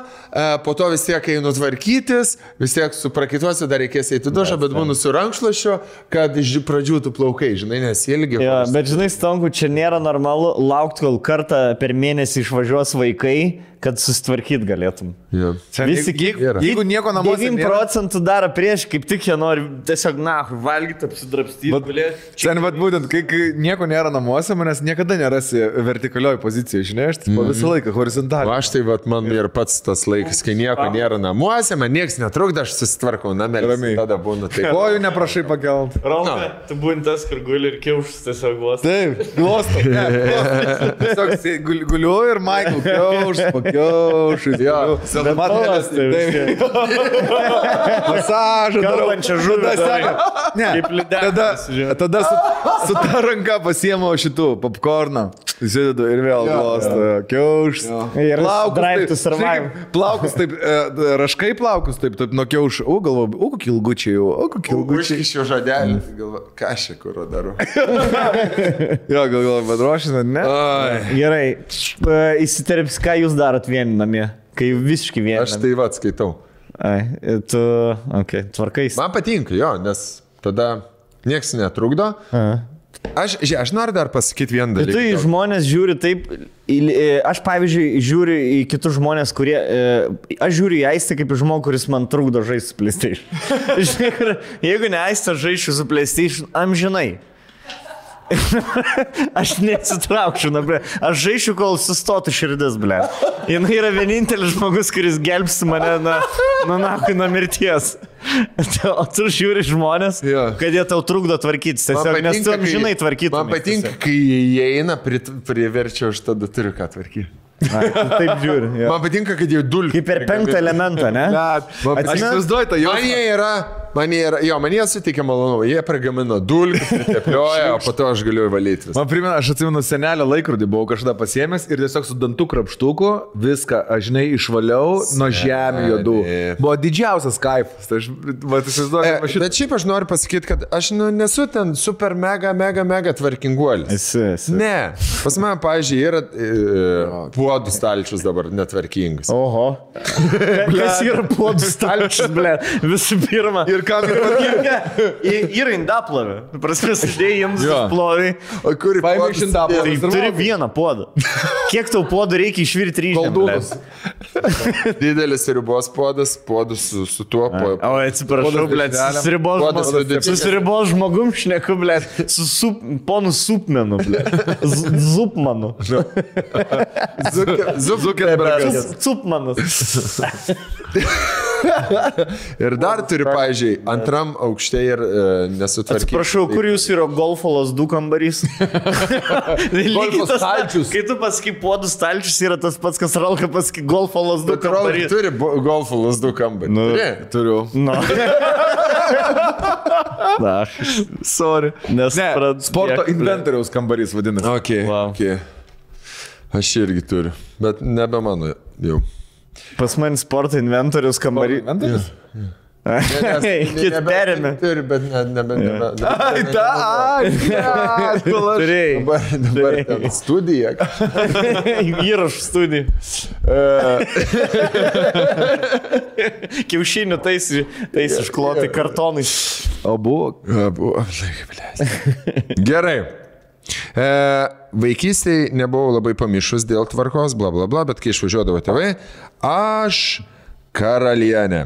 po to vis tiek einu tvarkytis, vis tiek suprakituosiu, dar reikės eiti dušą, bet būnu su rankšluošiu, kad iš pradžių tu plaukai, žinai, nes ilgi. Jo, bet žinai, Stongų, čia nėra normalu laukti, kol kartą per mėnesį išvažiuos vaikai, kad susitvarkyt galėtum. Ja. Visi, jeigu nieko namuose 9% daro prieš, kaip tik jie nori tiesiog, valgyti, apsidrabstyti. Sen, būtent, kai nieko nėra namuose, manęs niekada nerasi vertikalioj pozicijoje, žinai, aš visą laiką horizontaliai. Aš tai, man ir pats tas laikas, kai nieko nėra namuose, man nieks netrukdo, aš susitvarkau namelį. Tada būnu taip. Kojų neprašai pakelt. Raumė, tu būni tas, kur guli ir kiaušus tiesiog glostai. Taip, glostai. Tiesiog guliu ir Michael kiaušus pakelt. Kiaušais. Jo, Matolas. Masažą. Kalbančią žuvį. Ne, tada su ta ranka pasiemo šitų popkorną. Įsidedu ir vėl glosto. Kiaušas. Ir Drive to Survive. Plaukus taip, raškai plaukus taip nuo kiaušų. Galvoju, kokį ilgučiai jau, kokį ilgučiai. Užkišiu žodelį, galvoju, ką aš čia kur darau. Jo, galvoju, bet ruošis, ne? Gerai, įsiterps, ką jūs darot vieni namie, kai visiškai vieni. Aš tai va skaitau. Tu, tvarkais. Man patinka, jo, nes tada nieks netrukdo. Aš noriu dar pasakyti vieną dalyką. Tu į žmonės žiūri taip, aš pavyzdžiui žiūriu į kitus žmonės, kurie, aš žiūriu į Aistę kaip į žmogų, kuris man trukdo žaisti su PlayStation. Jeigu ne Aistė žaisčiau su PlayStation, amžinai. Aš nesitraukčiau, aš žaišiu, kol sustotų širdis, ble. Jis yra vienintelis žmogus, kuris gelbsti mane nuo mirties. O tu žiūri žmonės, kad jie tau trukdo tvarkytis, tiesiog, nes tu amžinai tvarkytum. Man patinka, kai jie eina, priverčia, aš tada turiu ką tvarkyti. Taip žiūri. Man patinka, kad jie dulki. Kaip per 5 elementą, ne? Aš įsivaizduoju tą jau. Man jie suteikia malonumą, jie pragamino dulkį, priteplioja, o po to aš galiu valyti visą. Man primena, aš atsimenu senelio laikrodį, buvau kažkada pasiėmęs ir tiesiog su dantų krapštuku viską, aš žinai, išvaliau nuo žemių juodų. Buvo didžiausias kaifas. Tai aš įsivaizduoju. Bet šiaip aš noriu pasakyti, kad aš nesu ten super mega tvarkinguolis. Ne. Pas mane, pavyzdžiui, yra puodų stalčius dabar netvarkingas. Oho. Kas yra puodų stalčius, ble? Visų pirma. Ir kam ir patinka? Yra indaplovė. Prasme, sudėjai jiems plovai. O kur paėmė iš indaplovės? Tai turi vieną puodą. Kiek tau puodų reikia išvirti ryžėm? Didelis ribos puodas su tuo. O, atsiprašau, ble, su ribos žmogum šneku, ble, su ponu Supmenu, ble. Zupmanu. Zuckerbergas. Supmanus. Ir dar turi, pavyzdžiui, antram aukšte ir nesutvarkyti. Atsiprašau, kur jūs yra golfo lasdų kambarys? Golfo stalčius. Kai tu pasakai puodų stalčius, yra tas pats, kas Ralka pasakai golfo lasdų kambarys. Turi golfo lasdų kambarį. Turiu. Na, sorry. Ne, sporto inventoriaus kambarys vadinasi. Okay. Aš irgi turiu, bet nebe mano jau. Pas man sporto inventorius kambarys. Inventorius? Kit perėmė. Turi, bet nebe. Turėjai. Dabar ten studija. Įrašų studija. Kiaušinių tais iškloti kartonais. O buvo. Gerai. Vaikystėje nebuvau labai pamišus dėl tvarkos, bla bla bla, bet kai išvažiuodavo tėvai, aš karalienė.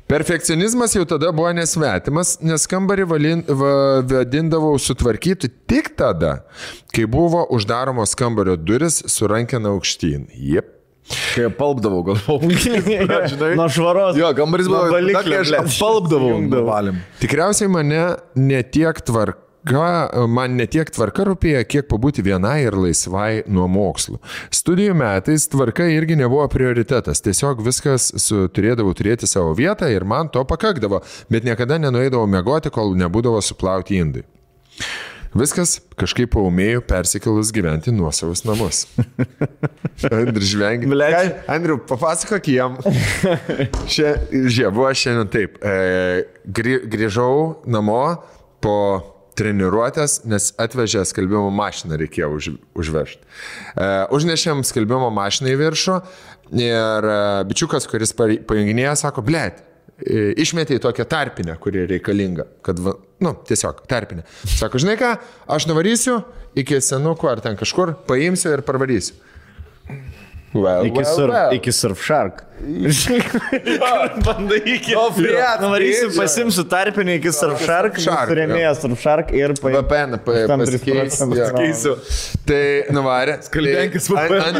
Perfekcionizmas jau tada buvo nesvetimas, nes kambarį vadindavau sutvarkyti tik tada, kai buvo uždaromos kambario duris su rankena aukštyn. Jep. Kai palpdavau, galvojau. Nuo švaros. Jo, kambarys buvo kai aš palpdavau. Tikriausiai man netiek tvarka rūpėjo, kiek pabūti vienai ir laisvai nuo mokslų. Studijų metais tvarka irgi nebuvo prioritetas, tiesiog viskas turėdavau turėti savo vietą ir man to pakakdavo, bet niekada nenueidavau miegoti, kol nebūdavo suplauti indai. Viskas kažkaip paumėjau persikėlus gyventi nuosavus namus. Andriu žvengi. Andriu, papasakok jam. Buvo šiandien taip. Grįžau namo po treniruotės, nes atvežė skalbimo mašiną, reikėjo užvežti. Užnešėm skalbimo mašiną į viršų ir bičiukas, kuris pajunginėjo, sako, blėt, išmetė į tokią tarpinę, kuri reikalinga, kad, tiesiog tarpinę. Sako, žinai ką, aš nuvarysiu iki senukų ar ten kažkur, paimsiu ir parvarysiu. Iki Surfshark. Bandai iki. Nuvarysiu, pasimsiu tarpinį iki Surfshark, surėmėjęs Surfshark ir VPN pakeisiu. Tai nuvarė. Skalbenkis VPN.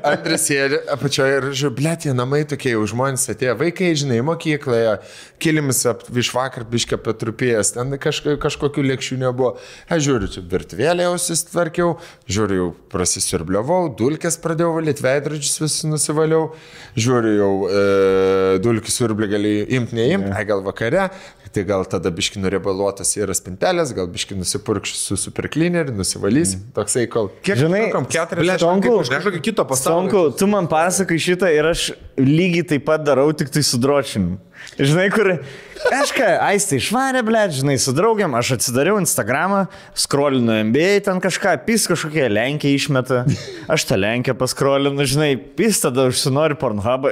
Antras sėdė apačioje ir žiūrėjau, blėt, jie namai tokie, jau žmonės atėjo, vaikai, žinai, mokykloje, kilimis iš vakar biškė patrupėjęs, ten kažkokių lėkščių nebuvo. Aš žiūriu, čia virtuvėlė jau susitvarkiau, žiūriu, jau prasisiurbliavau, dulkės pradėjau valyti, veidrodžius vis nusivaliau, žiūriu, jau dulkių siurblį gali imti, neimti, gal vakare, tai gal tada biški nuriebaluotas yra spintelės, gal biški nusipurkš su supercleaneriu, nusivalys, toksai kol. Kiek žinai, 4 kažkokio kito pasaulio. Stonku, tu man pasakai šitą ir aš lygiai taip pat darau, tik tai su dročiniu. Žinai, kur kažką, aistė išvarė, blėt, žinai, su draugiam, aš atsidariau Instagramą, scrollinu NBA, ten kažką, pis kažkokie Lenkija išmeta, aš tą Lenkiją pascrollinu, žinai, pis tada užsinori Pornhubą,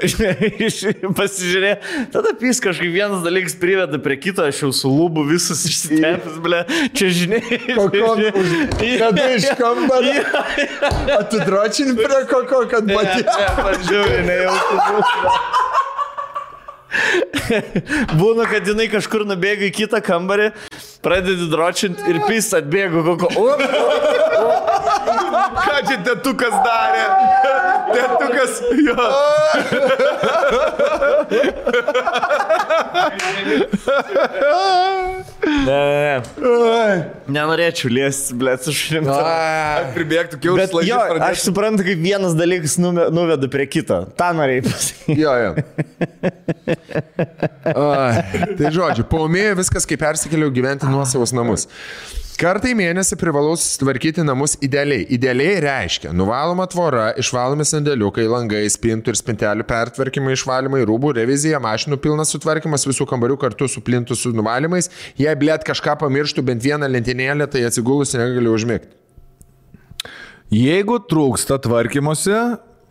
pasižiūrė, tada pis kažkaip vienas dalykas priveda prie kito, aš jau su lūbu visus išsitepęs, blėt, čia žinai. Kada iš kambario? Atidročini prie koko, kad matė. Pažiūrė, nejauku. Būna, kad jinai kažkur nubėga į kitą kambarį, pradedi dročinti ir pis atbėga koko. Ką čia tetukas darė? Tetukas, jo. Nenorėčiau liesti, blėt, su šrim. Pribėgtų kiaus Bet jo, aš suprantu, kaip vienas dalykas nuveda prie kito. Ta norėjai pasakyti. Jo. Tai žodžiu, paumėjo viskas, kai persikėliau gyventi nuosavus namus. Kartą į mėnesį privalau susitvarkyti namus idealiai. Idealiai reiškia nuvaloma tvora, išvalomi sandėliukai, langai, spintų ir spintelių pertvarkymai, išvalymai, rūbų, revizija, mašinų pilnas sutvarkymas, visų kambarių kartu su plintų su nuvalymais. Jei blėt kažką pamirštų bent vieną lentynėlę, tai atsigulus negaliu užmigti. Jeigu trūksta tvarkymosi,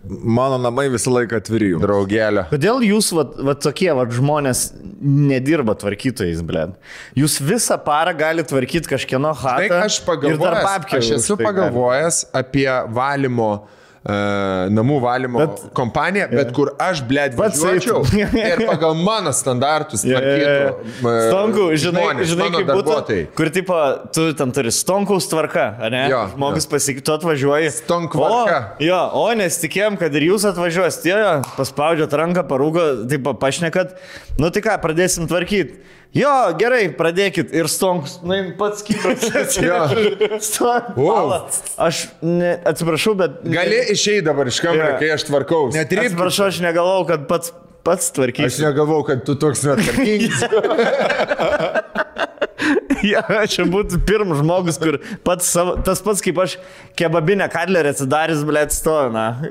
mano namai visą laiką atviri. Draugelė. Kodėl jūs, tokie žmonės nedirba tvarkytojais, blėt? Jūs visą parą galite tvarkyti kažkieno chatą ir dar babkę. Aš esu pagalvojęs apie valymo, namų valymo kompaniją, bet kur aš, blėt, važiuočiau ir pagal mano standartus tvarkytų Stonku, žinai, kaip būtų, darbuotojai. kur tipo, tu ten turi Stonkaus tvarka, ne? Žmogus pasakytų, tu atvažiuoji. Stonkvarka. O nesitikėjom, kad ir jūs atvažiuos, paspaudžiat ranką, parūgo, taip pašnekat, nu tai ką, pradėsim tvarkyti. Jo, gerai, pradėkit. Ir Stonkus, pats kibras. Aš atsiprašau, bet... Gali išeiti dabar iš kambario, kai aš tvarkau. Atsiprašau, aš negalvau, kad pats tvarkysi. Aš negalvau, kad tu toks netvarkingas. Čia būtų pirmas žmogus, kur tas pats kaip aš kebabinę kadlerį atsidarys, blėt, stovi, na.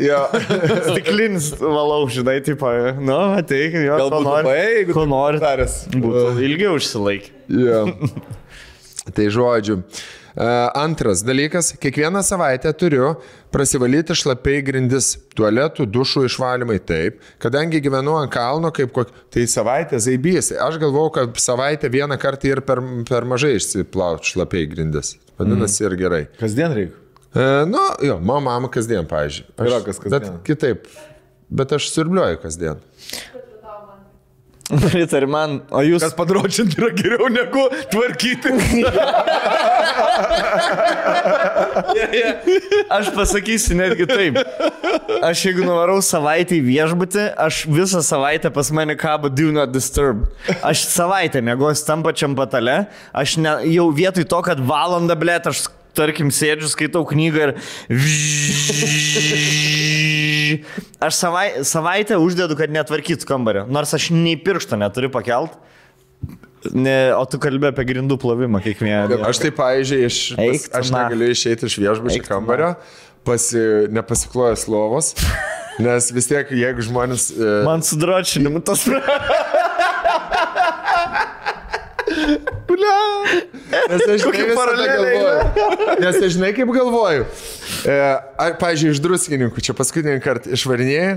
Stiklinis valau, žinai, tipo, nu, ateik, jo, ko nori, būtų ilgiau užsilaikė. Tai žodžiu. Antras dalykas, kiekvieną savaitę turiu prasivalyti šlapiai grindis, tualetų, dušų išvalymai, taip. Kadangi gyvenu ant kalno, tai savaitę zaibys. Aš galvau, kad savaitę vieną kartą ir per mažai išsiplauti šlapiai grindis. Vadinasi ir gerai. Kasdien reikia? Mano mama kasdien, pavyzdžiui. Yra kas kasdien. Bet kitaip. Bet aš siurbliuoju kasdien. Pritar man, o jūs... Kas padročinti yra geriau negu tvarkyti. Aš pasakysiu netgi taip. Aš jeigu nuvarau savaitę į viešbutį, aš visą savaitę pas mane kabo Do Not Disturb. Aš savaitę mėgosiu tam pačiam patale, aš jau vietoj to, kad valandą, blėt, aš tarkim sėdžiu, skaitau knygą ir aš savaitę uždedu, kad netvarkytų kambario. Nors aš nei piršto neturiu pakelt. O tu kalbė apie grindų plovimą kiekvieną. Aš tai, pavyzdžiui, aš negaliu išeiti iš viešbučio kambario, nepasiklojęs lovos, nes vis tiek, jeigu žmonės... Man su dročinimu tas... Nes aš žinai kaip galvoju. Pavyzdžiui, iš druskininkų, čia paskutinį kartą išvarinėjai,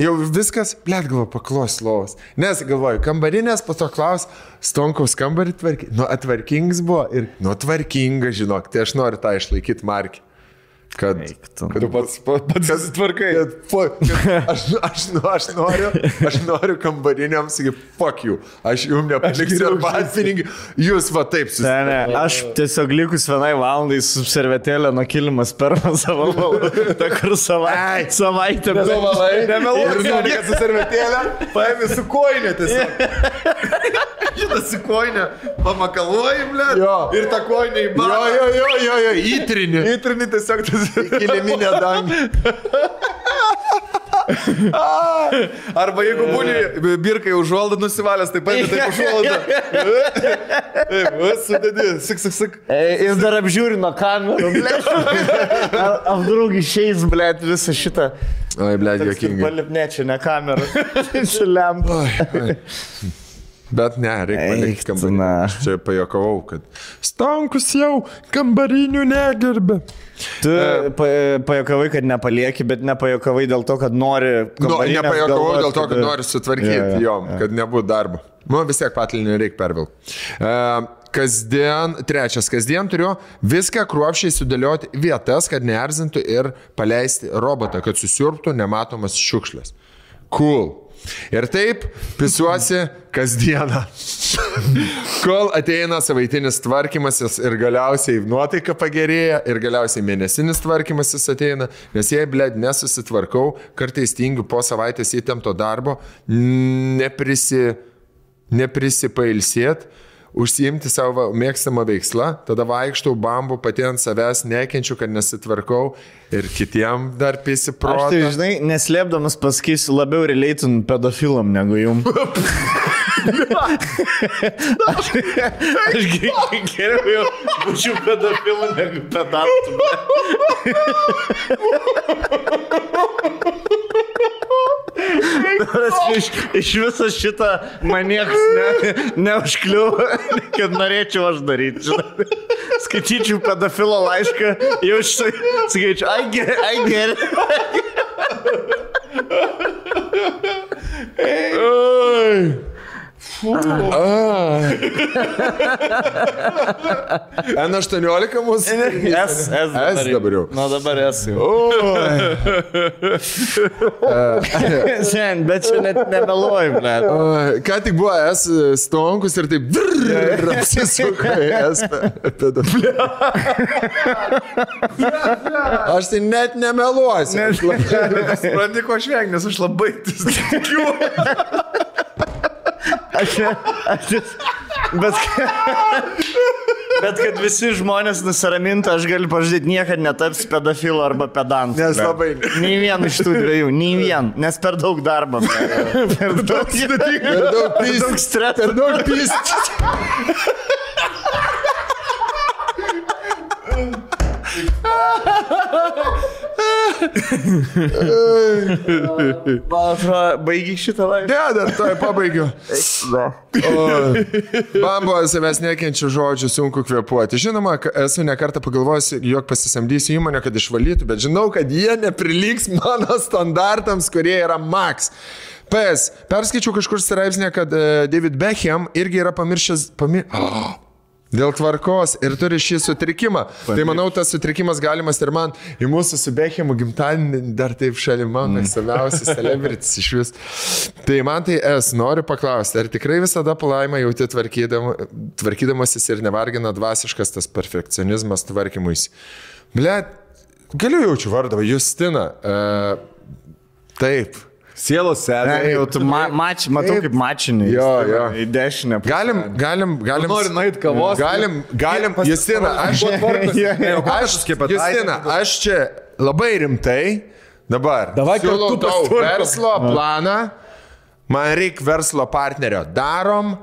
jau viskas, blėt, galvoju, paklos lovos. Nes galvoju, kambarinės, po to klaus, Stonkaus kambarį tvarkingas buvo ir, tvarkinga, žinok, tai aš noriu tą išlaikyti markį. kad Tu pats tvarkai. Aš noriu kambariniam sakyti, fuck you, aš jums nepaliksiu arbatpinigių, jūs va taip susitvarkai. Ne, aš tiesiog likus vienai valandai su servetėlė nuo kilimas per savo valdą, ta kur savaitę. Nemeluoju, kad su servetėlė paėmė su koinė tiesiog. Šitą su koinė pamakaluoji, ble, ir tą koinę į barą. Jo, įtrini. Įtrini tiesiog tas kiliminė dangė. Arba jeigu būni birkai užuoldą nusivalęs, tai paėmė taip užuoldą. Taip, sudėdi, sik. Ir dar apžiūri nuo kamerų, blėt. Apdraug išeis, blėt, visą šitą. Oi, blėt, jokingai. Palipnė, čia ne kamera. Čia lempa. Bet ne, reikia palikti kambarinį. Aš čia pajokavau, kad Stonkus jau kambarinių negerbė. Tu pajokavai, kad nepalieki, bet nepajokavai dėl to, kad nori kambarinę. Nepajokavau dėl to, kad nori sutvarkyti jom, kad nebūtų darbo. Vis tiek patalinį reikia pervilti. Kasdien turiu viską kruopščiai sudėlioti vietas, kad neerzintų ir paleisti robotą, kad susiurbtų nematomas šiukšlės. Cool. Ir taip pisuosi kasdieną, kol ateina savaitinis tvarkymasis ir galiausiai nuotaika pagerėja ir galiausiai mėnesinis tvarkymasis ateina, nes jei, blėd, nesusitvarkau, kartais tingiu po savaitės įtempto darbo, neprisipailsėt, užsiimti savo mėgstamą veikslą, tada vaikštau bambu, pati ant savęs nekenčiu, kad nesitvarkau ir kitiem dar pisiprotą. Aš tai, žinai, neslėpdamas pasakysiu, labiau releitin pedofilam negu jum. Aš geriau jau būčiau pedofilu negu pedantu. Iš viso šitą man niekas neužkliuvo, kad norėčiau aš daryti. Žinai. Skaityčiau pedofilo laišką, jau skaičiu, ai geri. N18 mūsų? S dabar jau. Nu dabar S jau. Sen, bet čia net nemeluoju, ble. Ką tik buvo S Stonkus ir taip apsisuka S pedofilė. Aš tai net nemeluosiu. Supranti, ko aš vengiu, nes aš labai tikiu. Bet kad visi žmonės nusiramintų, aš galiu pažadėti, niekad netaps pedofilu arba pedantu. Nes labai. Nei vien iš tų dviejų, nei vien, nes per daug darbo. Per daug streso. Per daug pyst. Baigi šitą laišką. Ne, dar toj pabaigiu. Bambo, savęs nekenčiu žodžių, sunku kvėpuoti. Žinoma, esu nekartą pagalvojęs, jog pasisamdysiu įmonę, kad išvalytų, bet žinau, kad jie nepriliks mano standartams, kurie yra max. Perskaičiau kažkur straipsnį, kad David Beckham irgi yra pamiršęs dėl tvarkos ir turi šį sutrikimą. Tai manau, tas sutrikimas galimas ir man. Į mūsų su Beckhamu gimtadienį dar taip šalimą, mėgstamiausias celebritis iš vis. Tai man tai noriu paklausti, ar tikrai visada palaimą jauti tvarkydamasis ir nevargina dvasiškas tas perfekcionizmas tvarkymuisi? Blet, galiu jaučiu vardą, Justina. Taip. Sielos sėdė. Jau tu matau kaip mačinį. Jo. Į dešinę. Galim. Nori nueit kavos. Galim. Justina, aš čia labai rimtai dabar siūlau tau verslo planą. Man reikia verslo partnerio. Darom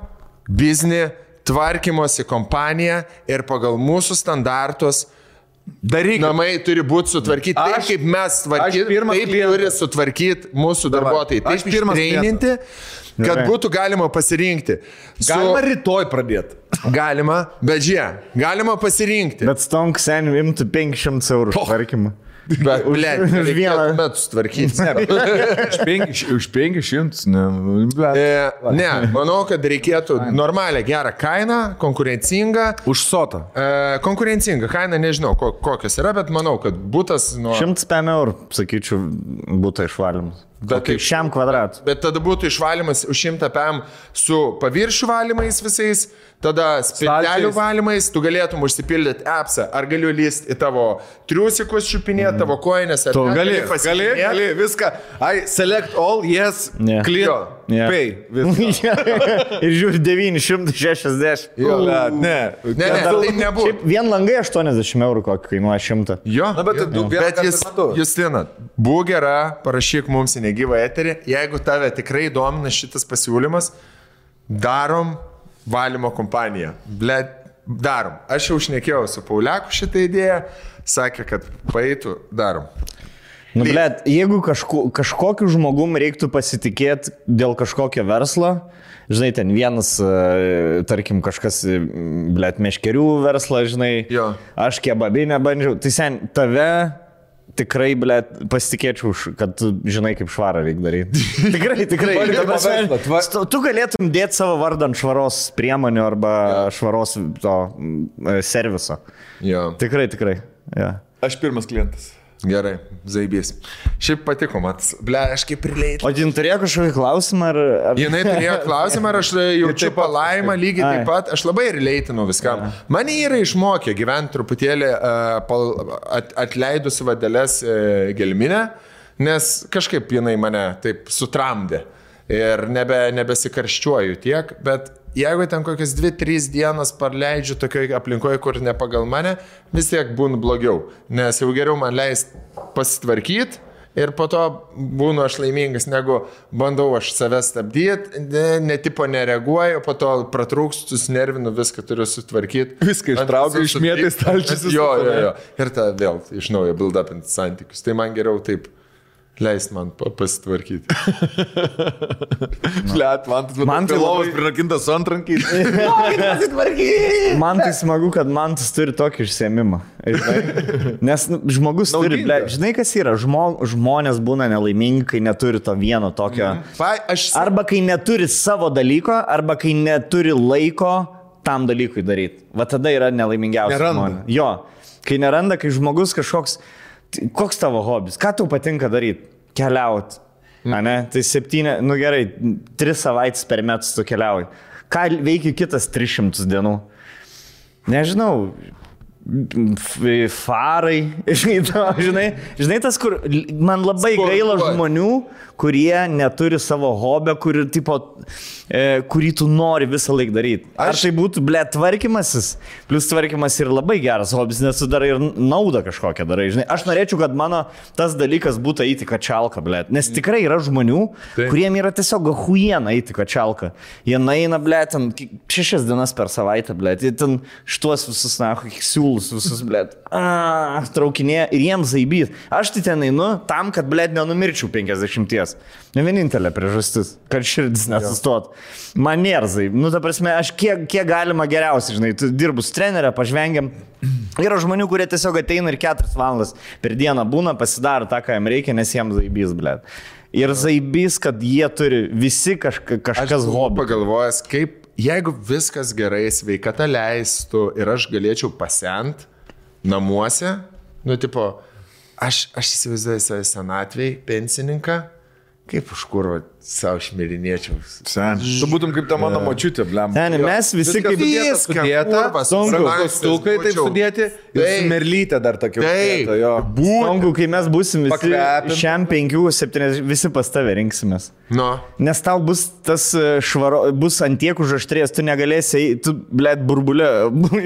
biznį, tvarkymosi kompaniją ir pagal mūsų standartus daryk. Namai turi būti sutvarkyti taip, kaip mes tvarkyti, taip turi sutvarkyti mūsų darbuotojai. Taip ištreininti, kad būtų galima pasirinkti. Galima rytoj pradėti. Galima, bet galima pasirinkti. Bet Stonk seniai imtų 500 eurų tvarkymą. Bet, blėt, už vieną metus tvarkyti. Už 500, ne. Ne, manau, kad reikėtų normalią, gerą kainą, konkurencingą. Už sotą. Konkurencinga kaina, nežinau, kokios yra, bet manau, kad būtas nuo... 105 eurų, sakyčiau, būtų išvalymas. Bet kaip šiam kvadratui. Bet tada būtų išvalymas už 100 PM su paviršių valymais visais, tada spintelių valymais, tu galėtum užsipildyti appsą, ar galiu lysti į tavo triusikus čiupinėti, tavo koinės, ar Tu gali, viską. I select all, yes, Ne. clear, pay. Viską. Ir žiūri 960. Ne. Ne, tai nebūtų. Šiaip vien langai 80 eurų kokį kainuoja 100. Jo, Na, bet tu vieną bet kartą Justina, būk gera, parašyk mums į negyvą eterį, jeigu tave tikrai domina šitas pasiūlymas, darom valymo kompaniją. Blet, darom. Aš jau šnekėjau su Pauliaku šitą idėją, sakė, kad paeitų, darom. Nu, blet, jeigu kažkokiu žmogum reiktų pasitikėti dėl kažkokio verslo, žinai, ten vienas, tarkim, kažkas, blet, meškerių verslą, žinai, Jo. aš kebabinę bandžiau, tai sen, tave tikrai, blet, pasitikėčiau, kad tu žinai, kaip švarą reikia daryti. tikrai. Ta prasme, tu galėtum dėti savo vardą ant švaros priemonių arba švaros to serviso. Jo. Tikrai. Ja. Aš pirmas klientas. Gerai, zaibys. Šiaip patiko, matas. Ble, aš kaip prileit. O jin turėjo kažkokį klausimą? Ar... Jinai turėjo klausimą, ar aš jaučiu palaimą lygiai taip pat. Aš labai releitinau viskam. Mane yra išmokė gyventi truputėlį atleidus vadelės gelminę, nes kažkaip jinai mane taip sutramdė. Ir nebesikarščiuoju tiek, bet jeigu ten kokias 2-3 dienas praleidžiu tokioje aplinkoje, kur ne pagal mane, vis tiek būnu blogiau. Nes jau geriau man leist pasitvarkyti ir po to būnu aš laimingas, negu bandau aš save stabdyti, netipo nereaguoju, po to pratrūkstu, susinervinu, viską turiu sutvarkyti. Viską ištraukiu, išmėtai stalčius. Jo. Ir tada vėl iš naujo build up santykius. Tai man geriau taip. Leist man pasitvarkyti. Blet, man tai lovas prirakintas antrankiais. Man tai smagu, kad man tas turi tokį išsiėmimą. Nes žmogus turi, blet, žinai kas yra, žmonės būna nelaimingi, kai neturi to vieno tokio. Arba kai neturi savo dalyko, arba kai neturi laiko tam dalykui daryti. Va tada yra nelaimingiausia žmonė. Jo, kai neranda, kai žmogus kažkoks... Koks tavo hobis? Ką tau patinka daryti? Keliauti. Ne? Tai 7, nu gerai, 3 savaitės per metus tu keliauji. Ką veikia kitas 300 dienų? Nežinau. Farai. Žinai tas, kur man labai gaila žmonių, kurie neturi savo hobio, kurį tu nori visą laiką daryti. Ar tai būtų, ble, tvarkymasis? Plus tvarkymas yra labai geras hobis, nes tu darai ir naudą kažkokią darai. Žinai, aš norėčiau, kad mano tas dalykas būtų eiti kačialką, ble. Nes tikrai yra žmonių, kuriem yra tiesiog huiena eiti kačialką. Jie naina, ble, ten 6 dienas per savaitę, ble. Jie ten šituos visus, siūlus visus, ble. Traukinė ir jiems zaibys. Aš tai ten einu tam, kad, ble, nenumirčiau 50. Ne vienintelė priežastis, kad širdis nesustot. Man nėrzai. Nu, ta prasme, aš kiek galima geriausiai, žinai, tu dirbu su trenerė, pažvengiam. Yra žmonių, kurie tiesiog ateina ir 4 valandas per dieną būna, pasidaro tą, ką jam reikia, nes jiems zaibys, ble. Ir zaibys, kad jie turi visi kažkas hobį. Pagalvojęs, kaip, jeigu viskas gerai, sveikata leistų ir aš galėčiau pasent namuose, nu, tipo, aš įsivaizduoju save senatvėj, pensininką, kaip už kurvo savo šmirinėčiau. Sen. Tu būtum kaip ta mano močiutė, blem. Sen, mes visi kaip sudėta, stukai taip sudėti, ir merlytė dar tokia. Songu, kai mes būsim visi šiam 5-7, visi pas tave rinksimės. No. Nes tau bus tas bus antiek užaštrės, tu negalėsi, tu, blėt, burbulė,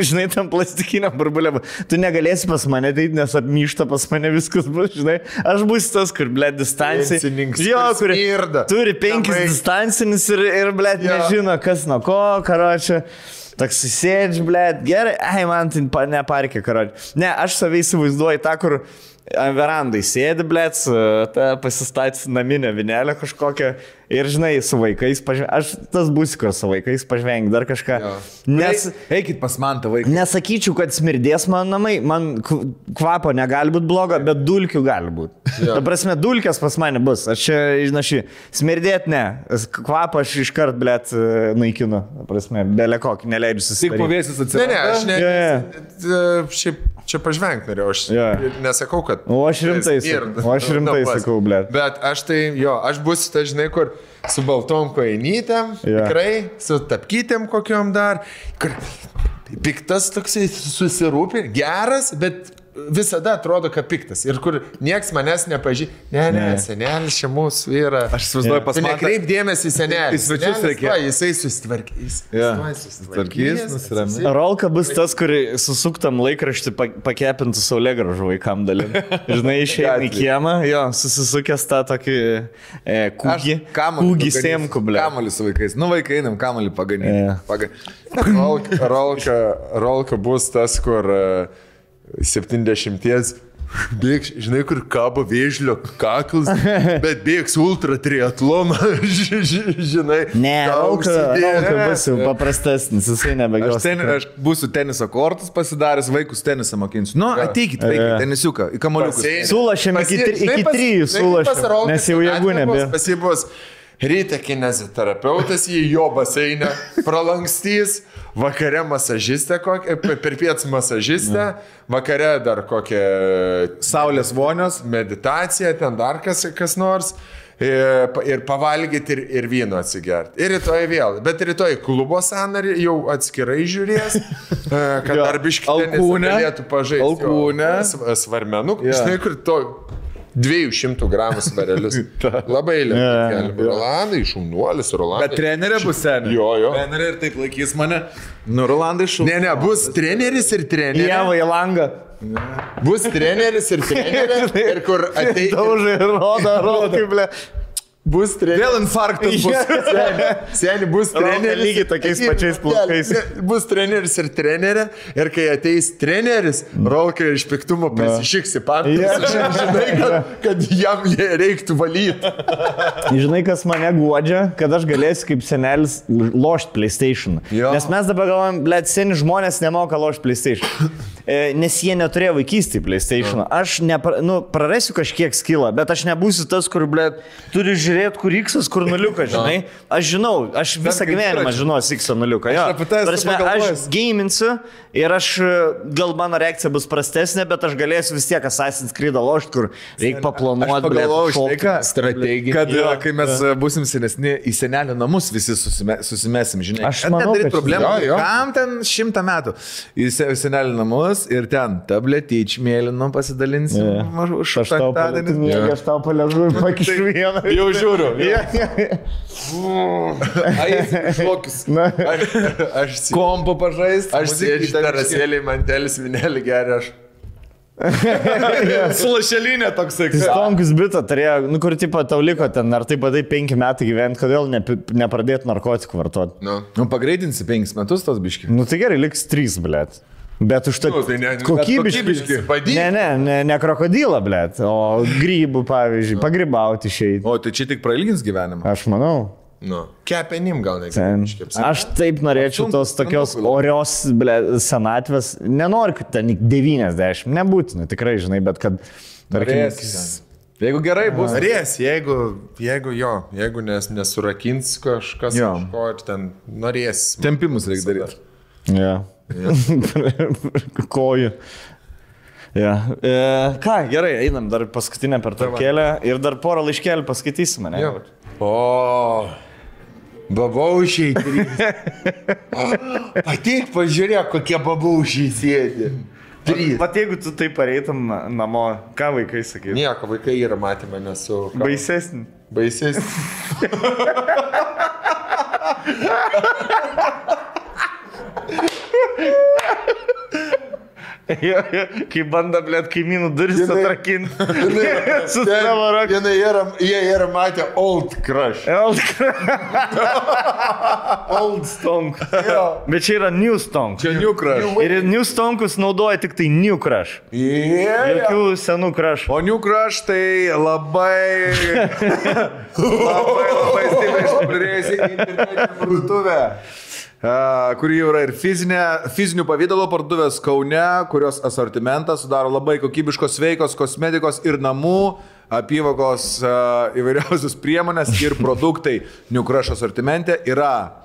žinai, tam plastikinė burbulė, tu negalėsi pas mane ateiti, nes apmyšta pas mane viskas bus, žinai. Aš būsiu tas, kur, blėt, distancijai. Jo, kur turi 5 distancinis ir blėt, nežino, kas nuo ko, karočią. Toks sėdži, blėt, gerai, man tai neparkė, karodė. Ne, aš savai įsivaizduoju tą, kur verandai sėdi, blėt, pasistatys naminę vinelę kažkokią ir, žinai, su vaikais aš tas būsiu, kur su vaikais pažvengi, dar kažką. Nes... Eikit pas man tą vaiką. Nesakyčiau, kad smirdės man namai, man kvapo negali būti blogo, bet dulkių gali būti. Ta prasme, dulkės pas mane bus. Aš čia, žinai, smirdėt ne. Kvapą aš iškart, blėt, naikinu. Ta prasme, belė kokį, neleidžiu susidaryti. Tik pavėsis atsirado. Ne, šiaip čia pažvengti norėjau, aš nesakau, kad... O aš rimtai sakau, blėt. Bet aš tai, aš būsiu, tai žinai, kur su baltom kojinytėm, tikrai, su tapkytėm kokiom dar, kur piktas toksai susirūpė, geras, bet visada atrodo, kad piktas. Ir kur nieks manęs nepažįsta. Ne, senelis čia mūsų yra. Aš įsivaizduoju pas mane. Nekreip dėmesį į senelį. Svečius reikia. Jisai susitvarkys. Susitvarkys, nusiramės. Rolka bus tas, kur susuktam laikraštį pakepintų saulėgražų vaikam dalim. Žinai, išėjai į kiemą, susisukęs tą tokį kūgį sėmku, ble. Kamalį su vaikais. Nu, vaikai einam, kamalį paganyti. Rolka bus tas, kur 70 bėgs, žinai, kur kabo vėžlio kaklas, bet bėgs ultra triatloną, žinai. Ne, Rolka bus jau paprastesnis, jisai nebegos. Aš būsiu teniso kortus pasidaręs, vaikus tenisą mokinsiu. Nu, ateikit, vaikai, tenisiuką, į kamaliukus. Sulašėm iki 3 sulašėm, nes jau jėgų nebėra. Pasibus ryte kineziterapeutas į jo baseinę pralankstys, vakare masažistė, per pietus masažistė, vakare dar kokią saulės vonios, meditaciją, ten dar kas nors. Ir pavalgyti ir vyno atsigerti. Ir rytoj vėl. Bet rytoj klubo sąnarį jau atskirai žiūrės, kad darbiškai galėtų pažaisti. Alkūnę. Svarmenų. Žinai, kur to 200 gramų svarelius. Labai lėtai. Rolandai, šaunuolis, Rolandai. Bet trenerė bus seniai. Jo. Trenerė ir taip laikys mane. Nu, Rolandai šaunuolis. Ne, bus treneris ir trenerė. Jeva į langą. Bus treneris ir trenerė. Ir kur ateis. Daužai, rodo, ble. Bus treneris. Vėl infarktas bus. Seniai bus treneris. Lygiai tokiais pačiais plaukais. Bus treneris ir trenerė. Ir kai ateis treneris, Rolka iš piktumo prisišiks į patalpas. Žinai, kad jam reiktų valyti. Žinai, kas mane guodžia, kad aš galėsiu kaip senelis lošti PlayStation. Nes mes dabar galvojam, blėt, seni žmonės nemoka lošti PlayStation. Nes jie neturėjo vaikystį PlayStation. Aš prarasiu kažkiek skilą, bet aš nebūsiu tas, kur, blėt, turi žiūrėti, kur X, kur nuliukas, žinai. Aš žinau, aš visą gyvenimą žinosiu X nuliuką. Aš gaminsiu ir gal mano reakcija bus prastesnė, bet aš galėsiu vis tiek Assassin's Creed lošti, kur reikia paplanuoti, blėt, strategiją. Kad kai mes būsim senesni, į senelio namus visi susimesim, žinai. Aš manau, kad problemą. Kam ten 100 metų? Į senelio namus ir ten tabletyč mėlynom pasidalinsim. Aš tau paležu ir pakišu vieną. Jau žiūriu. Aš kompo pažaist. Aš sėdžiu terasėlį, mantelis, vinelį geria aš. Su lašelinė toksai. Stonkus bitą turėjo, kur tipo tau liko ten, ar taip padai 5 metai gyventi, kodėl nepradėti narkotikų vartoti? Nu, pagreitinsi 5 metus tos biški. Nu, tai gerai, liks 3, blėt. Bet už tai kokybiškai. Ne krokodilą, blėt, o grybų, pavyzdžiui, pagrybauti išeiti. O, tai čia tik prailgins gyvenimą? Aš manau. Kepenim gal negali. Aš taip norėčiau tos tokios orios, blėt, senatvės. Nenoriu, kad ten 90, nebūtina, tikrai, žinai, bet kad... Jeigu gerai bus. Norės, jeigu nesurakins kažkas kažko ir ten norės. Tempimus reikia daryti. Ja. Kojų. Ja. Ką, gerai, einam dar paskutinę pertraukėlę ir dar porą laiškelių paskaitysime, ne? O, babaušiai 3. Ateik, pažiūrėk, kokie babaušiai sėdi. 3. Vat jeigu tu taip pareitum namo, ką vaikai sakė? Nieko, vaikai yra matę mane su... Baisesnį. Kai banda, blėt, kaimynų duris atrakinti. Su savo rankų. Jie yra matę Old Crush. Old Stonk. Bet čia yra New Stonk. Čia New Crush. Ir New Stonkus naudoja tik tai New Crush. Jokių senų Crush. O New Crush tai labai stipriai išpopuliarėjusi internetinė parduotuvė. Kuri jau yra ir fizinių pavydalo parduotuvės Kaune, kurios asortimentas sudaro labai kokybiškos sveikos kosmetikos ir namų apyvokos įvairiausios priemonės ir produktai. New Crush asortimente yra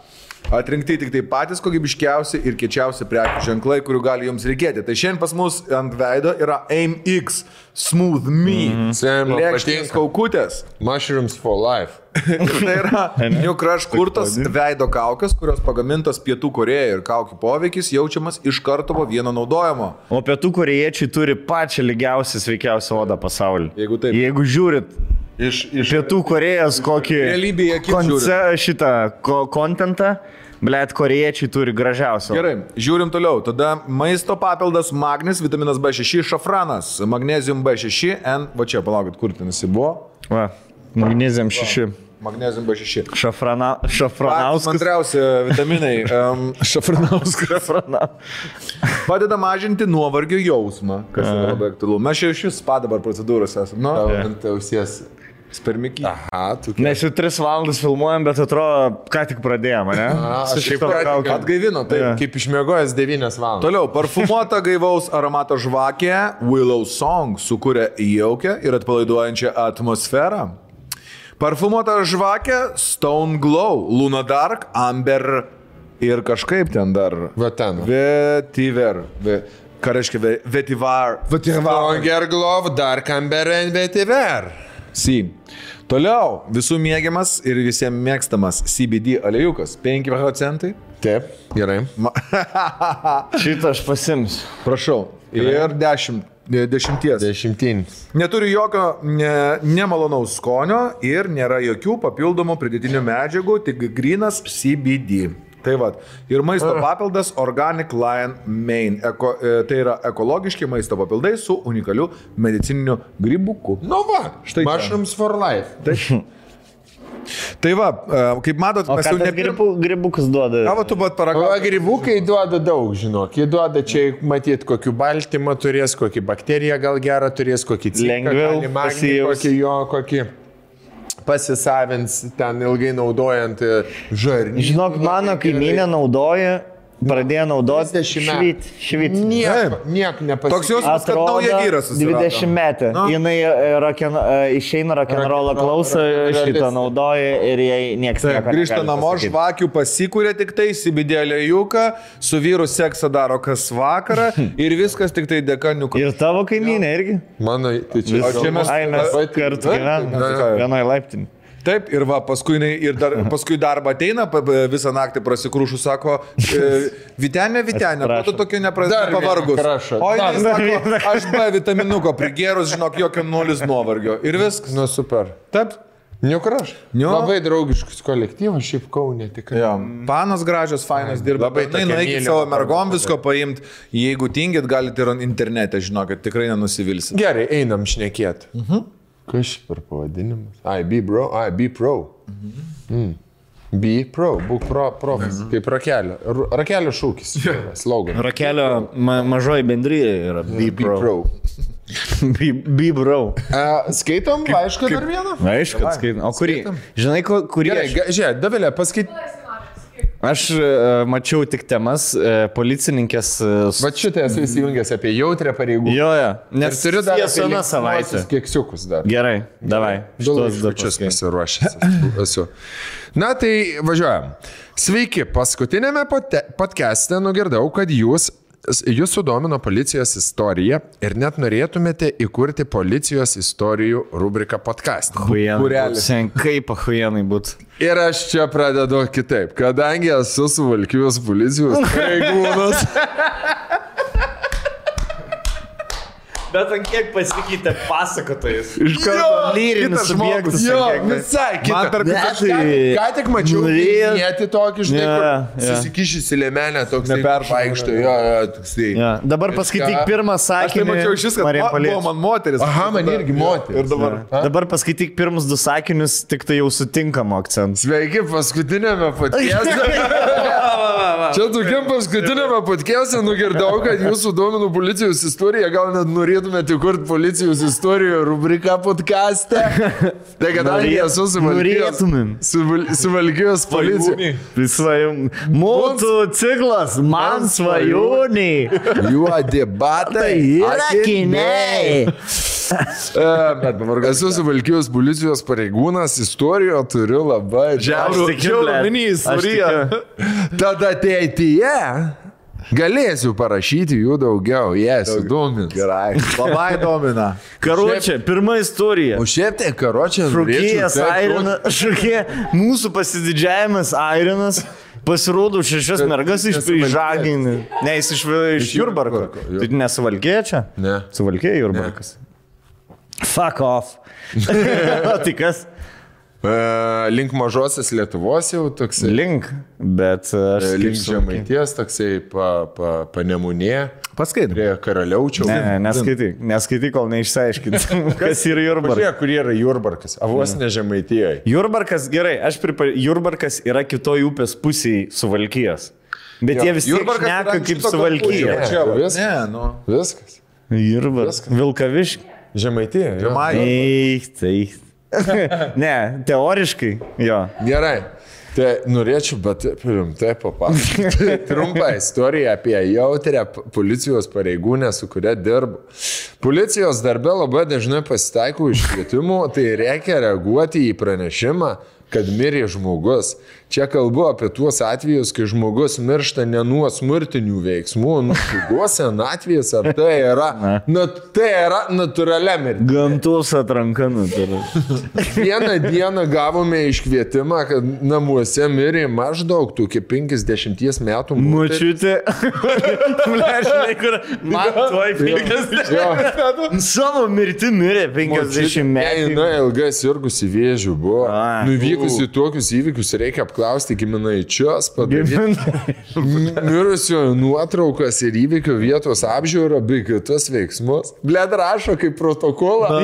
atrinkti tik tai patys kokybiškiausi ir kiečiausi prekių ženklai, kurių gali jums reikėti. Tai šiandien pas mus ant veido yra AIM-X Smooth Me. Lėkštinės kaukutės. Mushrooms for life. Tai yra New Crush kurtos veido kaukės, kurios pagamintos Pietų Korėjoje ir kaukių poveikis jaučiamas iš karto po vieno naudojimo. O Pietų Korėjiečiai turi pačią lygiausią, sveikiausią odą pasaulyje. Jeigu taip. Jeigu žiūrit Iš Pietų Korėjos kokį šitą kontentą, blėt, korėjiečiai turi gražiausią. Gerai, žiūrim toliau. Tada maisto papildas magnis, vitaminas B6, šafranas, magnesium B6, va čia, palaukit, kur ten jis buvo? Va, magnesium 6. Magnesium B6. Šafranauskas. Antriausi vitaminai. Šafranauskas. Padeda mažinti nuovargio jausmą, kas yra labai aktualu. Mes čia iš vis spa dabar procedūros esame. Nu, ant ausies. Spermikį. Aha, tu. Mes jau 3 valandas filmuojam, bet atrodo, ką tik pradėjome, ne? Atgaivino, taip. Kaip išmiegojęs 9 valandas. Toliau, parfumuota gaivaus aromato žvakė Willow Song sukūrė jaukę ir atpalaiduojančią atmosferą. Parfumuota žvakė Stone Glow, Luna Dark, Amber ir kažkaip ten dar. Va ten. Vetiver. Ką reiškia vetivar? Stronger Glow, Dark Amber and Vetiver. Toliau, visų mėgiamas ir visiems mėgstamas CBD aliejūkas. 5%. Taip, gerai. Šitą aš pasimsiu. Prašau. Ir 10. Neturi jokio nemalonaus skonio ir nėra jokių papildomų pridėtinių medžiagų, tik grynas CBD. Tai va. Ir maisto papildas Organic Lion Mane. Tai yra ekologiški maisto papildai su unikaliu medicininiu grybuku. Nu va, štai Mushrooms for life. Tai va, kaip matot, mes jau grybukas duoda. Ką va tu bat paragauji? O grybukai duoda daug, žinok. Jie duoda čia, matyt, kokį baltymą turės, kokį bakteriją gal gerą turės, kokį lengviau kokį pasisavins ten ilgai naudojant žarnį. Žinok, mano kaimynė naudoja, pradėjo naudoti švit. Niek nepasikeitė. Toks jausmas, kad nauja vyras susirado. 20 metų. Jinai išeina rock'n'rollą klausą, šitą naudoja ir jai nieks nieko. Grįžta namo, žvakių pasikūrė tik tai, CBD aliejūką, su vyru seksą daro kas vakarą ir viskas tik tai dėka niuko. Ir tavo kaimynė irgi? Mano, tai čia mes kartu gyvename vienoj laiptinį. Taip, ir va, paskui darbą ateina, visą naktį prasikrūšų, sako, Vytenė, ko tu tokia pavargus? O jis sako, aš B vitaminuko prigėrus, žinok, jokio 0 nuovargio. Ir viskas. Nu, super. Taip. New Crush. Labai draugiškus kolektyvas, šiaip Kaune tikrai. Panos gražios, fainos dirba. Labai nueikit savo mergom visko paimti. Jeigu tingit, galite ir internete, žinokit, tikrai nenusivilsit. Gerai, einam šnekėti. Kas per pavadinimas? Be pro. Be pro, būk profas. Kaip rakelio. Rakelio šūkis. Slogan. Rakelio mažoji bendryje yra Be pro. Be bro. Skaitom laišką dar vieną? Aišku, kad skaitom. O kurį? Žinai, kurį? Žiūrėk, Davilė, paskait. Aš mačiau tik temas, policininkės... Va šitą esu įsijungęs apie jautrę pareigų. Jo, nes turiu dar vieną savaitę. Keksiukus dar. Gerai, davai. Šitos dačius pasiruošęs esu. Na tai važiuojam. Sveiki, paskutinėme podcast'e nugirdau, kad jūs sudomino policijos istorija ir net norėtumėte įkurti policijos istorijų rubriką podcast'e. Kaip ahuienai būtų. Ir aš čia pradedu kitaip, kadangi esu Suvalkijos policijos pareigūnas. Bet ant kiek pasikeitė pasakotojas. Iš Jo, karto lyrinis kitas žmogus. subjektas. Jo, ant kiek- visai Man kita. per Aš ką tik mačiau, Norėjo- nėti tokį, žinai, Jo, kur jo. susikišysi lėmenę, toks Neperšauna, vaikšto, jo. jo, toksai. Ja. Dabar paskaityk pirmą Aš tai sakinį. mačiau šis, kad Marija buvo Paliečia. man moteris. Aha, man irgi moteris. Ir dabar. Dabar paskaityk pirmus 2 sakinius, tik tai jau sutinkamo akcentų. Sveiki, paskutinėme podcast'e. Čia tokiam paskutinėme podcast'e nugirdau, kad jūsų domino policijos istorija, gal net norėtumėte kurti policijos istorijų rubriką podcast'e. Tai kadangi esu suvalkijos policija. Mūsų ciklas, man svajoniai. Juodi batai. Yra kiniai. Esu suvalkijos policijos pareigūnas, istoriją turiu labai Žiaurų istoriją. Tada ateityje galėsiu parašyti jų daugiau, jas įdomis. Gerai. Labai domina. Karočią, pirma istorija. O šiaip tai karočią Šokėjas Airinas, mūsų pasididžiavimas Airinas. Pasirodo 6 mergas iš Prižaginį. Ne, jis iš Jurbarko. Tai nesuvalkėja čia? Ne. Suvalkėja Jurbarkas. Fuck off. O tai kas? Link mažosios Lietuvos jau toksai. Link, bet aš Link Žemaities toksai panemunė. Paskaitai. Prie Karaliaučiaus. Ne, neskaityk, kol neišsiaiškinti, kas yra Jurbarkas. Pažiūrėk, kur yra Jurbarkas. Avos ne Žemaitijoje. Jurbarkas, gerai, Jurbarkas yra kitoj upės pusėje Suvalkijos. Bet jie vis tiek šneka kaip Suvalkija. Čia viskas. Ne, nu. Viskas. Jurbarkas. Vilkaviškis. Žemaitija. Eik. Ne, teoriškai, jo. Gerai. Tai norėčiau, bet rimtai papasakoti trumpą istoriją apie jautrę policijos pareigūnę, su kuria dirbu. Policijos darbe labai dažnai pasitaiko iškvietimų, tai reikia reaguoti į pranešimą, kad mirė žmogus. Čia kalbu apie tuos atvejus, kai žmogus miršta ne nuo smurtinių veiksmų, nuo ligos, senatvės, ar tai yra natūralia mirtis. Gamtos atranka natūralia. Vieną dieną gavome iškvietimą, kad namuose mirė maždaug tokie 50 metų Močiutė. Žinai, kur man tuoj 50 metų. Savo mirti mirė 50 metų. Na, ilgai sirgusi vėžių buvo. Nuvykusi tokius įvykius reikia apklausti giminaičius, padaryti mirusiojo nuotraukas ir įvykių vietos apžiūrą bei kitus veiksmus. Bled rašo kaip protokolą.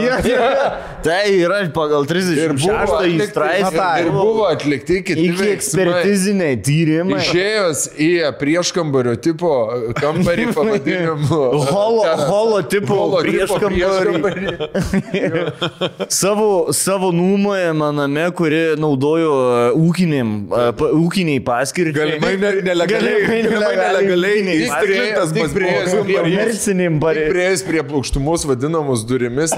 Tai yra pagal 36 straipsnį. Ir buvo atlikti kiti iki ekspertiziniai tyrimai. Išėjus į prieškambario tipo kambarį pavadinimu. Holo tipo prieškambarį. Savo nuomojamą name, kuri naudojo ūkiniai paskirčiai. Galimai nelegaliai. Komerciniam pareigai. Prieėjus prie plokštumus vadinamus durimis.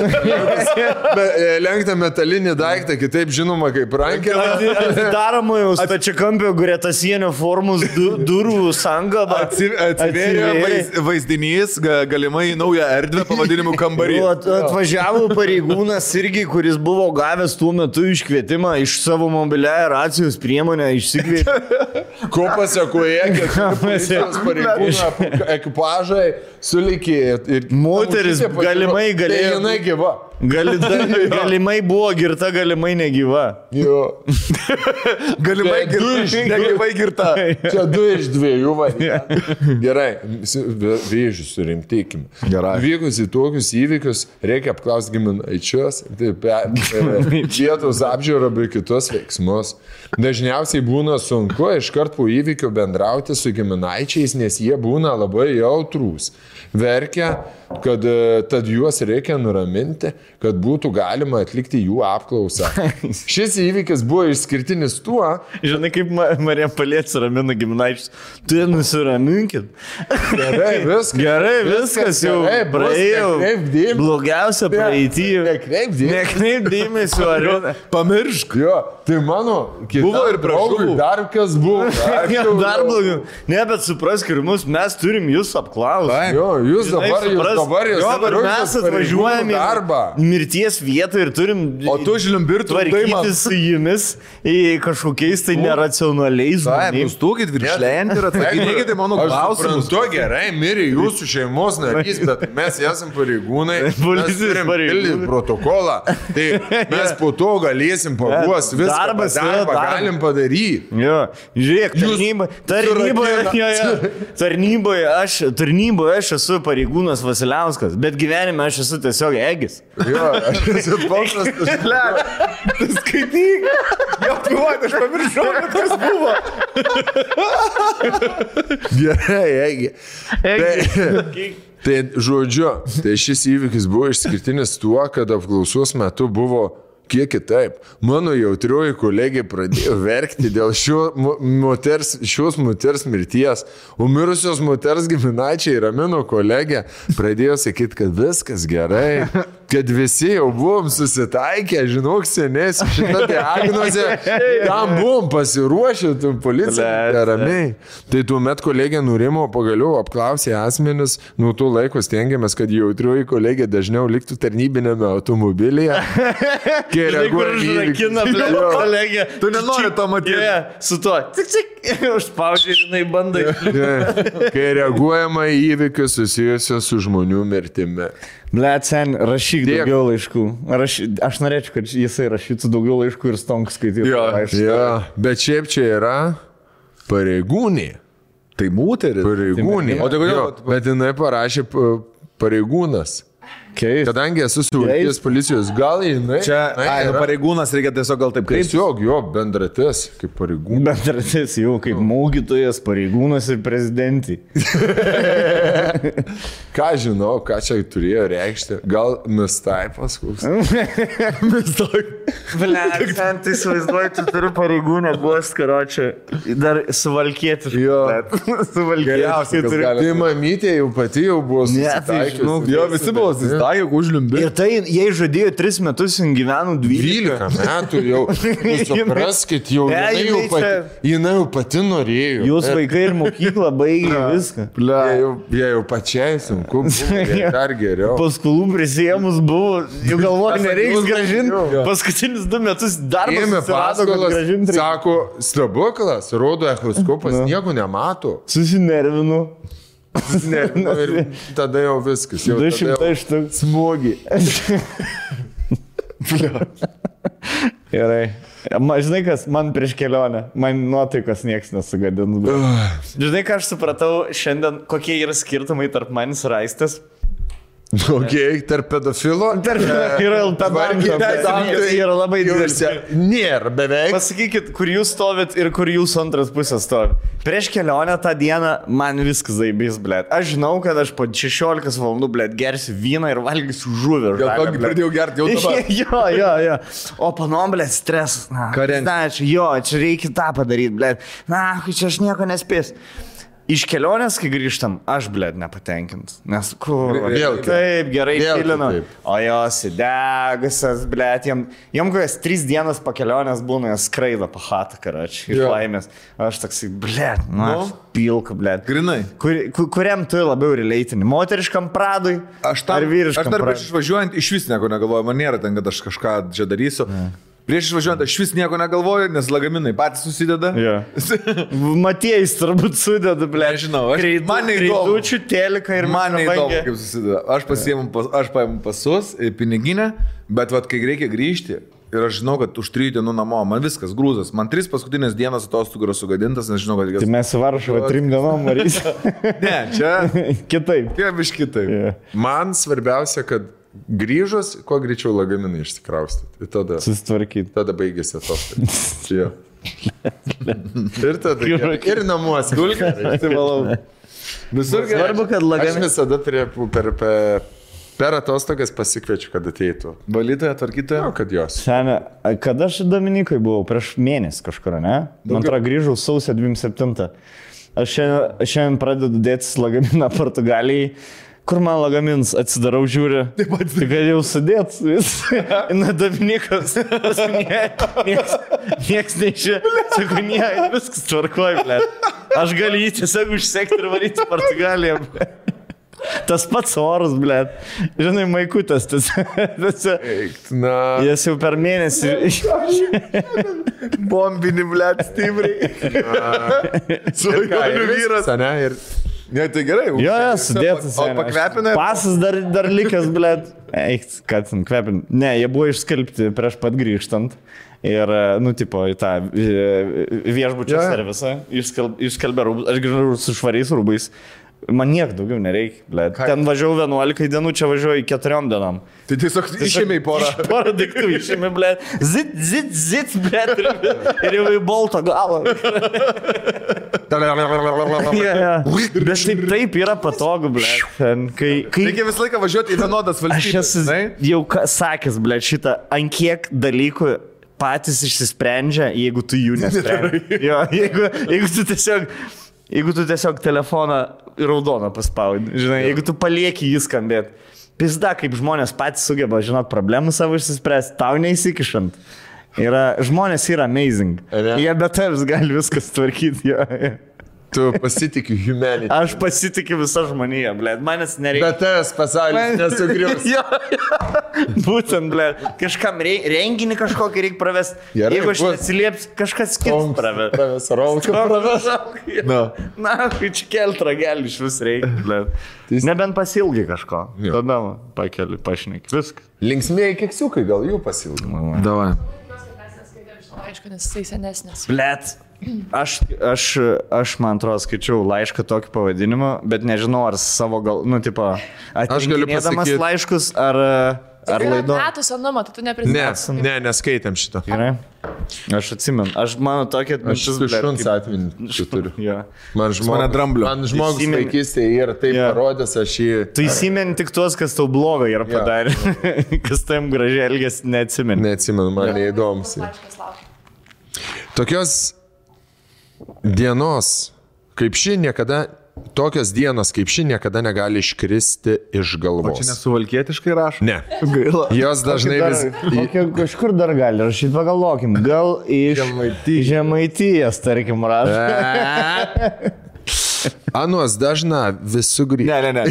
Lenkta metalinį daiktą, kitaip žinoma kaip rankelę. Atidaroma jau stačiakampio gretasienio formos durų sanga. Atsivėrė vaizdinys, galimai naują erdvę pavadinimu kambarį. Atvažiavo pareigūnas irgi, kuris buvo gavęs tuo metu iškvietimą iš savo mobiliąją racijos priemonę išsikvietė. Ko pasakoje, kad policijos pareigūną ekipažai sulikė. Moteris galimai galėjo. Jinai gyva. Galimai buvo girta, galimai negyva. Jo. Galimai negyvai girta. Čia 2 iš 2 variantų. Gerai, vėžius surimtykime. Gerai. Vykus į tokius įvykius reikia apklausti giminaičius, vietos apžiūrą bei kitus veiksmus. Dažniausiai būna sunku iškart po įvykio bendrauti su giminaičiais, nes jie būna labai jautrūs. Verkia, kad tad juos reikia nuraminti, kad būtų galima atlikti jų apklausą. Šis įvykis buvo išskirtinis tuo. Žinai, kaip Marija Paliečia ramina giminaičius. Tu nusiraminkit. Gerai, viskas jau praėjo. Blogiausia praeitį. Nekreip dėmesio, ar pamiršk. Jo, tai mano buvo ir draugui dar kas buvo. Dar blogiau. Ne, bet suprask ir mes turim jūs apklausyti. Jo, jūs dabar mes atvažiuojame mirties vietą ir turim... O tu žliumbirtų tvarkytis su jumis į kažkokiais tai neracionaliais žmonėmis. Nustūkit viršlėjant ir atsakykite mano klausimus. Tu gerai, mirė jūsų šeimos narys, bet mes esam pareigūnai, mes turim pildyti protokolą, tai mes po to galėsim paguos viską, darbą galim padaryti. Jo, žiūrėk, tarnyboje aš esu pareigūnas Vasiliauskas, bet gyvenime aš esu tiesiog Egis. Jo, aš esu paprastas. Tu skaityk. Jo, piuot, aš pamiršau, kas buvo. Gerai, Egi. Tai žodžiu, tai šis įvykis buvo išskirtinis tuo, kad apklausos metu buvo kiek kitaip. Mano jautrioji kolegė pradėjo verkti dėl šios moters mirties, o mirusios moters giminaičiai ramino kolegę, pradėjo sakyti, kad viskas gerai, kad visi jau buvom susitaikę, žinok, senės, šitą diagnozę, tam buvom pasiruošę, tu policija ramiai. Tai tuomet kolegė nurimo, pagaliau apklausė asmenis, nuo to laiko stengiamės, kad jautrioji kolegė dažniau liktų tarnybinėme automobilyje. Kai užrakina, kolegė. Tu nenori to matyti. Su tuo. Užspaudžiai, žinai, bandai. Kai reaguojama į įvykius susijusios su žmonių mirtimi. Blet, sen, rašyk daugiau laiškų. Aš norėčiau, kad jisai rašytų daugiau laiškų ir stonk skaitytų laiškų. Jo, bet šiaip čia yra pareigūnė. Tai moteris. Pareigūnė. O tai kodėl? Bet jinai parašė pareigūnas. Keist. Kadangi esu Suvalkijos policijos, gal jinai... Čia, pareigūnas reikia tiesiog gal taip kreiptis. Tiesiog jo, bendratis, kaip pareigūnas. Bendratis jau, kaip mokytojas, pareigūnas ir prezidentį. Ką žinau, ką čia turėjo reikšti? Gal mistaipas koks? Blet, ten tai suvaizduoju, tu turi pareigūnę guost, karočią. Dar suvalkėti. Jo. Suvalkėti. Tai mamytė jau pati jau buvo susitaikius. Jo, visi buvo susitaikius. Ir tai, jei žadėjo 3 metus, jin gyveno 12 metų jau. Supraskit, jau jinai jau pati norėjo. Jūs vaikai ir mokyklą baigė viską. Jie jau pačiai sunku, dar geriau. Paskolų prisėmus buvo, jau galvoju, nereiks gražinti. Paskutinius 2 metus darbas susirado, kad gražinti. Sako, stebuklas, rodo echoskopas, nieko nemato. Susinervinu. Ir tada jau viskas. 200 štuk smūgį. Gerai. Žinai, kas man prieš kelionę, man nuotaikas nieks nesugadins. Žinai, ką aš supratau šiandien, kokie yra skirtumai tarp manis ir Aistės? Okay, tarp pedofilo? Yra yra labai didelis. Nėra beveik. Pasakykit, kur jūs stovit ir kur jūsų antras pusės stovi. Prieš kelionę tą dieną man viskas zaibys, blėt. Aš žinau, kad aš po 16 valandų, blėt, gersiu vyną ir valgysiu žuvį. Gal tokį pradėjau gerti jau dabar. Jo. O panom, blėt, stresas. Jo, čia reikia tą padaryti, blėt. Čia aš nieko nespėsiu. Iš kelionės, kai grįžtam, aš, blėt, nepatenkint. Nes kur? Taip, gerai kilinu. O jos įdegusias, blėt, jom kokias 3 dienas po kelionės būna, jos skraido po chatą, karačiai, iš laimės. Aš toksai, blėt, pilka, blėt. Grinai. Kuriam tu labiau relatini? Moteriškam Pradui? Ar vyriškam Pradui? Aš dar prieš išvažiuojant iš vis nieko negalvoju, man nėra ten, kad aš kažką čia darysiu. Prieš išvažiuojant aš vis nieko negalvoju, nes lagaminai patys susideda. Matėjais turbūt sudeda, ble. Nežinau, man neįdomu. Kreidučių, telika ir man neįdomu, kaip susideda. Aš paimu pasus, piniginę, bet vat, kai reikia grįžti ir aš žinau, kad už 3 dienų namo, man viskas grūzas. Man 3 paskutinės dienas atostogų yra sugadintas, nes žinau, kad... Tai mes į Varšuvą 3 dienom varysim. Ne, čia... Kitaip. Kitaip. Man svarbiausia, kad grįžus, kuo greičiau lagaminai išsikraustyti. Tada susitvarkyti. Tada baigėsi atostogos. Ir tada ir namuose. Visur gerai. Svarbu, kad lagaminai. Aš visada per atostogas pasikviečiu, kad ateitų. Valytoja, tvarkytoja? Kad jos. Sene, kada aš Dominikai buvau? Prieš mėnesį kažkur, ne? Man atrodo, grįžau sausio 27. Aš šiandien pradedu dėtis lagaminą Portugalijai. Kur man lagamins atsidarau, žiūriu, tai kad jau sudėt vis. Na, Dominikas, nieks neišė, sako, viskas tvarkoj, ble. Aš galiu jį tiesiog užsekti ir varyti Portugaliją, ble. Tas pats oras, blėt. Žinai, maikutas tas. Na. Jis jau per mėnesį. Bombinį, blėt, stipriai. Svajonių vyras. Ne, ir... Ne, tai gerai. Jo, sudėtas. O pakvepina? Pasas dar likęs, blėt. Eik, kad ten kvepin. Ne, jie buvo išskalbti prieš pat grįžtant. Ir, nu, tipo, į tą viešbučio servisą išskalbė rūbus. Aš grįžau su švariais rūbais. Man niek daugiau nereikia, blėt. Ten važiavau 11 dienų, čia važiuoju 4 dienom. Tai tiesiog išėmė į porą. Porą daiktų išėmė, blėt. Zit, blėt. Ir jau į bolto galą. Bet taip yra patogu, blėt. Reikia visą laiką važiuoti į vienodas valstybės. Aš esu jau sakęs, blėt, šitą, ant kiek dalykų patys išsisprendžia, jeigu tu jų nesprendži. Jo, jeigu tu tiesiog telefoną raudoną paspaudi, žinai, jeigu tu palieki jį skambėti. Pizda, kaip žmonės patys sugeba, žinot, problemų savo išsispręsti, tau neįsikišant. Žmonės yra amazing. Jie be tavęs gali viskas tvarkyti. Tu pasitikiu humanity. Aš pasitikiu visą žmoniją, blėt, manęs nereikia. Bet tavęs pasaulis nesugrius. Būtent, blėt, kažkam renginį kažkokį reikia pravesti. Jeigu aš neatsilieps, kažkas kitas praves. Rauką praves. Na, čia kelt ragelį iš vis reikia, blėt. Nebent pasilgi kažko. Tada pakeli, pašneki. Viskas. Linksmieji keksiukai, gal jų pasilgi. Davai. Aišku, nes jisai senesnis. Blėt. Aš man atrodo, skaičiau laišką tokį pavadinimą, bet nežinau, ar savo gal, nu, tipo, atrinkinėdamas laiškus, ar laido. Metų senumo, tai tu neprisimeni. Ne, neskaitėm šito. Gerai. Aš atsimenu. Aš mano tokia atmintis. Aš šuns atminti turiu. Ja. Man žmogus vaikystėje ir taip parodęs, aš jį... Tu įsimeni tik tuos, kas tau blogo yra padarė. Kas tam gražiai elgės, neatsimeni. Neatsimenu, man neįdomus. Tokios dienos, kaip ši niekada, tokios dienos kaip ši niekada negali iškristi iš galvos. O čia nesuvalkietiškai rašo? Ne. Gaila. Jos dažnai vis... Kažkur dar gali rašyti, pagalvokim. Gal iš Žemaitijos, tarkim, rašo. Anuos dažna vis sugrįžta. Ne.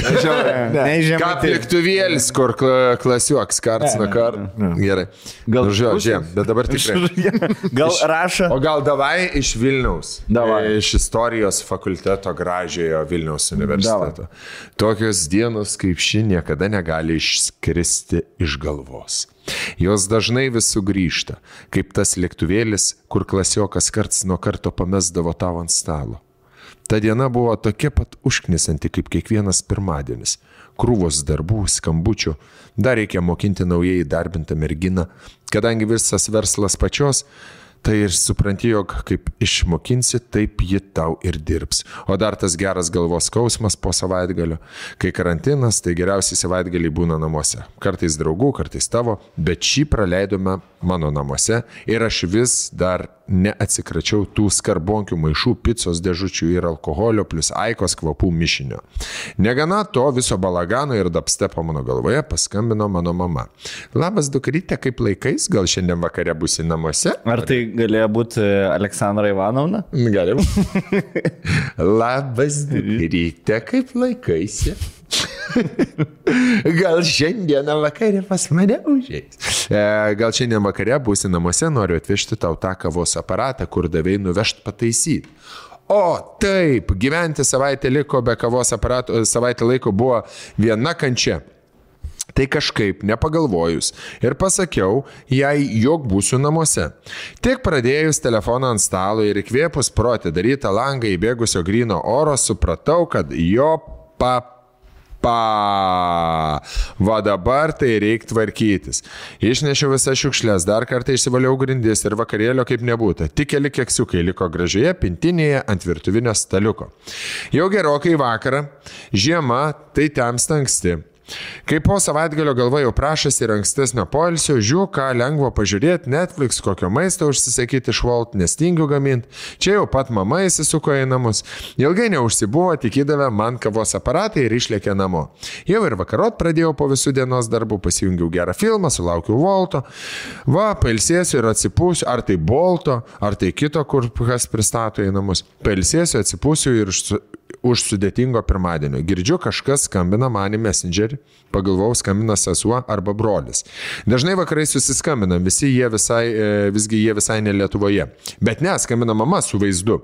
Kaip lėktuvėlis, kur klasiuoks karts nuo karto. Gerai. Gal žiūrėjom, bet dabar tikrai. Gal rašo. O gal davai iš Vilniaus. Davai. Iš istorijos fakulteto gražiojo Vilniaus universiteto. Tokios dienos kaip ši niekada negali išskristi iš galvos. Jos dažnai vis sugrįžta, kaip tas lėktuvėlis, kur klasiokas karts nuo karto pamesdavo tau ant stalo. Ta diena buvo tokia pat užknisanti kaip kiekvienas pirmadienis. Krūvos darbų, skambučių, dar reikia mokinti naujai įdarbintą merginą, kadangi visas verslas pačios, tai ir supranti, jog kaip išmokinsi, taip ji tau ir dirbs. O dar tas geras galvos skausmas po savaitgalio. Kai karantinas, tai geriausiai savaitgaliai būna namuose. Kartais draugų, kartais tavo, bet šį praleidome mano namuose ir aš vis dar neatsikračiau tų skarbonkių maišų, picos dėžučių ir alkoholio plus Aikos kvapų mišinio. Negana to viso balagano ir dapstepo mano galvoje paskambino mano mama. Labas dukryte, kaip laikais, gal šiandien vakare būsi namuose? Ar tai galėjo būti Aleksandra Ivanovna? Galim. Labas dukryte, kaip laikaisi? Gal šiandieną vakare pas mane užeis. Gal šiandien vakare būsi namuose, noriu atvežti tau tą kavos aparatą, kur davei nuvežt pataisyti. O taip, gyventi savaitę liko be kavos aparato, savaitę laiko buvo viena kančia. Tai kažkaip nepagalvojus ir pasakiau jai, jog būsiu namuose. Tik pradėjus telefoną ant stalo ir įkvėpus pro atidarytą langą įbėgusio gryno oro, supratau, kad jo va dabar tai reikia tvarkytis. Išnešiau visas šiukšlės, dar kartą išsivaliau grindis ir vakarėlio kaip nebūtų. Tik keli keksiukai liko gražioje pintinėje ant virtuvinio staliuko. Jau gerokai vakarą, žiema, tai temsta anksti. Kai po savaitgalio galva jau prašasi ir ankstesnio poilsio, žiūrėjau, ką lengvo pažiūrėti, Netflix, kokio maisto užsisakyti iš Volt, nestingiu gaminti. Čia jau pat mama įsisuko į namus. Ilgai neužsibuvo, tik įdavė man kavos aparatą ir išlėkė namo. Jau ir vakarot pradėjau po visų dienos darbų, pasijungiau gerą filmą, sulaukiau Volto. Va, pailsėsiu ir atsipūsiu, ar tai Bolto, ar tai kito, kur kas pristato į namus. Pailsėsiu, atsipūsiu ir už sudėtingo pirmadienio. Girdžiu, kažkas skambina man į Messengerį, pagalvojau, skambina sesuo arba brolis. Dažnai vakarai susiskambinam, visgi jie visai ne Lietuvoje. Bet ne, skambina mama su vaizdu.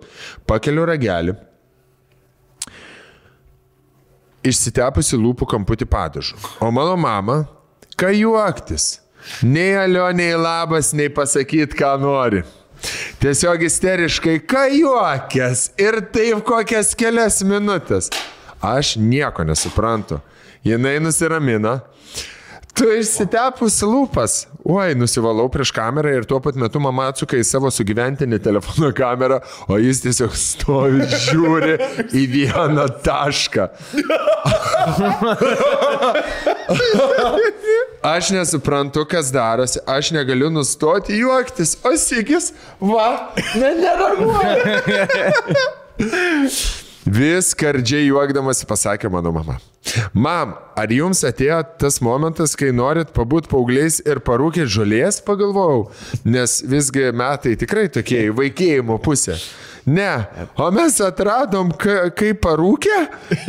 Pakeliu ragelį, išsitepusi lūpų kamputį padažu. O mano mama, ką juoktis? Nei alio, nei labas, nei pasakyt, ką nori. Tiesiog isteriškai, ką juokės ir taip kokias kelias minutės. Aš nieko nesuprantu. Jinai nusiramina. Tu išsitepus lūpas. Oi, nusivalau prieš kamerą ir tuo pat metu mama atsuka į savo sugyventinį telefono kamerą, o jis tiesiog stovi, žiūri į vieną tašką. Aš nesuprantu, kas darosi, aš negaliu nustoti juoktis, o Sigis, nereaguoja. Vis skardžiai juokdamasi pasakė mano mama. Mam, ar jums atėjo tas momentas, kai norit pabūt paaugliais ir parūkėt žolės, pagalvojau, nes visgi metai tikrai tokie į vaikėjimo pusę. Ne, o mes atradom, kaip parūkė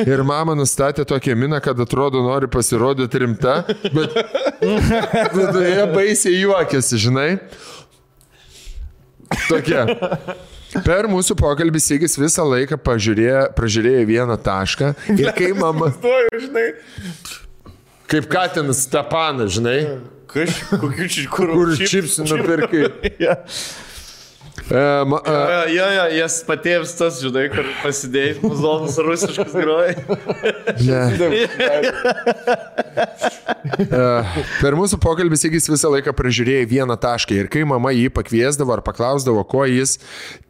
ir mama nustatė tokią miną, kad atrodo nori pasirodyti rimta, bet viduje baisiai juokėsi, žinai. Tokia. Per mūsų pokalbį Sigis visą laiką pražiūrėjo vieną tašką ir kai mama... Kaip Katinas Stepanas, žinai. Kur čipsų nupirkai. Jas patėvs tas, žinai, kur pasidėjai, muzonas rusiškas groja. Per mūsų pokalbį Sigis visą laiką pražiūrėjo vieną tašką ir kai mama jį pakviesdavo ar paklausdavo, ko jis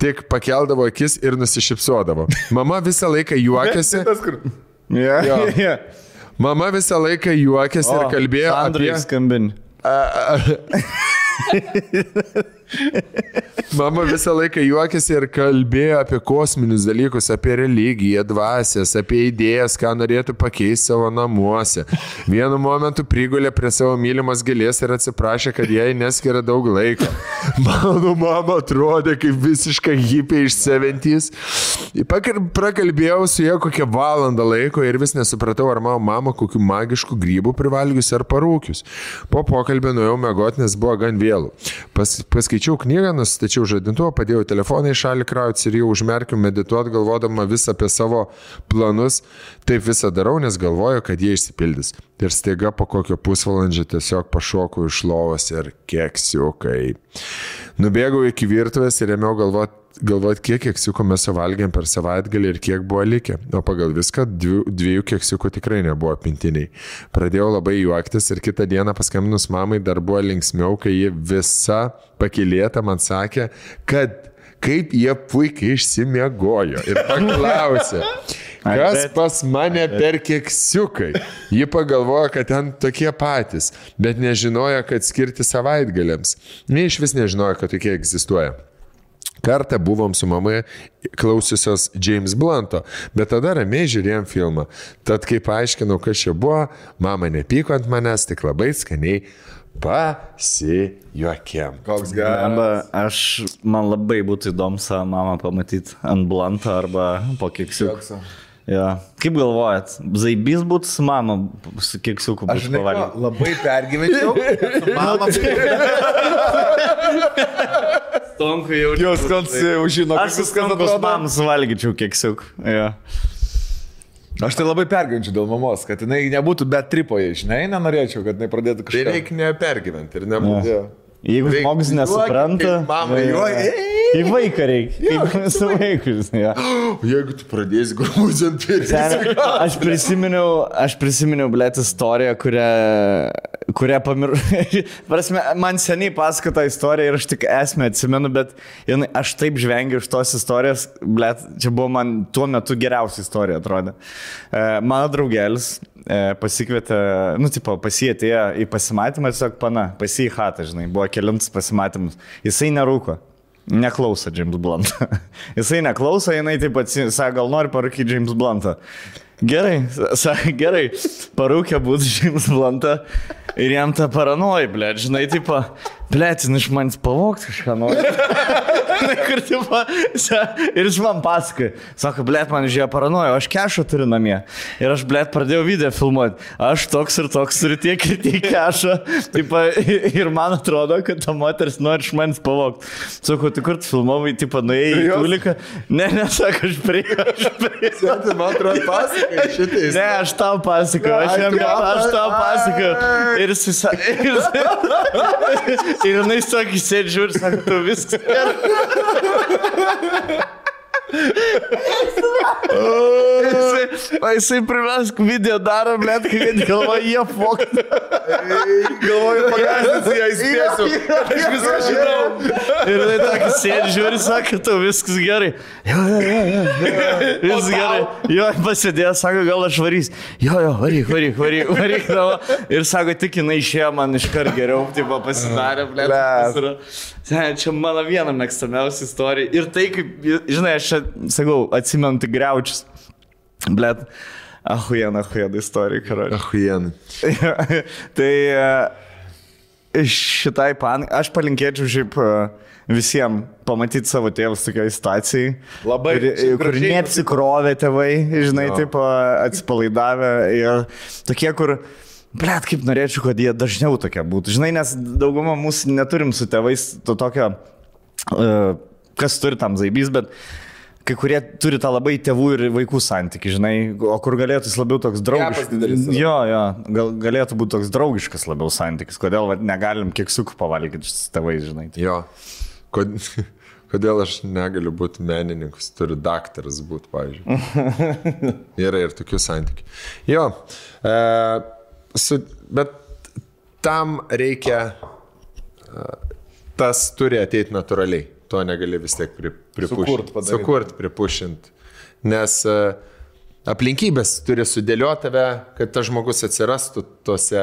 tik pakeldavo akis ir nusišypsodavo. Mama visą laiką juokėsi. Mama visą laiką juokėsi ir kalbėjo apie... skambinį. Mama visą laiką juokėsi ir kalbėjo apie kosminius dalykus, apie religiją, dvasias, apie idėjas, ką norėtų pakeisti savo namuose. Vienu momentu prigulė prie savo mylimos gėlės ir atsiprašė, kad jai neskiria daug laiko. Mano mama atrodė kaip visiška hipė iš 70's. Prakalbėjau su ja kokią valandą laiko ir vis nesupratau, ar mano mama kokių magiškų grybų privalgius ar parūkius. Po pokalbio nuėjau miegoti, nes buvo gan vėlų. Paskaičiau knygą, nustačiau žadintuvą, padėjau telefoną į šalį krautis ir jau užmerkiu medituoti, galvodama vis apie savo planus. Taip visą darau, nes galvoju, kad jie išsipildys. Ir staiga po kokio pusvalandžio tiesiog pašokau iš lovos ir keksiukai. Nubėgau iki virtuvės ir ėmiau galvoti, kiek keksiukų mes suvalgėm per savaitgalį ir kiek buvo likę. O pagal viską 2 keksiukų tikrai nebuvo pintiniai. Pradėjau labai juoktis ir kitą dieną paskambinus mamai dar buvo linksmiau, kai ji visa pakylėta man sakė, kad kaip jie puikiai išsimiegojo ir paklausė, kas pas mane per keksiukai. Ji pagalvojo, kad ten tokie patys, bet nežinojo, kad skirti savaitgaliams. Iš vis nežinojo, kad tokie egzistuoja. Kartą buvom su mamai klausiusios James Blunto, bet tada ramiai žiūrėjom filmą. Tad kai paaiškinau, kas čia buvo, mama nepyko ant manęs, tik labai skaniai pasijuokėm. Koks geras. Man labai būtų įdomu savo mamą pamatyti ant Blunto arba po keksiukų. Ja. Kaip galvojat, zaibys būtų su mama su keksiuku būtų pavalgyti? Aš labai pergyvenčiau. Stonku jau. Jos žino, aš su Stonkos mamą suvalgyčiau keksiukų. Ja. Aš tai labai pergyvenčiau dėl mamos, kad jinai nebūtų bet tripoje, žinai, nenorėčiau, kad jinai pradėtų kažką. Tai reikia nepergyventi ir nebūtų. Ja. Jeigu žmogus nesupranta, į vaiką reikia, kaip su vaikus. Ja. Jeigu tu pradėsi grūdinti, aš prisiminiau, blėt, istoriją, kurią pamiršau. Man seniai pasakota istorija ir aš tik esmę atsimenu, bet aš taip žvengiu iš tos istorijos, blėt, čia buvo man tuo metu geriausia istorija, atrodė. Mano draugelis pasikvietė, pas jį atėjo į pasimatymą, tiesiog pas jį į chatą, žinai, buvo kelintas pasimatymus. Jisai nerūko, neklauso James Bluntą. Jisai neklauso, jinai taip pat sako, gal nori parūkyti James Bluntą. Gerai, parūkė būtų James Bluntą ir jam tą paranoja, blėt, žinai, tipo, Blet, iš manęs pavogti kažką nori. Ir jis man pasakoja, sako, blet, man žiūrėjo paranojo, aš kešą turiu namie. Ir aš, blet, pradėjau video filmuoti. Aš toks ir toks turiu tiek ir tiek kešą. Ir man atrodo, kad ta moteris nori iš manęs pavogti. Sako, tu kur tu filmavai, nuėjai į tuliką? Ne, sako, aš prie. Man atrodo, pasakai šitais. Ne, aš tau pasakoju, aš tau pasakoju. Ir jinai sakė, sėdži žiūri, sako, tu viskas gerai. Jisai privesk video daro, blėt, kai galvoja, jie fokti. Galvoju, pagazdinsi, ją įspėsiu. Aš viską žinau. Ir tai tokį sėdži žiūri, sako, tu viskas gerai. Jo. Viskas gerai. Jo, pasėdėjo, sako, gal aš varys. Jo, varyk. Ir sako, tik jinai išėjo man iškart geriau, tipo pasidarė, blėt. Čia mano viena mėgstamiausia istorija. Ir tai, kaip, žinai, aš čia, sakau, atsimenu tik Griaučius. Blet, ahujena istorija, karoči. Ahujena. Tai šitai aš palinkėčiau šiaip visiems pamatyti savo tėvus tokioj situacijai. Labai. Kur neapsikrovė tėvai, žinai, taip atsipalaidavę. Ir tokie, kur... Blet, kaip norėčiau, kad jie dažniau tokie būtų. Žinai, nes daugumą mūsų neturim su tėvais to tokio, kas turi tam zaibys, bet kai kurie turi tą labai tėvų ir vaikų santykį, žinai, o kur galėtų jis labiau toks draugiškas. Jo, galėtų būti toks draugiškas labiau santykis. Kodėl negalim keksiukų pavalgyti su tėvais, žinai. Jo, kodėl aš negaliu būti menininkas, turiu daktaras būti, pavyzdžiui. Yra ir tokių santykių. Jo, bet tam reikia, tas turi ateiti natūraliai, to negali vis tiek pripušinti. Sukurt, pripušinti. Nes aplinkybės turi sudėlioti tave, kad tas žmogus atsirastų tose,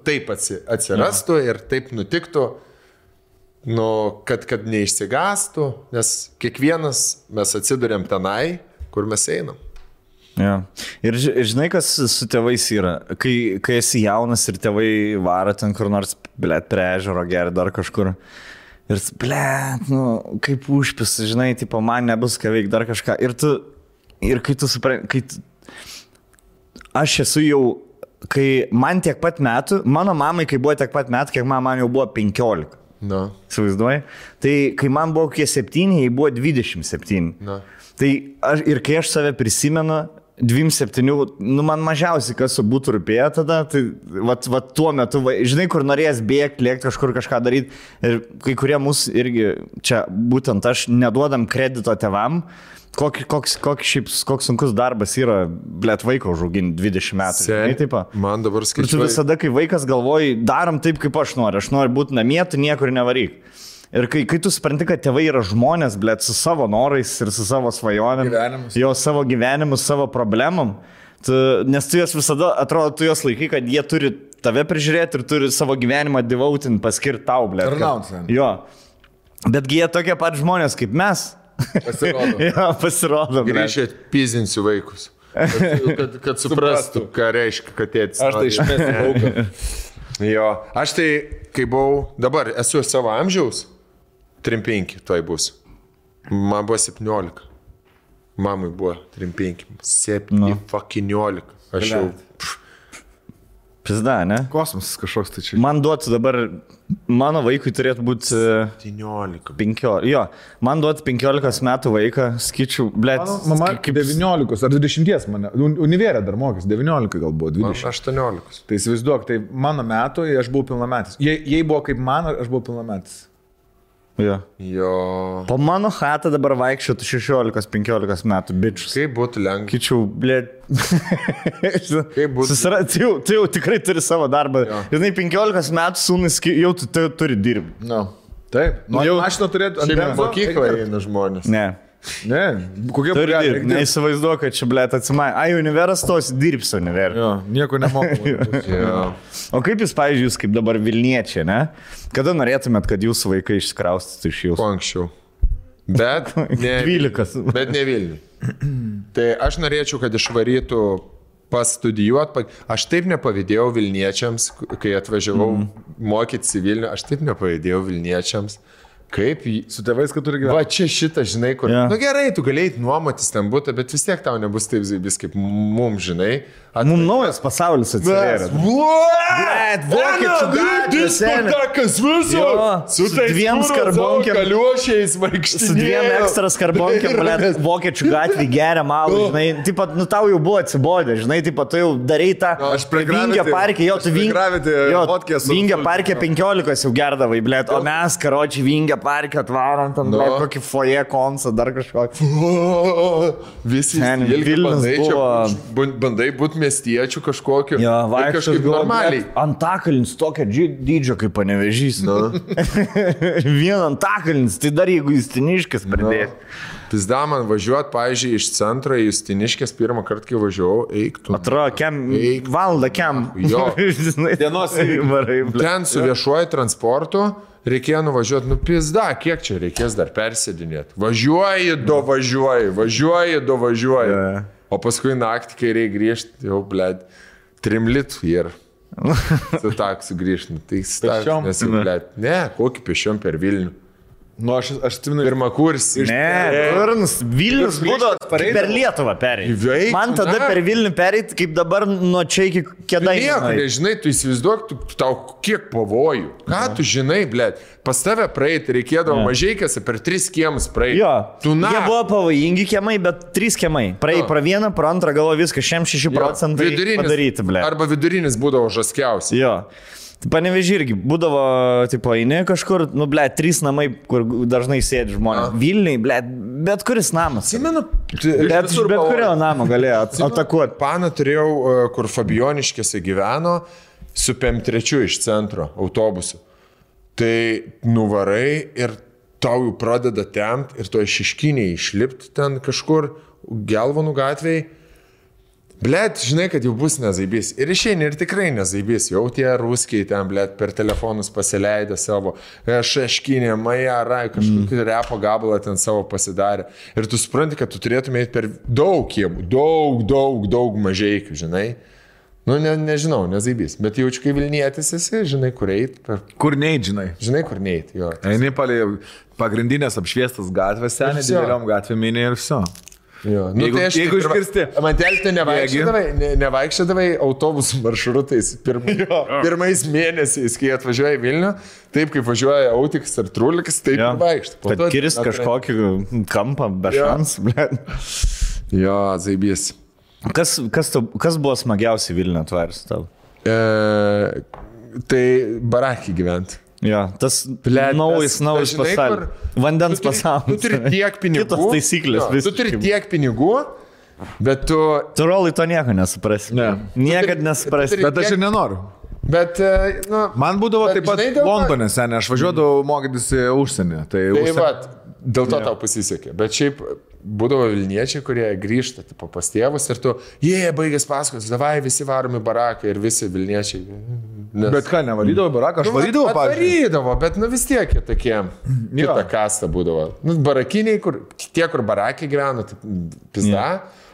taip atsirastų ir taip nutiktų, kad neišsigastų, nes kiekvienas mes atsiduriam tenai, kur mes einam. Ja. Ir žinai, kas su tėvais yra, kai esi jaunas ir tėvai varo ten kur nors, blet, prie ežero geri dar kažkur. Ir, blet, kaip užpis, žinai, tipo, man nebus ką veikti dar kažką. Ir kai tu supranti, aš esu jau, kai man tiek pat metų, mano mamai, kai buvo tiek pat metų, kiek man jau buvo 15. No. Įsivaizduoji? Tai kai man buvo kokie 7, jai buvo 27. No. Tai ir kai aš save prisimenu, 27, man mažiausiai kas būtų rūpėję tada, tai va tuo metu, žinai, kur norėjęs bėgti, lėkti kažkur kažką daryti. Ir kai kurie mūsų irgi, čia būtent aš, neduodam kredito tėvam, koks sunkus darbas yra, blet, vaiko užauginti 20 metų. Žinai, taip. Man dabar skaičiuoju. Ir tu visada, kai vaikas galvoji, darom taip, kaip aš noriu būti namie, tu niekur nevaryk. Ir kai tu supranti, kad tėvai yra žmonės, blet, su savo norais ir su savo svajonėm, jo savo gyvenimus, savo problemom, nes tu juos visada, atrodo, tu juos laikai, kad jie turi tave prižiūrėti ir turi savo gyvenimą devautinti, paskirti tau, blet. Jo. Betgi jie tokie pat žmonės kaip mes. Pasirodo. Jo, pasirodo. Grįžę pizinsiu vaikus. Kad suprastų, ką reiškia, kad tėtis. Aš tai išmėsiu lauką. Jo, aš tai, kai buvau, dabar esu savo amžiaus, 3-5 toj bus. Man buvo 17. Mamai buvo 3-5. 7-15. Aš jau... Pizda, ne? Kosmosas kažkoks tai čia. Man duotų dabar, mano vaikui turėtų būti 17. 15. Jo, man duotų 15 metų vaiką, skaičiu, blėt. Mama kaip 19 ar 20 mane. Univerė dar mokės, 19 gal buvo, 20. 18. Tai įsivaizduok, tai mano metų, aš buvau pilnametis. Jei buvo kaip man, aš buvau pilnametis. Jo. Po mano chatą dabar vaikščiotų 16-15 metų, bičius. Kaip būtų lengva. Kičiau, blėt. Kaip būtų. Tu jau tikrai turi savo darbą. Žinai, 15 metų sūnus jau tu turi dirbti. No. Taip. Jau mašiną turėtų. Šiandien mokyklą eina žmonės. Ne. Ne, kokie būreliai. Neįsivaizduoju, kad čia, blėt, atsimai. Univeras tos dirbs univerą. Jo, nieko nemoku. O kaip jūs, pavyzdžiui, jūs kaip dabar Vilniečiai, ne? Kada norėtumėt, kad jūsų vaikai išsikraustytų iš jūsų? Kuo anksčiau. Bet ne 12. Bet ne Vilniui. Tai aš norėčiau, kad išvarytų pastudijuoti. Aš taip nepavydėjau Vilniečiams, kai atvažiavau mokytis į Vilnių, aš taip nepavydėjau Vilniečiams. Kaip Su tėvais, kad turi gyventi. Va čia šitą, žinai, kur. Jo. Nu gerai, tu galėjai nuomotis ten būtų, bet vis tiek tau nebus taip zaibis kaip mums, žinai. Mums naujas pasaulis atsivėrė. Vokiečių gatvė, seni. Su dviem skarbonkiam. Kaliuošiais vaikštinėjau. Su dviem ekstra skarbonkiam, blėt, vokiečių gatvį geria malų, žinai. Taip pat, nu tau jau buvo atsibodę, žinai, taip pat tu jau darai tą Vingio parke, jo, tu Vingio parke 15 jau gerdavai, blėt, o mes, karočiui, Vingio parke atvarom, tam, blėt, kokį foje konsą, dar kažkokį. Visi Vilnius buvo... bandai būti miestiečių kažkokiu. Jo, kažkaip normaliai. Antakalnis tokia dydžio kaip Panevėžys. Vien Antakalnis, tai dar jeigu Justiniškis pridės. Pizda man važiuot, pavyzdžiui, iš centro į Justiniškės pirmą kartą, kai važiavau, eik tu. Atrodo, valandą kem. Jo. Dienos varai. Ten su viešuoju transportu reikėjo nuvažiuoti, nu pizda, kiek čia reikės dar persėdinėti. Važiuoji, dovažiuoji. Yeah. O paskui naktį, kai reikia grįžti, jau, blėd, 3 litų ir su taksu grįžti. Tai Pėsčiom? nes jau, blėd, ne, kokį pėsčiom per Vilnių. Nu, aš atsimenu. Pirmą kursį. Vilnius būdavo per Lietuvą perėjai. Man tada per Vilnių perėjai, kaip dabar nuo čia iki Kėdainių. Nieko, nežinai, tu įsivaizduok, tau kiek pavojų. Ką tu žinai, blėd, pas tave praeiti reikėdavo mažieikėse per 3 kiemus praeiti. Jo, jie buvo pavojingi kiemai, bet 3 kiemai. Praėjai pro vieną, pro antrą, galvo viską, 6% padaryti, blėd. Arba vidurinis būdavo žaskiausiai. Jo. Panevėžį irgi būdavo, tipo, eini kažkur, nu, ble, 3 namai, kur dažnai sėdi žmonės. Vilniui, ble, bet kuris namas. Atsimenu, bet kurio namo galėjo atakuoti. Paną turėjau, kur Fabioniškėse gyveno, su PM3 iš centro autobusu. Tai nuvarai ir tau jau pradeda tempt ir to Šiškiniai išlipti ten kažkur, Gelvonų gatvėje. Blet, žinai, kad jau bus nezaibys. Ir išeini ir tikrai nezaibys. Jau tie ruskiai ten, blet, per telefonus pasileidę savo Šeškinė, Majarai, kažkokį repo gabalą ten savo pasidarė. Ir tu supranti, kad tu turėtumai per daug kiemų, daug mažeikių, žinai. Nu, nežinau, nezaibys. Bet jaučiu, kai Vilnietis esi, žinai, kur eit. Kur neit, žinai. Žinai, kur neit, jo. Eini palei pagrindinės apšviestas gatvės, seniai, dideliom gatvėm ir viso. Jo. Nu, Jeigu iškirsti. Mantelį tai nevaikščiodavai autobusų maršrutais pirmais mėnesiais, kai atvažiuoja į Vilnių, taip kaip važiuoja Autikas ar Trulikas, taip ir vaikštų. Kad kirst kažkokį kampą be šansų, ble. Jo, zaibys. Kas buvo smagiausiai Vilniuje atvaris tau? Tai barakį gyventi. Jo, tas naujas pasaulis. Vandens pasaulis. Tu turi tiek pinigų. Kitos taisyklės. Tu turi tiek pinigų, bet tu... Tu rolai to nieko nesuprasi. Ne. Niekad nesuprasi. Bet aš ir nenoriu. Bet, nu... Man būdavo taip pat Londone, seniai. Aš važiuodavau mokytis į užsienį. Tai vat, dėl to tau pasisekė. Bet šiaip būdavo Vilniečiai, kurie grįžta tipo, pas tėvus ir tu, baigęs paskos, davai visi varomi barakai ir visi Vilniečiai. Bet ką, nevarydavo baraką? Aš varydavo, pavyzdžiui. Varydavo, bet nu vis tiek tokie, kita kasta būdavo. Nu, barakiniai, tie, kur barakai gyveno, tai pizda,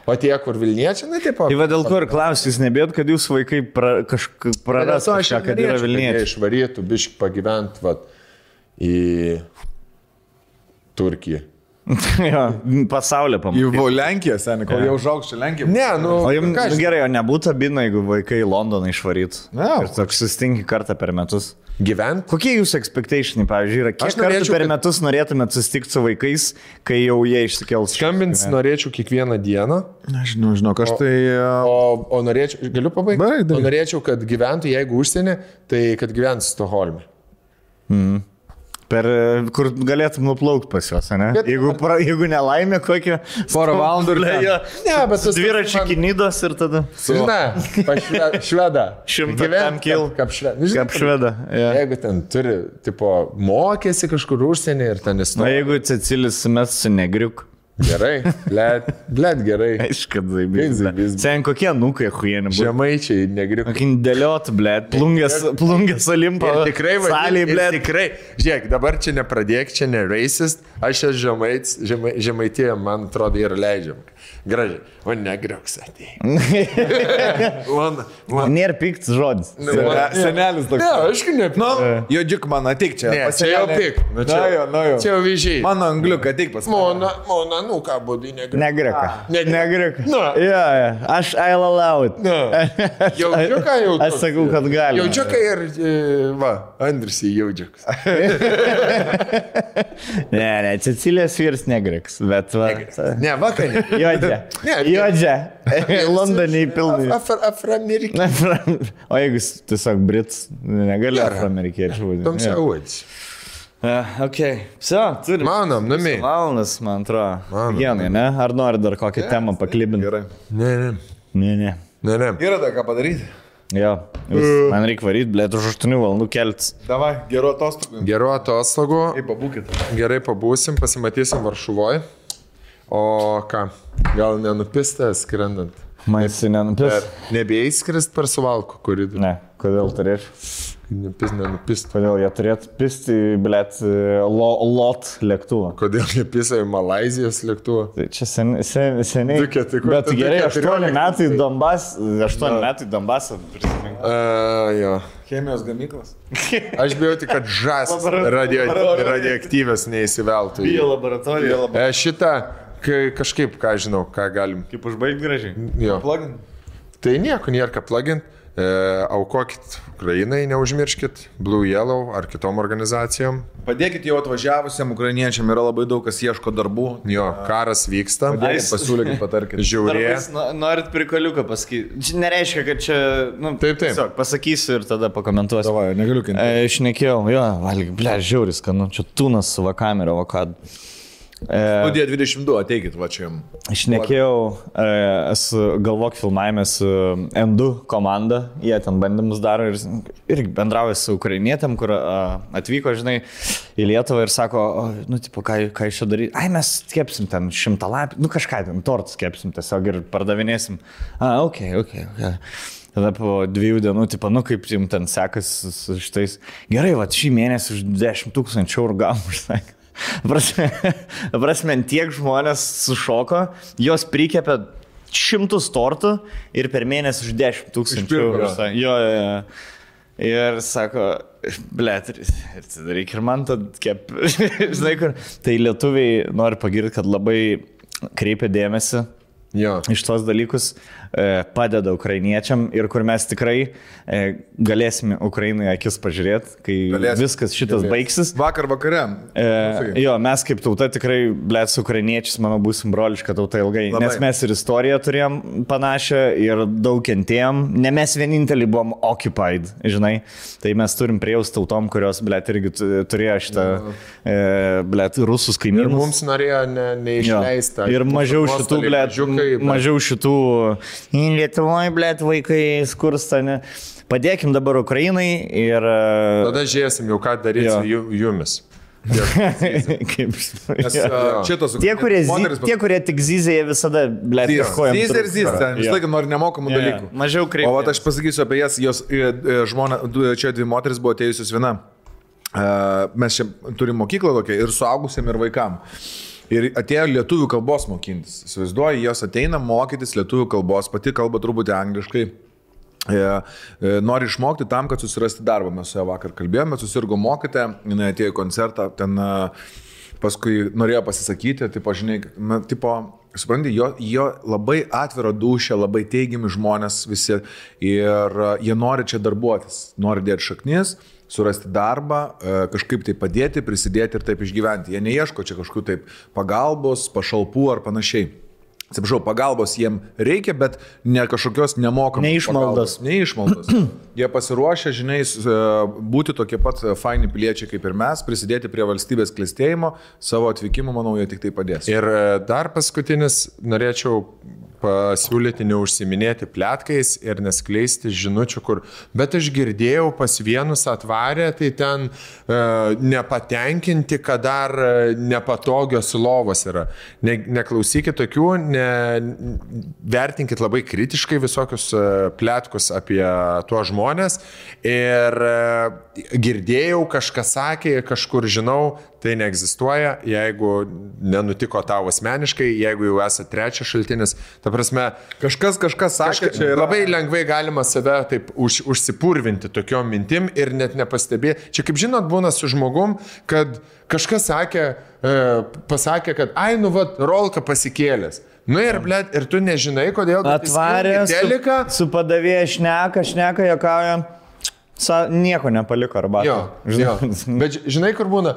o tie, kur Vilniečiai, na taip pat. Tai va dėl ko ir klausis, nebėt, kad jūs vaikai praras kažką, kad yra Vilniečiai. Išvarytų, biški pagyvent, vat, į Turkiją. Jo, pasaulio pamatyti. Jau Lenkija, seniai, kol jau užaugs čia Lenkija. Ne, nu... O jums gerai, o nebūtų abina, jeigu vaikai į Londoną išvarytų. Ir toks sustinki kartą per metus. Gyvent? Kokie jūsų expectationai, pavyzdžiui, yra? Kiek kartų per metus norėtumėt susitikti su vaikais, kai jau jie išsikels? Skambins norėčiau kiekvieną dieną. Žinau, aš tai... O norėčiau, galiu pabaigti? O norėčiau, kad gyventų, jeigu užsienį, tai kad gyventų Stokholme. Kur galėtum nuplaukti pas juos, ne? Jeigu nelaimė kokią... Porą valandų ir ten. Ne, bet tas... Dviračių Kinidos ir tada... Žinai, šveda. 100 kil. Kaip šveda. Jeigu ten turi, tipo, mokėsi kažkur užsienį ir ten įstoja. Na, jeigu Cecilis mes su negriuk. Gerai, blėt gerai. Aišku, zaibys. Sen kokie nukai huieni buvo. Žemaičiai, negriuk. Kokin dėliot, blėt. Plungės Olimpo. Tikrai, salėj, blėt. Tikrai. Žiūrėk, dabar čia nepradėk, čia ne racist. Aš esu žemaitė, man atrodo, yra leidžiama. Gražiai. O negriuks atėjai. Nėra piktas žodis. Senelis toks. Ne, aišku, ne. Nu, jodžiuk man, ateik čia. Ne, čia jau pik. Na jau. Čia jau vyžiai. Mano angliuką, ateik pas mane. Mona, nu ką būdai negriuks. Negriuka. Negriuka. Aš I'll allow it. Jaudžiuką jau. Aš sakau, kad gali. Jaudžiuką ir, Andrisi jaudžiukas. Ne, Cecilijos vyras negriuks, bet va. Ne, vakarė. Juodžia. Londone įpilnai. Afroamerikiečiai. O jeigu tiesiog Brits, negali afroamerikiečių būti. Tamsiauodis. Ok. Все, turim. Manom, nami. Valandas, man atrodo. Genai, ne? Ar nori dar kokią temą paklibinti? Gerai. Ne. Yra dar ką padaryti? Jo, man reikia varyti, blėt, už 8 valandų keltis. Davai, gerų atostogų. Gerų atostogų. Pabūkit. Gerai pabūsim, pasimatysim Varšuvoje. O ką, gal nenupistę skrendant? Maisi nenupist? Nebėjai skrist per Suvalkų koridorių? Ne, kodėl turėčiau? Nenupist. Kodėl jie turėtų pisti, blėt, lot lėktuvą? Kodėl jie pisa į Malaizijos lėktuvą? Tai čia seniai. Bet gerai, 8 metai Donbasą. Jo. Chemijos gamyklas. Aš bijau tik, kad žąs radioaktyvės neįsiveltų. Bio laboratorija. Šitą, kažkaip, ką žinau, ką galim. Kaip užbaigti gražiai? Jo. Plugin. Tai nieko, nėra ką plugin. Aukokit Ukrainai, neužmirškit, Blue Yellow ar kitom organizacijom. Padėkit jau atvažiavusiam ukrainiečiam, yra labai daug, kas ieško darbų. Jo, karas vyksta. Pasiūlykit, patarkit. Žiaurė. Norit prikoliuką pasakyti. Čia nereiškia, kad čia... Taip. Tiesiog pasakysiu ir tada pakomentuosiu. Davai, negaliu kinti. Šnekėjau, valgy, žiauris, kad čia tunas su va kamera, va kad... Studija 22, ateikit, va čia jums. Šnekėjau, esu galvok filmavime su N2 komanda, jie ten bandymus daro ir bendrauja su ukrainietėm, kur atvyko, žinai, į Lietuvą ir sako, tipo, ką iš čia daryti? Ai, mes kepsim ten 100 lapį, kažką ten, tortus kepsim tiesiog ir pardavinėsim. Ok. Tada po 2 dienų, tipo, kaip jums ten sekas su šitais. Gerai, va, šį mėnesį už 10 000 eurų gavom, užsakė. Prasme, tiek žmonės sušoko, jos prikepė 100 tortų ir per mėnesį už 10 000 eurų. Jo. Ir sako, blėt, ir tada reikia ir man tad kep. Žinai, kur. Tai lietuviai nori pagirti, kad labai kreipia dėmesį iš tos dalykus, padeda ukrainiečiam ir kur mes tikrai galėsime Ukrainai akis pažiūrėti, kai viskas šitas baigsis. Vakar vakare. Mes kaip tauta tikrai, blėt, su ukrainiečiais, manau, būsim broliška tauta ilgai. Labai. Nes mes ir istoriją turėjom panašią ir daug kentėjom. Ne mes vieninteliai buvom occupied, žinai. Tai mes turim priejaus tautom, kurios, blėt, irgi turėjo šitą, blėt, rusus kaimynus. Ir mums norėjo neišleista. Ir mažiau šitų, blėt, mažiau šitų Lietuvoje, blėt, vaikai skursta, ne. Padėkim dabar Ukrainai ir... Tada žiūrėsim jau, ką daryti su jumis. Tie, kurie tik zyzė, jie visada, blėt, kažkojam. Zyzė, vis laiką nori nemokamų dalykų. Mažiau kreipti. O aš pasakysiu apie jas, jos žmona, čia 2 moteris buvo atėjusios viena. Mes čia turim mokyklą tokią ir suaugusiam, ir vaikam. Ir atėjo lietuvių kalbos mokintis. Įsivaizduoju, jos ateina mokytis lietuvių kalbos, pati kalba truputį angliškai. Nori išmokti tam, kad susirasti darbą. Mes su ją vakar kalbėjome, susirgo mokytoja, jinai atėjo į koncertą, ten paskui norėjo pasisakyti, supranti, jo labai atviro dūšia, labai teigiami žmonės visi ir jie nori čia darbuotis, nori dėti šaknis, surasti darbą, kažkaip tai padėti, prisidėti ir taip išgyventi. Jie neieško čia kažkokių taip pagalbos, pašalpų ar panašiai. Atsiprašau, pagalbos jiem reikia, bet ne kažkokios nemokamos. Neišmaldos. Jie pasiruošę, žinai, būti tokie pat faini piliečiai kaip ir mes, prisidėti prie valstybės klestėjimo, savo atvykimu, manau, jie tik tai padės. Ir dar paskutinis norėčiau pasiūlyti neužsiminėti pletkais ir neskleisti žinučių, kur, bet aš girdėjau, pas vienus atvarė, tai ten nepatenkinti, kad dar nepatogios lovos yra. Neklausykit tokių, vertinkit labai kritiškai visokius pletkus apie tuos žmonės ir girdėjau, kažkas sakė, kažkur žinau, tai neegzistuoja, jeigu nenutiko tau asmeniškai, jeigu jau esate trečias šaltinis. Ta prasme, kažkas sakė, čia yra... Labai lengvai galima save taip užsipurvinti tokiom mintim ir net nepastebėti. Čia kaip žinot, būna su žmogum, kad kažkas pasakė, kad ai, nu vat, rolka pasikėlęs. Nu ir, blėt, ir tu nežinai, kodėl... Atvarė su padavėja šneka, jokauja. Nieko nepaliko arbatą. Jo. Bet žinai, kur būna?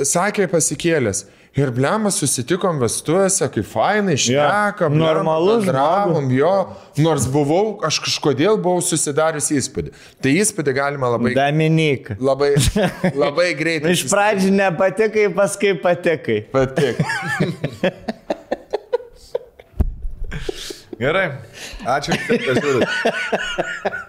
Sakė pasikėlęs. Ir blemas susitikom vestuvėse, kaip fainai, šnekam. Normalus. Bendravom, jo. Nors aš kažkodėl buvau susidarius įspūdį. Tai įspūdį galima labai... Dominik. Labai greitai. Iš pradžių nepatikai, paskui patikai. Patik. Gerai. Ačiū, kad žiūrite.